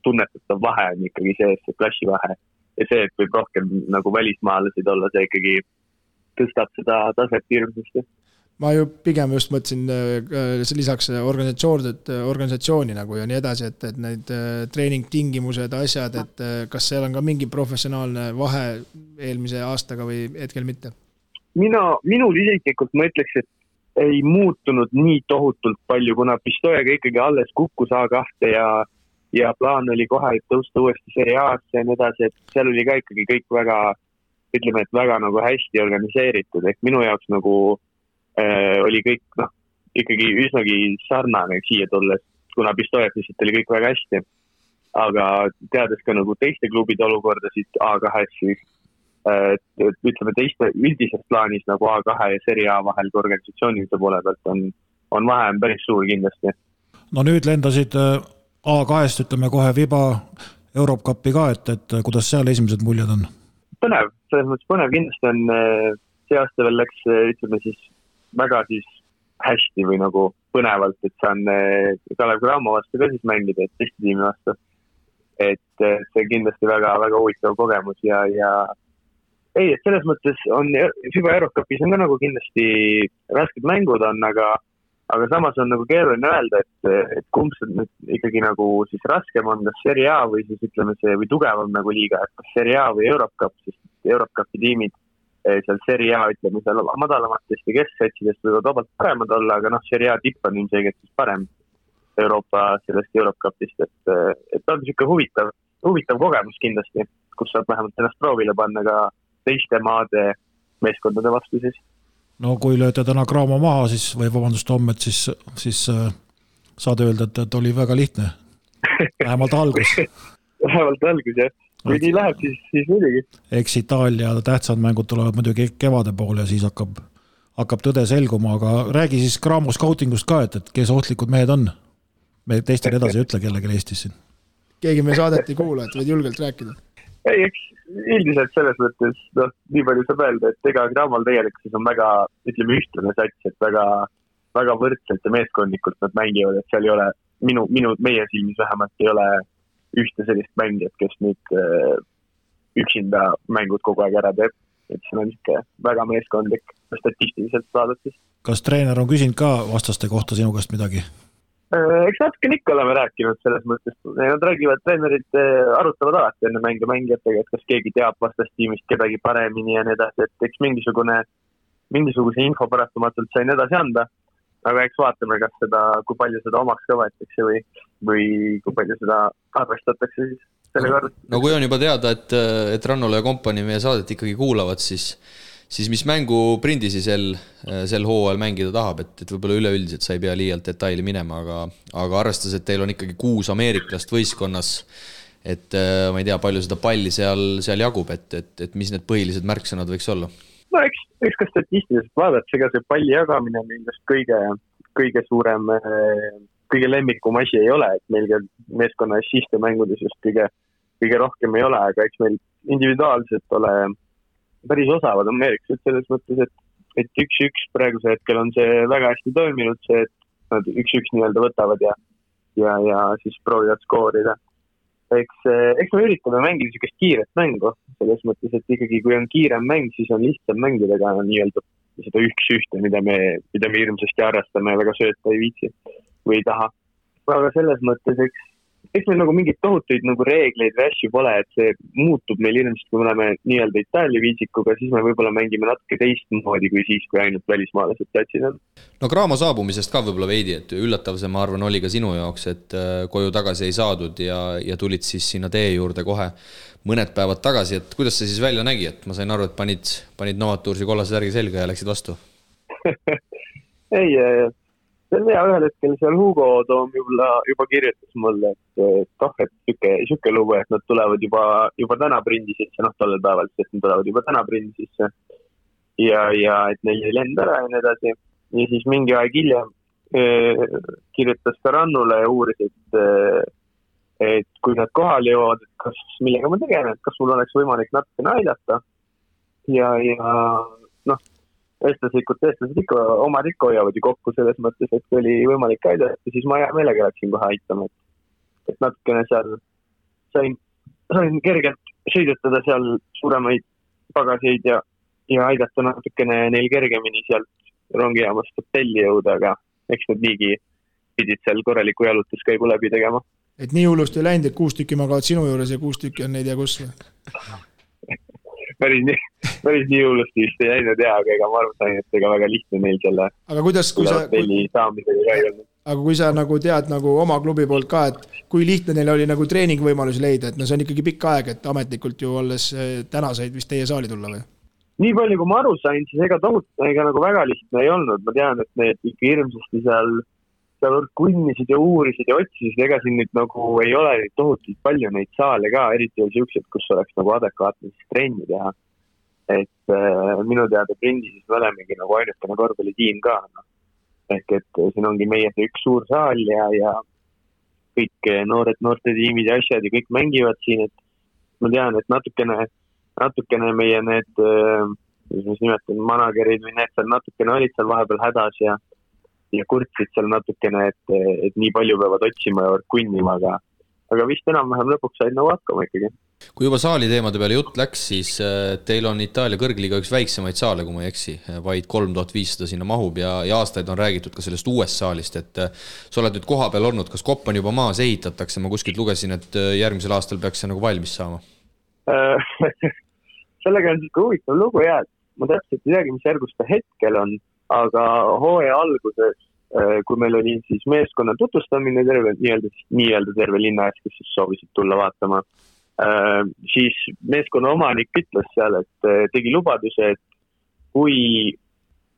tunnetatav vahe on ikkagi see klassivahe. Ja see, et võib rohkem nagu välismaalasid olla, see ikkagi tõstab seda taset hirmsasti. Ma ju pigem just mõtlesin lisaks organisatsiooni nagu ja nii edasi, et need treeningtingimused, asjad, et kas seal on ka mingi professionaalne vahe eelmise aastaga või hetkel mitte? Minul isiklikult ma ütleks, et ei muutunud nii tohutult palju, kuna Pistojaga ikkagi alles kukkus A2 ja plaan oli kohe tõusta uuesti Serie A-sse ja nii edasi, et seal oli ka ikkagi kõik väga, ütleme, et väga nagu hästi organiseeritud, ehk minu jaoks nagu oli kõik ikkagi üsnagi sarnane siia tulles, kuna Pistojas lihtsalt oli kõik väga hästi. Aga teades ka nagu teiste klubide olukorda siit A2-s, siis ütleme teiste üldises plaanis nagu A2 ja Serie A vahel kui organisatsioonide poole pealt on vahe päris suur kindlasti. No nüüd lendasid A2-st, ütleme kohe FIBA Eurocupi ka, et kuidas seal esimesed muljed on? Põnev, selles mõttes põnev kindlasti on see aasta veel läks, ütleme siis väga siis hästi või nagu põnevalt, et saan Kalev Cramo vastu ka siis mängida, et teiste tiimi vastu. Et see kindlasti väga, väga huvitav kogemus ja ei, et selles mõttes on FIBA Eurocupis on ka nagu kindlasti rasked mängud on, aga samas on nagu keeruline öelda, et kumb see nüüd ikkagi nagu siis raskem on, kas Serie A või siis ütleme see või tugevam nagu liiga, et kas Serie A või Eurocup, sest Eurocupi tiimid seal Serie A, ütleme, seal madalamatest ja kesksatsidest võivad vabalt paremad olla, aga Serie A tipp on ilmselgelt siis parem Euroopa sellest Eurocupist, et on siuke huvitav kogemus kindlasti, kus saab vähemalt ennast proovile panna ka teiste maade meeskondade vastu siis. No kui lööte täna Cramo maha, siis või vabandust homme, siis saad öelda, et oli väga lihtne. Vähemalt algus. Vähemalt algus, jah. Kui nii läheb, siis muidugi. Eks Itaalia tähtsad mängud tulevad muidugi kevade poole ja siis hakkab tõde selguma, aga räägi siis Cramo scoutingust ka, et kes ohtlikud mehed on. Me teistel edasi ei ütle kellegi Eestis siin. Keegi me saadet ei kuula, et võid julgelt rääkida. Ei, eks üldiselt selles mõttes, nii palju saab öelda, et ega Cramol tegelikult on väga, ütleme, ühtlane sats, et väga, väga võrdselt ja meeskondlikult nad mängivad, et seal ei ole, meie silmis vähemalt ei ole ühte sellist mängijat, kes nüüd üksinda mängud kogu aeg ära teeb. Et see on ikka väga meeskondlik statistiliselt vaadates. Kas treener on küsinud ka vastaste kohta sinu käest midagi? Eks natuke ikka oleme rääkinud selles mõttes. Nad räägivad, treenerid arutavad alati enne mängijatega, et kas keegi teab vastastiimist kedagi paremini ja nii edasi, et eks mingisuguse info parastumatult sain edasi anda, aga eks vaatame, kas seda, kui palju seda omaks ka võetakse või kui palju seda arvestatakse siis selle korda. No kui on juba teada, et Rannola ja kompanii meie saadet ikkagi kuulavad, siis mis mängu Prindisi sel hooajal mängida tahab, et võib-olla üleüldiselt sa ei pea liialt detaili minema, aga arvestades, et teil on ikkagi 6 ameeriklast võistkonnas, et ma ei tea, palju seda palli seal jagub, et mis need põhilised märksõnad võiks olla? No eks ka statistiliselt vaadates, ega see palli jagamine on ilmselt kõige suurem, kõige lemmikum asi ei ole, et meil meeskonna assiste mängudes just kõige rohkem ei ole, aga eks meil individuaalselt ole päris osavad ameeriklased selles mõttes, et 1-1 praeguse hetkel on see väga hästi toiminud, see, et nad 1-1 nii-öelda võtavad ja siis proovivad skoorida. Eks me üritame mängida sellist kiiret mängu, selles mõttes, et ikkagi kui on kiirem mäng, siis on lihtsam mängida ka nii-öelda seda 1-1, mida me hirmsasti arvestame ja väga sööta ei viitsi või ei taha. Aga selles mõttes, eks meil nagu mingid tohutuid nagu reegleid või asju pole, et see muutub meil ilmselt, kui me oleme nii-öelda Itaalia viisikuga, siis me võib-olla mängime natuke teistmoodi kui siis, kui ainult välismaalased platsid on. No Cramo saabumisest ka võib-olla veidi, et üllatav see, ma arvan, oli ka sinu jaoks, et koju tagasi ei saadud ja tulid siis sinna tee juurde kohe mõned päevad tagasi, et kuidas see siis välja nägi, et ma sain aru, et panid Novatursi kollase särgi selga ja läksid vastu? Ei, see on hea, ühel hetkel seal Hugo Toom juba kirjutas mulle, et siuke lugu, et nad tulevad juba täna Prindisisse, tollel päeval, et nad tulevad juba täna Prindisisse ja et neil ei lend ära ja nii edasi. Ja siis mingi aeg hiljem kirjutas ka Rannule ja uuris, et kui nad kohale jõuavad, et kas millega ma tegelen, et kas mul oleks võimalik natukene aidata ja eestlased ikka oma rikko hoiavad ju kokku selles mõttes, et kui oli võimalik aidata, siis ma hea meelega läksin kohe aitama, et natukene seal sain kergelt sõidutada seal suuremaid pagaseid ja aidata natukene neil kergemini sealt rongijaamast hotelli jõuda, aga eks nad niigi pidid seal korraliku jalutuskäigu läbi tegema. Et nii hullust ei läinud, et 6 tükki magavad sinu juures ja 6 tükki on neid ja kus? Päris nii hullust vist ei läinud aga ega ma arvan, et ega väga lihtne neil selle hotelli saamisega ka ei olnud. Aga kui sa nagu tead nagu oma klubi poolt ka, et kui lihtne neil oli nagu treeningvõimalusi leida, et see on ikkagi pikk aeg, et ametlikult ju olles täna said vist teie saali tulla või? Nii palju, kui ma aru sain, siis ega nagu väga lihtne ei olnud. Ma tean, et need ikka hirmsasti seal kunnisid ja uurisid ja otsisid, ega siin nüüd nagu ei ole tohutult palju neid saale ka, eriti oli siuksed, kus oleks nagu adekvaatne trenni teha. Et minu teada Prindisis me olemegi nagu ainukene korvpallitiim ka. Ehk et siin ongi meie see üks suur saal ja kõik noorte tiimid ja asjad ja kõik mängivad siin, et ma tean, et natukene meie need, mis nimetan, managerid või need seal natukene olid seal vahepeal hädas ja kurtsid seal natukene, et nii palju peavad otsima ja kunnima, aga vist enam-vähem lõpuks said nagu hakkama ikkagi. Kui juba saali teemade peale jutt läks, siis teil on Itaalia kõrgliiga üks väiksemaid saale, kui ma ei eksi, vaid 3500 sinna mahub ja aastaid on räägitud ka sellest uuest saalist, et sa oled nüüd koha peal olnud, kas kopp on juba maas ehitatakse, ma kuskilt lugesin, et järgmisel aastal peaks see nagu valmis saama? Sellega on siuke huvitav lugu ja ma täpselt ei teagi, mis järgus ta hetkel on, aga hooaja alguses, kui meil oli siis meeskonna tutvustamine nii-öelda terve linna ees, kes siis soovisid tulla vaatama, siis meeskonna omanik ütles seal, et tegi lubaduse, et kui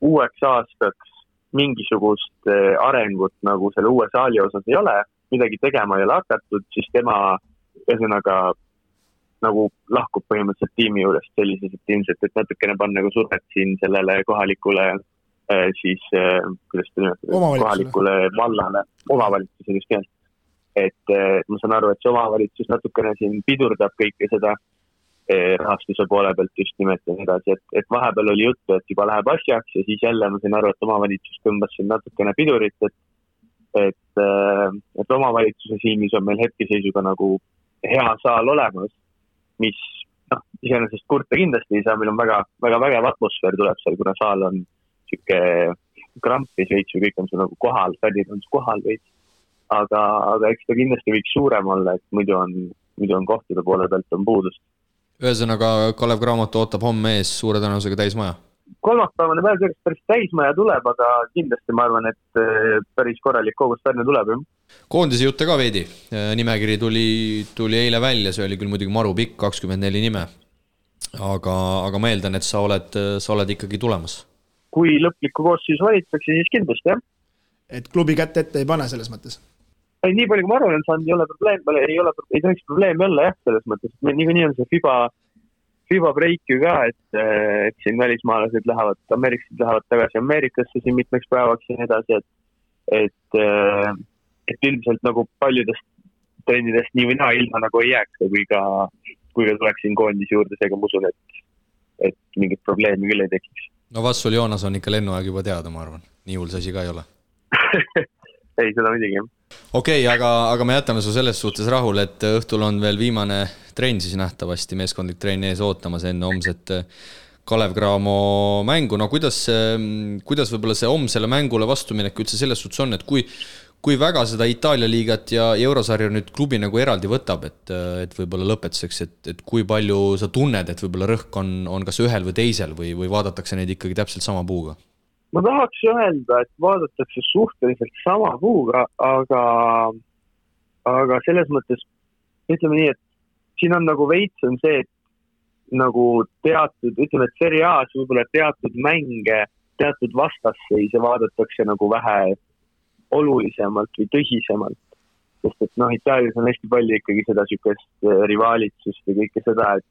uueks aastaks mingisugust arengut nagu selle uue saali osas ei ole, midagi tegema ei ole hakatud, siis tema ühesõnaga nagu lahkub põhimõtteliselt tiimi juurest sellises, et ilmselt, et natukene panna nagu survet siin sellele kohalikule siis, kuidas te nimetada, kohalikule vallale, omavalitsusele just keelt. Et ma saan aru, et see omavalitsus natukene siin pidurdab kõike seda rahastuse poole pealt just nimelt ja edasi, et vahepeal oli juttu, et juba läheb asjaks ja siis jälle ma saan aru, et omavalitsus tõmbas siin natukene pidurit, et omavalitsuse silmis on meil hetkeseisuga nagu hea saal olemas, mis iseenesest kurta kindlasti ei saa, meil on väga vägev atmosfäär tuleb seal, kuna saal on siuke krampis veits või kõik on seal nagu kohal, fännid on kohal veits. Aga eks ta kindlasti võiks suurem olla, et muidu on kohtade poole pealt on puudust. Ühesõnaga, Kalev Cramo ootab homme ees suure tõenäosusega täismaja. Kolmapäevane päev sellest päris täismaja tuleb, aga kindlasti ma arvan, et päris korralik kogus Pärnu tuleb. Koondise jutte ka veidi. Nimekiri tuli eile välja, see oli küll muidugi maru pikk, 24 nime. Aga ma eeldan, et sa oled ikkagi tulemas. Kui lõplikku koosseisu valittakse, siis kindlasti, jah. Et klubi kätte ette ei pane selles mõttes? Ei, nii palju, kui ma arvan, saanud, ei tohiks probleemi olla, jah, selles mõttes. Nii on see FIBA break ju ka, et siin välismaalased Ameeriksid lähevad tagasi Ameerikasse siin mitmeks päevaks ja nii edasi, et üldiselt nagu paljudest trennidest nii või naa ilma nagu ei jääks, kui ka tuleks siin koondis juurde, seega ma usun, et mingit probleemi küll ei tekiks. No vastul Joonas on ikka lennuaeg juba teada, ma arvan. Nii hull see asi ka ei ole. Ei, seda midagi. Okei, aga me jätame su selles suhtes rahul, et õhtul on veel viimane trenn siis nähtavasti, meeskondlik trenn ees ootamas enne homset Kalev Cramo mängu. No kuidas võib-olla see homsele mängule vastuminek üldse selles suhtes on, et kui väga seda Itaalia liigat ja Eurosarja nüüd klubi nagu eraldi võtab, et võib-olla lõpetuseks, et kui palju sa tunned, et võib-olla rõhk on kas ühel või teisel või vaadatakse neid ikkagi täpselt sama puuga? Ma tahaks öelda, et vaadatakse suhteliselt sama puuga, aga selles mõttes, ütleme nii, et siin on nagu veits on see, et nagu teatud, ütleme, et Serie A's võib-olla teatud mänge, teatud vastasseise vaadatakse nagu vähe olulisemalt või tõsisemalt. Sest et Itaalias on hästi palju ikkagi seda sükest rivaalitsust ja kõike seda, et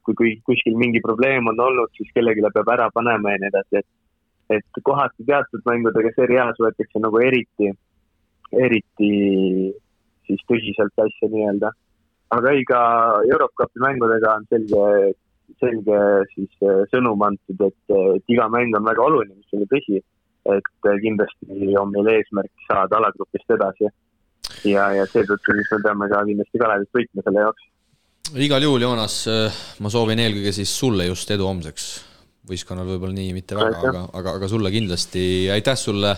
kui kuskil mingi probleem on olnud, siis kellegi peab ära panema ja nii edasi, et kohati teatud mängudega Serie A's võetakse nagu eriti siis tõsiselt asja nii-öelda. Aga ei ka Eurocupi mängudega on selge siis sõnum antud, et iga mäng on väga oluline, mis oli tõsi, et kindlasti on meil eesmärk saada alagrupist edasi ja seetõttu siis me peame ka kindlasti Kalevit võitma selle jaoks. Igal juhul, Joonas, ma soovin eelkõige siis sulle just edu homseks. Võistkonnal võib-olla nii mitte väga, aga sulle kindlasti. Aitäh sulle,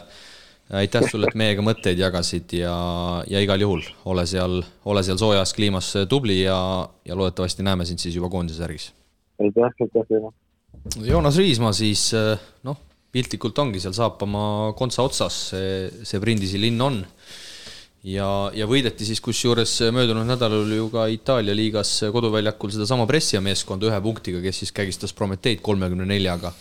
et meiega mõtteid jagasid ja igal juhul ole seal soojas kliimas tubli ja loodetavasti näeme sind siis juba koondise särgis. Aitäh. Joonas Riismaa siis, piltlikult ongi, seal saapama kontsa otsas, see Brindisi linn on. Ja võideti siis kusjuures möödunud nädalal ju ka Itaalia liigas koduväljakul seda sama Brescia meeskonda 1 punktiga, kes siis kägistas Prometeid 34-ga.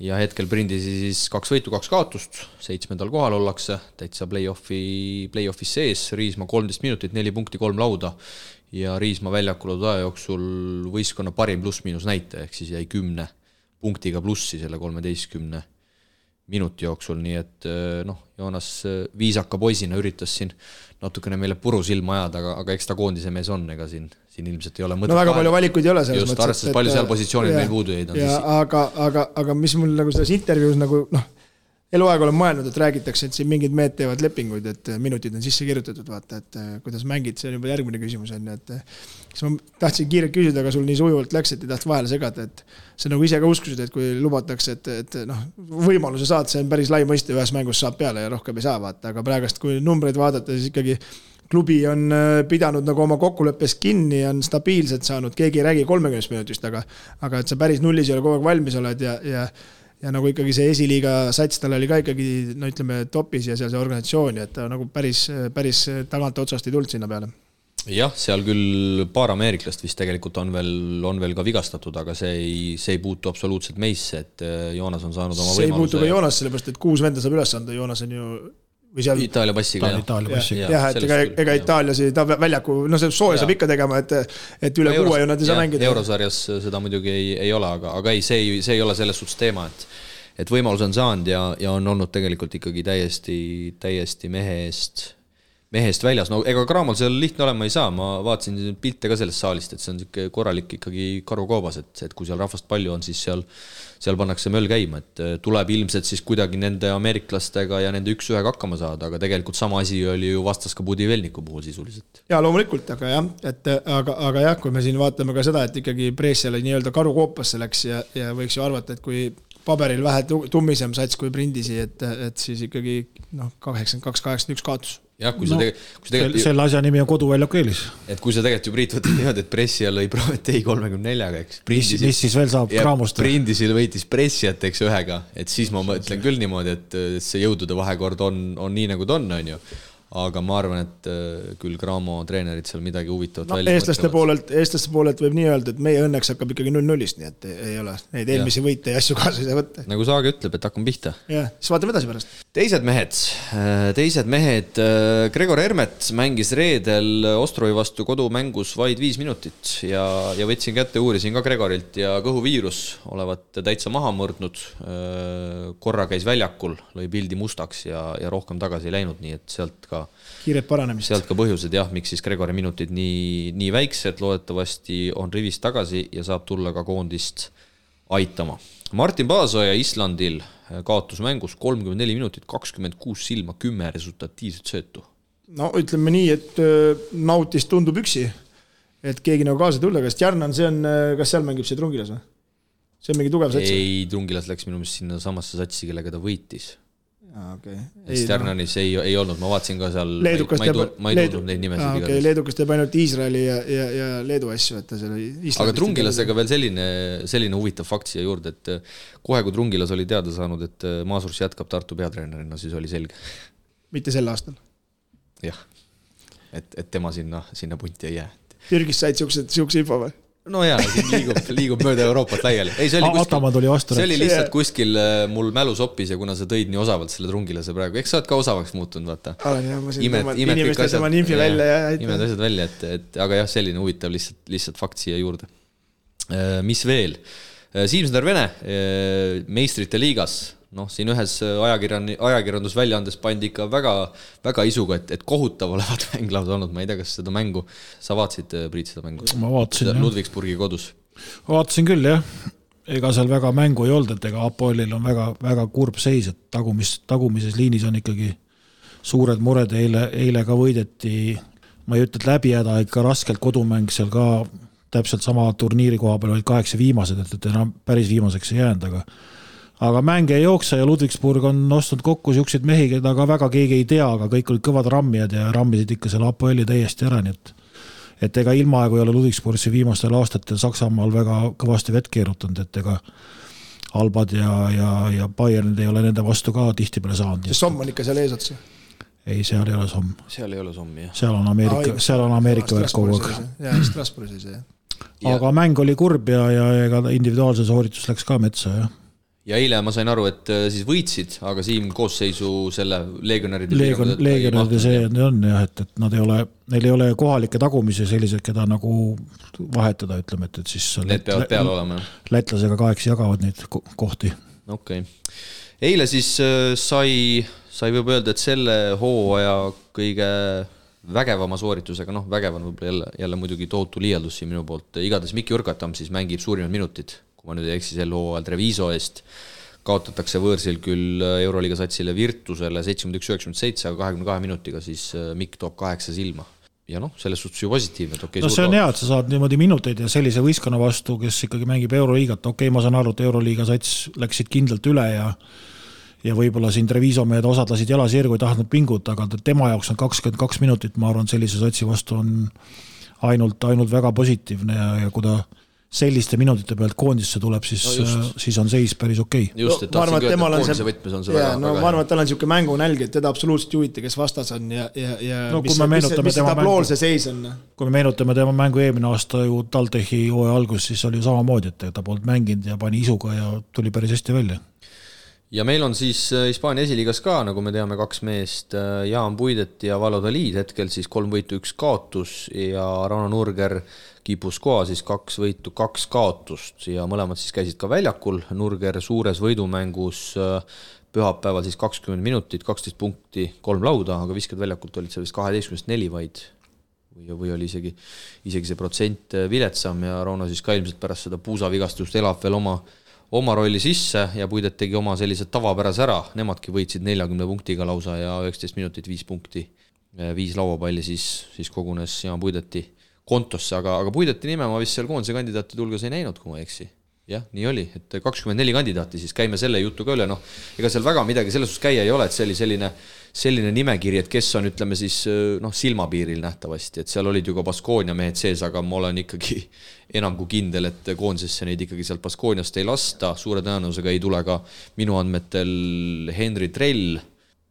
Ja hetkel Brindisi siis 2 võitu, 2 kaotust, 7. kohal ollakse, täitsa play-offis sees, Riismaa 13 minutit, 4 punkti, 3 lauda ja Riismaa väljakul aja jooksul võistkonna parim pluss-miinus näite, ehk siis jäi 10 punktiga plussi selle 13 minuti jooksul, nii et Joonas viisaka poisina üritas siin natukene meile puru silma ajada, aga eks ta koondise mees on, ega siin ilmselt ei ole mõtet. No väga palju valikuid ei ole selles mõttes. Just, arvestades palju seal positsioonid meil puudu jäid. Aga mis mul nagu selles intervjuus nagu eluaeg olen mõelnud, et räägitakse, et siin mingid mehed teevad lepinguid, et minutid on sisse kirjutatud, vaata, et kuidas mängid, see on juba järgmine küsimus on, et kas ma tahtsin kiirelt küsida, aga sul nii sujuvalt läks, et ei taht vahele segada, et see nagu ise ka uskusid, et kui lubatakse, et võimaluse saad, see on päris lai mõiste, ühes mängus saab peale ja rohkem ei saa, vaata, aga praegust, kui numbreid vaadata, siis ikkagi klubi on pidanud nagu oma kokkuleppes kinni, on stabiilselt saanud, keegi ei räägi 30 minutist, aga et sa päris nullis ei ole kogu aeg valmis oled ja nagu ikkagi see esiliiga sats tal oli ka ikkagi, ütleme, topis ja seal see organisatsioon, et ta nagu päris tagant otsast ei tulnud sinna peale. Jah, seal küll paar ameeriklast vist tegelikult on veel ka vigastatud, aga see ei puutu absoluutselt meisse, et Joonas on saanud oma võimaluse. See ei puutu ka Joonas, sellepärast, et 6 venda saab üles anda, Joonas on ju Itaalia passiga, jah, et ega Itaaliasi ta väljaku, see sooja saab ikka tegema, et üle 6 ju nad ei saa mängida. Eurosarjas seda muidugi ei ole, aga ei, see ei ole selles suhtes teema, et võimalus on saanud ja on olnud tegelikult ikkagi täiesti mehe mehest väljas, no ega Cramol seal lihtne olema ei saa, ma vaatasin pilte ka sellest saalist, et see on siuke korralik ikkagi karukoobas, et kui seal rahvast palju on, siis seal pannakse möll käima, et tuleb ilmselt siis kuidagi nende ameeriklastega ja nende 1-1 hakkama saada, aga tegelikult sama asi oli ju vastas ka Budivelniku puhul sisuliselt. Ja loomulikult, aga jah, aga jah, kui me siin vaatame ka seda, et ikkagi Bresciale nii-öelda karukoopasse läks ja võiks ju arvata, et kui paberil vähe tummisem sats kui Brindisi, et siis ikkagi 82-81 kaotus. Jah, kui selle asja nimi on koduväljaku eelis. Et kui sa tegelikult ju Priit võtad niimoodi, et Brescia lõi Prometei 34-ga, eks. Mis siis veel saab Cramost? Brindisil võitis Bresciat, eks, 1-ga, et siis ma mõtlen küll niimoodi, et see jõudude vahekord on nii nagu ta on ju. Aga ma arvan, et küll Cramo treenerid seal midagi huvitavat välja eestlaste poolelt võib nii öelda, et meie õnneks hakkab ikkagi 0-0-st, nii et ei ole neid eelmisi võite ja asju kaasa ei saa võtta. Nagu Saage ütleb, et hakkame pihta. Jah, siis vaatame edasi pärast. Teised mehed, Gregor Hermet mängis reedel Ostrovi vastu kodumängus vaid 5 minutit ja võtsin kätte, uurisin ka Gregorilt ja kõhuviirus olevat täitsa maha mõrdnud. Korra käis väljakul, lõi pildi mustaks ja rohkem tagasi ei läinud, nii et sealt ka kiired paranemist. Sealt ka põhjused, jah, miks siis Gregori minutid nii väiksed, loodetavasti on rivis tagasi ja saab tulla ka koondist aitama. Martin Paasoja Islandil kaotus mängus 34 minutit, 26 silma, 10 resultatiivset söötu. No ütleme nii, et nautis tundub üksi, et keegi nagu kaasa tulla, kas Tjarnan, kas seal mängib see Trungilas või? See on mingi tugev sats? Ei, Trungilas läks minu meelest sinna samasse satsi, kellega ta võitis. Okay. Stjarnanis ei olnud, ma vaatasin ka seal, ma ei tundnud neid nimesid. Okay, Leedukas teeb ainult Iisraeli ja Leedu asju, et ta selle aga Trungilasega veel selline huvitav fakt siia juurde, et kohe kui Trungilas oli teada saanud, et Maasurs jätkab Tartu peatreenerina, siis oli selge. Mitte sel aastal? Jah, et tema sinna punti ei jää. Türgis said siukse info või? No jaa, liigub mööda Euroopat laiali. Ei, see oli lihtsalt kuskil mul mälu soppis ja kuna sa tõid nii osavalt selle Trungilase praegu, eks sa oled ka osavaks muutunud, vaata. Olen jah, ma siin inimestel tema ninfi välja ja imed asjad välja, aga jah, selline huvitav lihtsalt fakt siia juurde. Mis veel? Siimsner Vene, meistrite liigas, siin ühes ajakirjandusväljaandes pandi ikka väga isuga, et kohutav olevat mänglaud olnud, ma ei tea, kas seda mängu sa vaatasid, Priit, seda mängu? Ma vaatasin, jah. Ludwigsburgi kodus. Vaatasin küll, jah. Ega seal väga mängu ei olnud, et ega Apoelil on väga kurb seis, et tagumises liinis on ikkagi suured mured, eile ka võideti, ma ei ütle, et läbi häda, ikka raskelt kodumäng seal ka täpselt sama turniiri koha peal olid 8 viimased, et enam päris viimaseks ei jäänud, aga mänge ei jooksa ja Ludwigsburg on ostnud kokku siukseid mehi, keda ka väga keegi ei tea, aga kõik olid kõvad rammijad ja rammisid ikka selle Apoeli täiesti ära, nii et ega ilmaaegu ei ole Ludwigsburgsi viimastel aastatel Saksamaal väga kõvasti vett keerutanud, et ega Albad ja Bayernid ei ole nende vastu ka tihti peale saanud. See Somm on ikka seal eesotsi? Ei, seal ei ole Somm. Seal ei ole Somm, jah. Seal on Ameerika värk kogu aeg. Jah, Strasbourgis ei see. Aga mäng oli kurb ja ega individuaalse sooritus läks ka metsa, jah. Ja eile ma sain aru, et siis võitsid, aga Siim koosseisu selle legionäride see on jah, et neil ei ole kohalikke tagumisi sellised, keda nagu vahetada, ütleme, et siis need peavad peal olema. Lätlasega 8 jagavad neid kohti. Okay. Eile siis sai võib öelda, et selle hooaja kõige vägevama sooritusega, vägevan võib-olla jälle muidugi tohutu liialdus siin minu poolt, igades Mikki Urgatam siis mängib suurimad minutid, kui ma nüüd ei eksi sel hooajal Treviso eest, kaotatakse võõrsil küll Euroliiga satsile Virtusele 71-97, aga 22 minutiga siis Mikk toob 8 silma. Ja selles suhtes ju positiivne. See on hea, et sa saad niimoodi minuteid ja sellise võistkonna vastu, kes ikkagi mängib Euroliigat. Ma saan aru, et Euroliiga sats läksid kindlalt üle ja võib-olla siin Treviso mehed osad lasid jalasirgu, ei tahtnud pinguta, aga tema jaoks on 22 minutit, ma arvan, sellise satsi vastu on ainult väga positiivne ja kui ta selliste minutite pealt koondisse tuleb, siis on seis päris okei. Just, et tahtsin küll, et koondise võtmes on see väga. Ma arvan, et tal on niisugune mängunälg, et teda absoluutselt juhiti, kes vastas on ja mis see tabloolse seis on. Kui me meenutame tema mängu eelmine aasta ju Taltechi hooaja algus, siis oli samamoodi, et ta polnud mänginud ja pani isuga ja tuli päris hästi välja. ja meil on siis Hispaania esiliigas ka, nagu me teame, 2 meest, Jaan Puidet ja Valladolid, hetkel siis 3 võitu, 1 kaotus ja Rauno Nurger Guipuscoa siis 2 võitu, 2 kaotust ja mõlemad siis käisid ka väljakul. Nurger suures võidumängus pühapäeval siis 20 minutit, 12 punkti, 3 lauda, aga viskad väljakult olid seal vist 12-4 vaid või oli isegi see protsent viletsam ja Rauno siis ka ilmselt pärast seda puusavigastust elab veel oma rolli sisse ja Puidet tegi oma sellised tavapärase ära, nemadki võitsid 40 punktiga lausa ja 19 minutit 5 punkti, 5 lauapalli siis kogunes Jaan Puideti kontosse, aga Puideti nime ma vist seal koondise kandidaatide hulgas ei näinud, kui ma ei eksi. Jah, nii oli, et 24 kandidaati, siis käime selle jutu ka üle, ega seal väga midagi selles käia ei ole, et see oli selline nimekiri, et kes on, ütleme siis, silmapiiril nähtavasti, et seal olid ju ka Baskonia mehed sees, aga ma olen ikkagi enam kui kindel, et koondisesse neid ikkagi sealt Baskoniast ei lasta, suure tõenäosusega ei tule ka minu andmetel Henri Trell,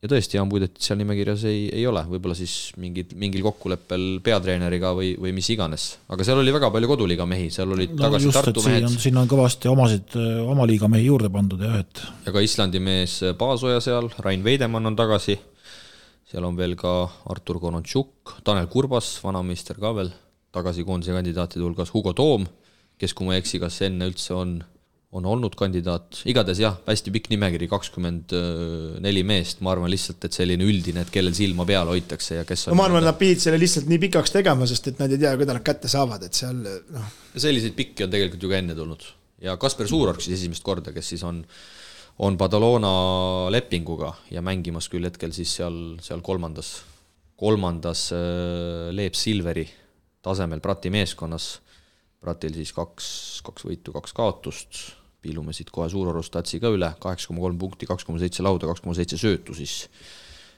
ja tõesti, Jaan Puidet seal nimekirjas ei ole, võib-olla siis mingil kokkuleppel peatreeneriga või mis iganes. Aga seal oli väga palju koduliiga mehi, seal olid tagasi just, Tartu mehed. Siin on kõvasti oma liiga mehi juurde pandud. Ja ka Islandi mees Paasoja seal, Rain Veidemann on tagasi, seal on veel ka Artur Konontšuk, Tanel Kurbas, vanameister ka veel, tagasi koondise kandidaatide hulgas Hugo Toom, kes kui ma ei eksi, kas enne üldse on olnud kandidaat, igades jah, hästi pikk nimekiri, 24 meest, ma arvan lihtsalt, et selline üldine, et kellel silma peal hoitakse ja kes on... ma arvan, et nad pidid selle lihtsalt nii pikaks tegema, sest et nad ei tea, kuidas nad kätte saavad, et seal... Selliseid pikki on tegelikult ju ka enne tulnud. Ja Kasper Suurorg siis esimest korda, kes siis on Badalona lepinguga ja mängimas küll hetkel siis seal kolmandas Leep Silveri tasemel Prati meeskonnas. Pratil siis 2 võitu, 2 kaotust. Piilume siit kohe Suurorus tatsi ka üle, 8,3 punkti, 2,7 lauda, 2,7 söötu siis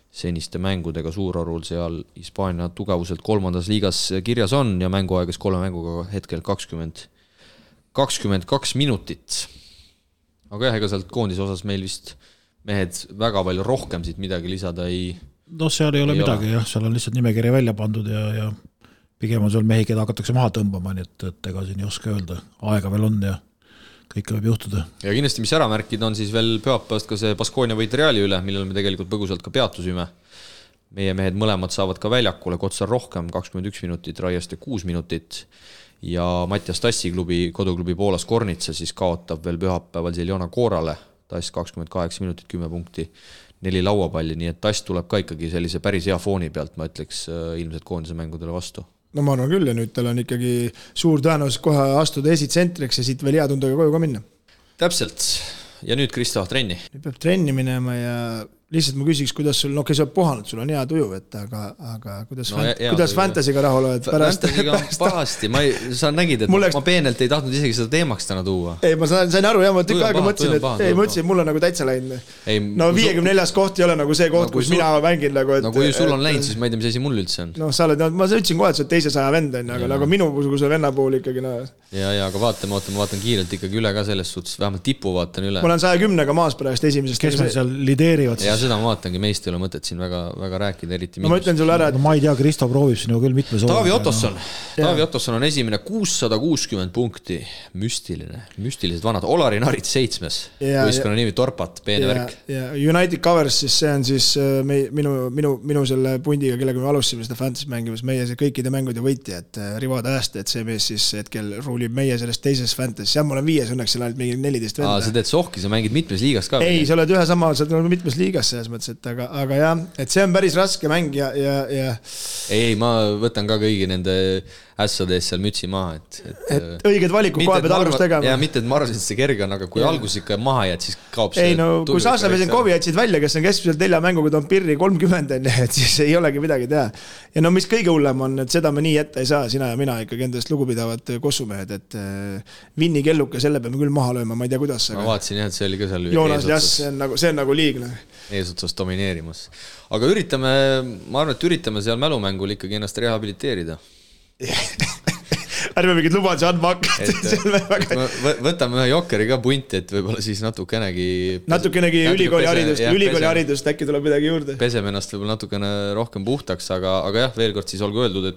seniste mängudega Suurorul seal Hispaania tugevuselt 3. liigas kirjas on ja mänguaegas 3 mänguga hetkel 22 minutit. Aga jah, ega sealt koondise osas meil vist mehed väga palju rohkem siit midagi lisada ei... seal ei ole midagi, jah, seal on lihtsalt nimekiri välja pandud ja pigem on seal mehi, keda hakatakse maha tõmbama, nii et ega siin ei oska öelda, aega veel on ja kõik võib juhtuda. Ja kindlasti, mis ära märkida, on siis veel pühapäevast ka see Baskonia võit Reali üle, millel me tegelikult põgusalt ka peatusime. Meie mehed mõlemad saavad ka väljakule, Kotsar rohkem, 21 minutit, Raieste 6 minutit ja Mattias Tassi koduklubi Poolas Kornitsa siis kaotab veel pühapäeval Ziljona Koorale, Tass 28 minutit, 10 punkti, 4 lauapalli, nii et Tass tuleb ka ikkagi sellise päris hea fooni pealt, ma ütleks ilmselt koondise mängudele vastu. No ma arvan küll ja nüüd tal on ikkagi suur tõenäosus kohe astuda esitsentriks ja siit veel hea tundega koju ka minna. Täpselt. Ja nüüd Kristo trenni. Nüüd peab trenni minema ja lihtsalt ma küsiks, kuidas sul, sa oled puhanud, sul on hea tuju, aga kuidas fantasyga rahul oled pärast? Pahasti, sa nägid, et ma peenelt ei tahtnud isegi seda teemaks täna tuua. Ei, ma sain aru, ma tükk aega mõtlesin, et mul on nagu täitsa läinud. No 54 koht ei ole nagu see koht, kus mina mängin nagu, et... No kui sul on läinud, siis ma ei tea, mis asi mul üldse on. No sa oled, ma ütlesin kohe, et sa oled 200 vend, aga nagu minu kui venna puhul ikkagi... Ja, aga ma vaatan kiirelt ikkagi üle ka selles suhtes, vähemalt tipu vaatan üle. Ma olen 110-ga maas pärast esimesest. Kes meil seal lideerivad siis? Ja seda ma vaatangi, meist ei ole mõtet siin väga rääkida, eriti ma ütlen sulle ära, et... ma ei tea, Kristo proovib sinu küll mitmes Taavi Ottosson on esimene 660 punkti, müstilised vanad, Olari Narits 7. Võistkonna nimi Torpat, peene värk. Ja United Covers, siis see on siis minu selle pundiga, kellega me alustasime seda fantasy mängimas, meie see kõikide mängude võitja, et Rivad Ääste, et see mees siis hetkel ruulib meie sellest teises fantasy, ja ma olen 5, õnneks seal ainult mingi 14 venda. Sa teed sohki, sa mängid mitmes liigas ka? Ei, sa oled ühe sama, sa oled mitmes liigas selles mõttes, aga jah, et see on päris raske mäng ja... Ei, ma võtan ka kõigi nende ässades seal mütsi maha, et õiged valikud kohe pead algust tegema. Ja mitte, et ma arvasin, et see kerge on, aga kui algus ikka maha jääd, siis kaob see... Ei, no kui Saaslavesen Kovi jätsid välja, kes on keskmiselt 4 mänguga toon pirri 30, et siis ei olegi midagi teha. Ja no mis kõige hullem on, et seda me nii ette ei saa, sina ja mina ikkagi endast lugupidavad kossumehed, et Vinni kelluke, selle peame küll maha lööma, ma ei tea kuidas. Ma vaatasin jah, et see oli ka seal Joonas Jass, see on nagu liigne. Eesotsas domineerimas. Aga ma arvan, et üritame seal mälumängul ikkagi ennast rehabiliteerida. Ärme mingid lubaduse andma hakka. Võtame ühe Jokeri ka punti, et võib-olla siis natukenegi ülikooli haridust äkki tuleb midagi juurde. Peseme ennast võib-olla natukene rohkem puhtaks, aga jah, veel kord siis olgu öeldud,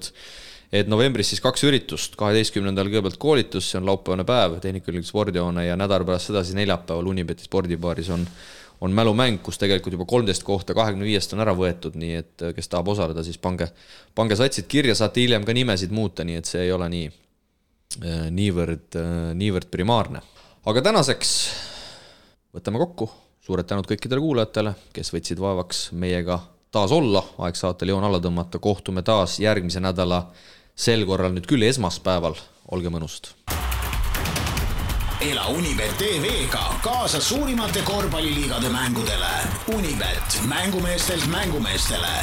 et novembris siis 2 üritust, 12. kõigepealt koolitus, see on laupäevane päev, Tehnikaülikooli spordihoone ja nädal pärast sedasi neljapäeval Unibeti spordibaaris on on mälumäng, kus tegelikult juba 13 kohta 25 on ära võetud, nii et kes tahab osaleda, siis pange satsid kirja, saate hiljem ka nimesid muuta, nii et see ei ole niivõrd primaarne. Aga tänaseks võtame kokku, suured tänud kõikidele kuulajatele, kes võtsid vaevaks meiega taas olla, aeg saatel joon alla tõmmata, kohtume taas järgmise nädala sel korral nüüd küll esmaspäeval, olge mõnust. Ela Unibet TV-ga kaasa suurimate korvpalliliigade mängudele. Unibet, mängumeestelt mängumeestele.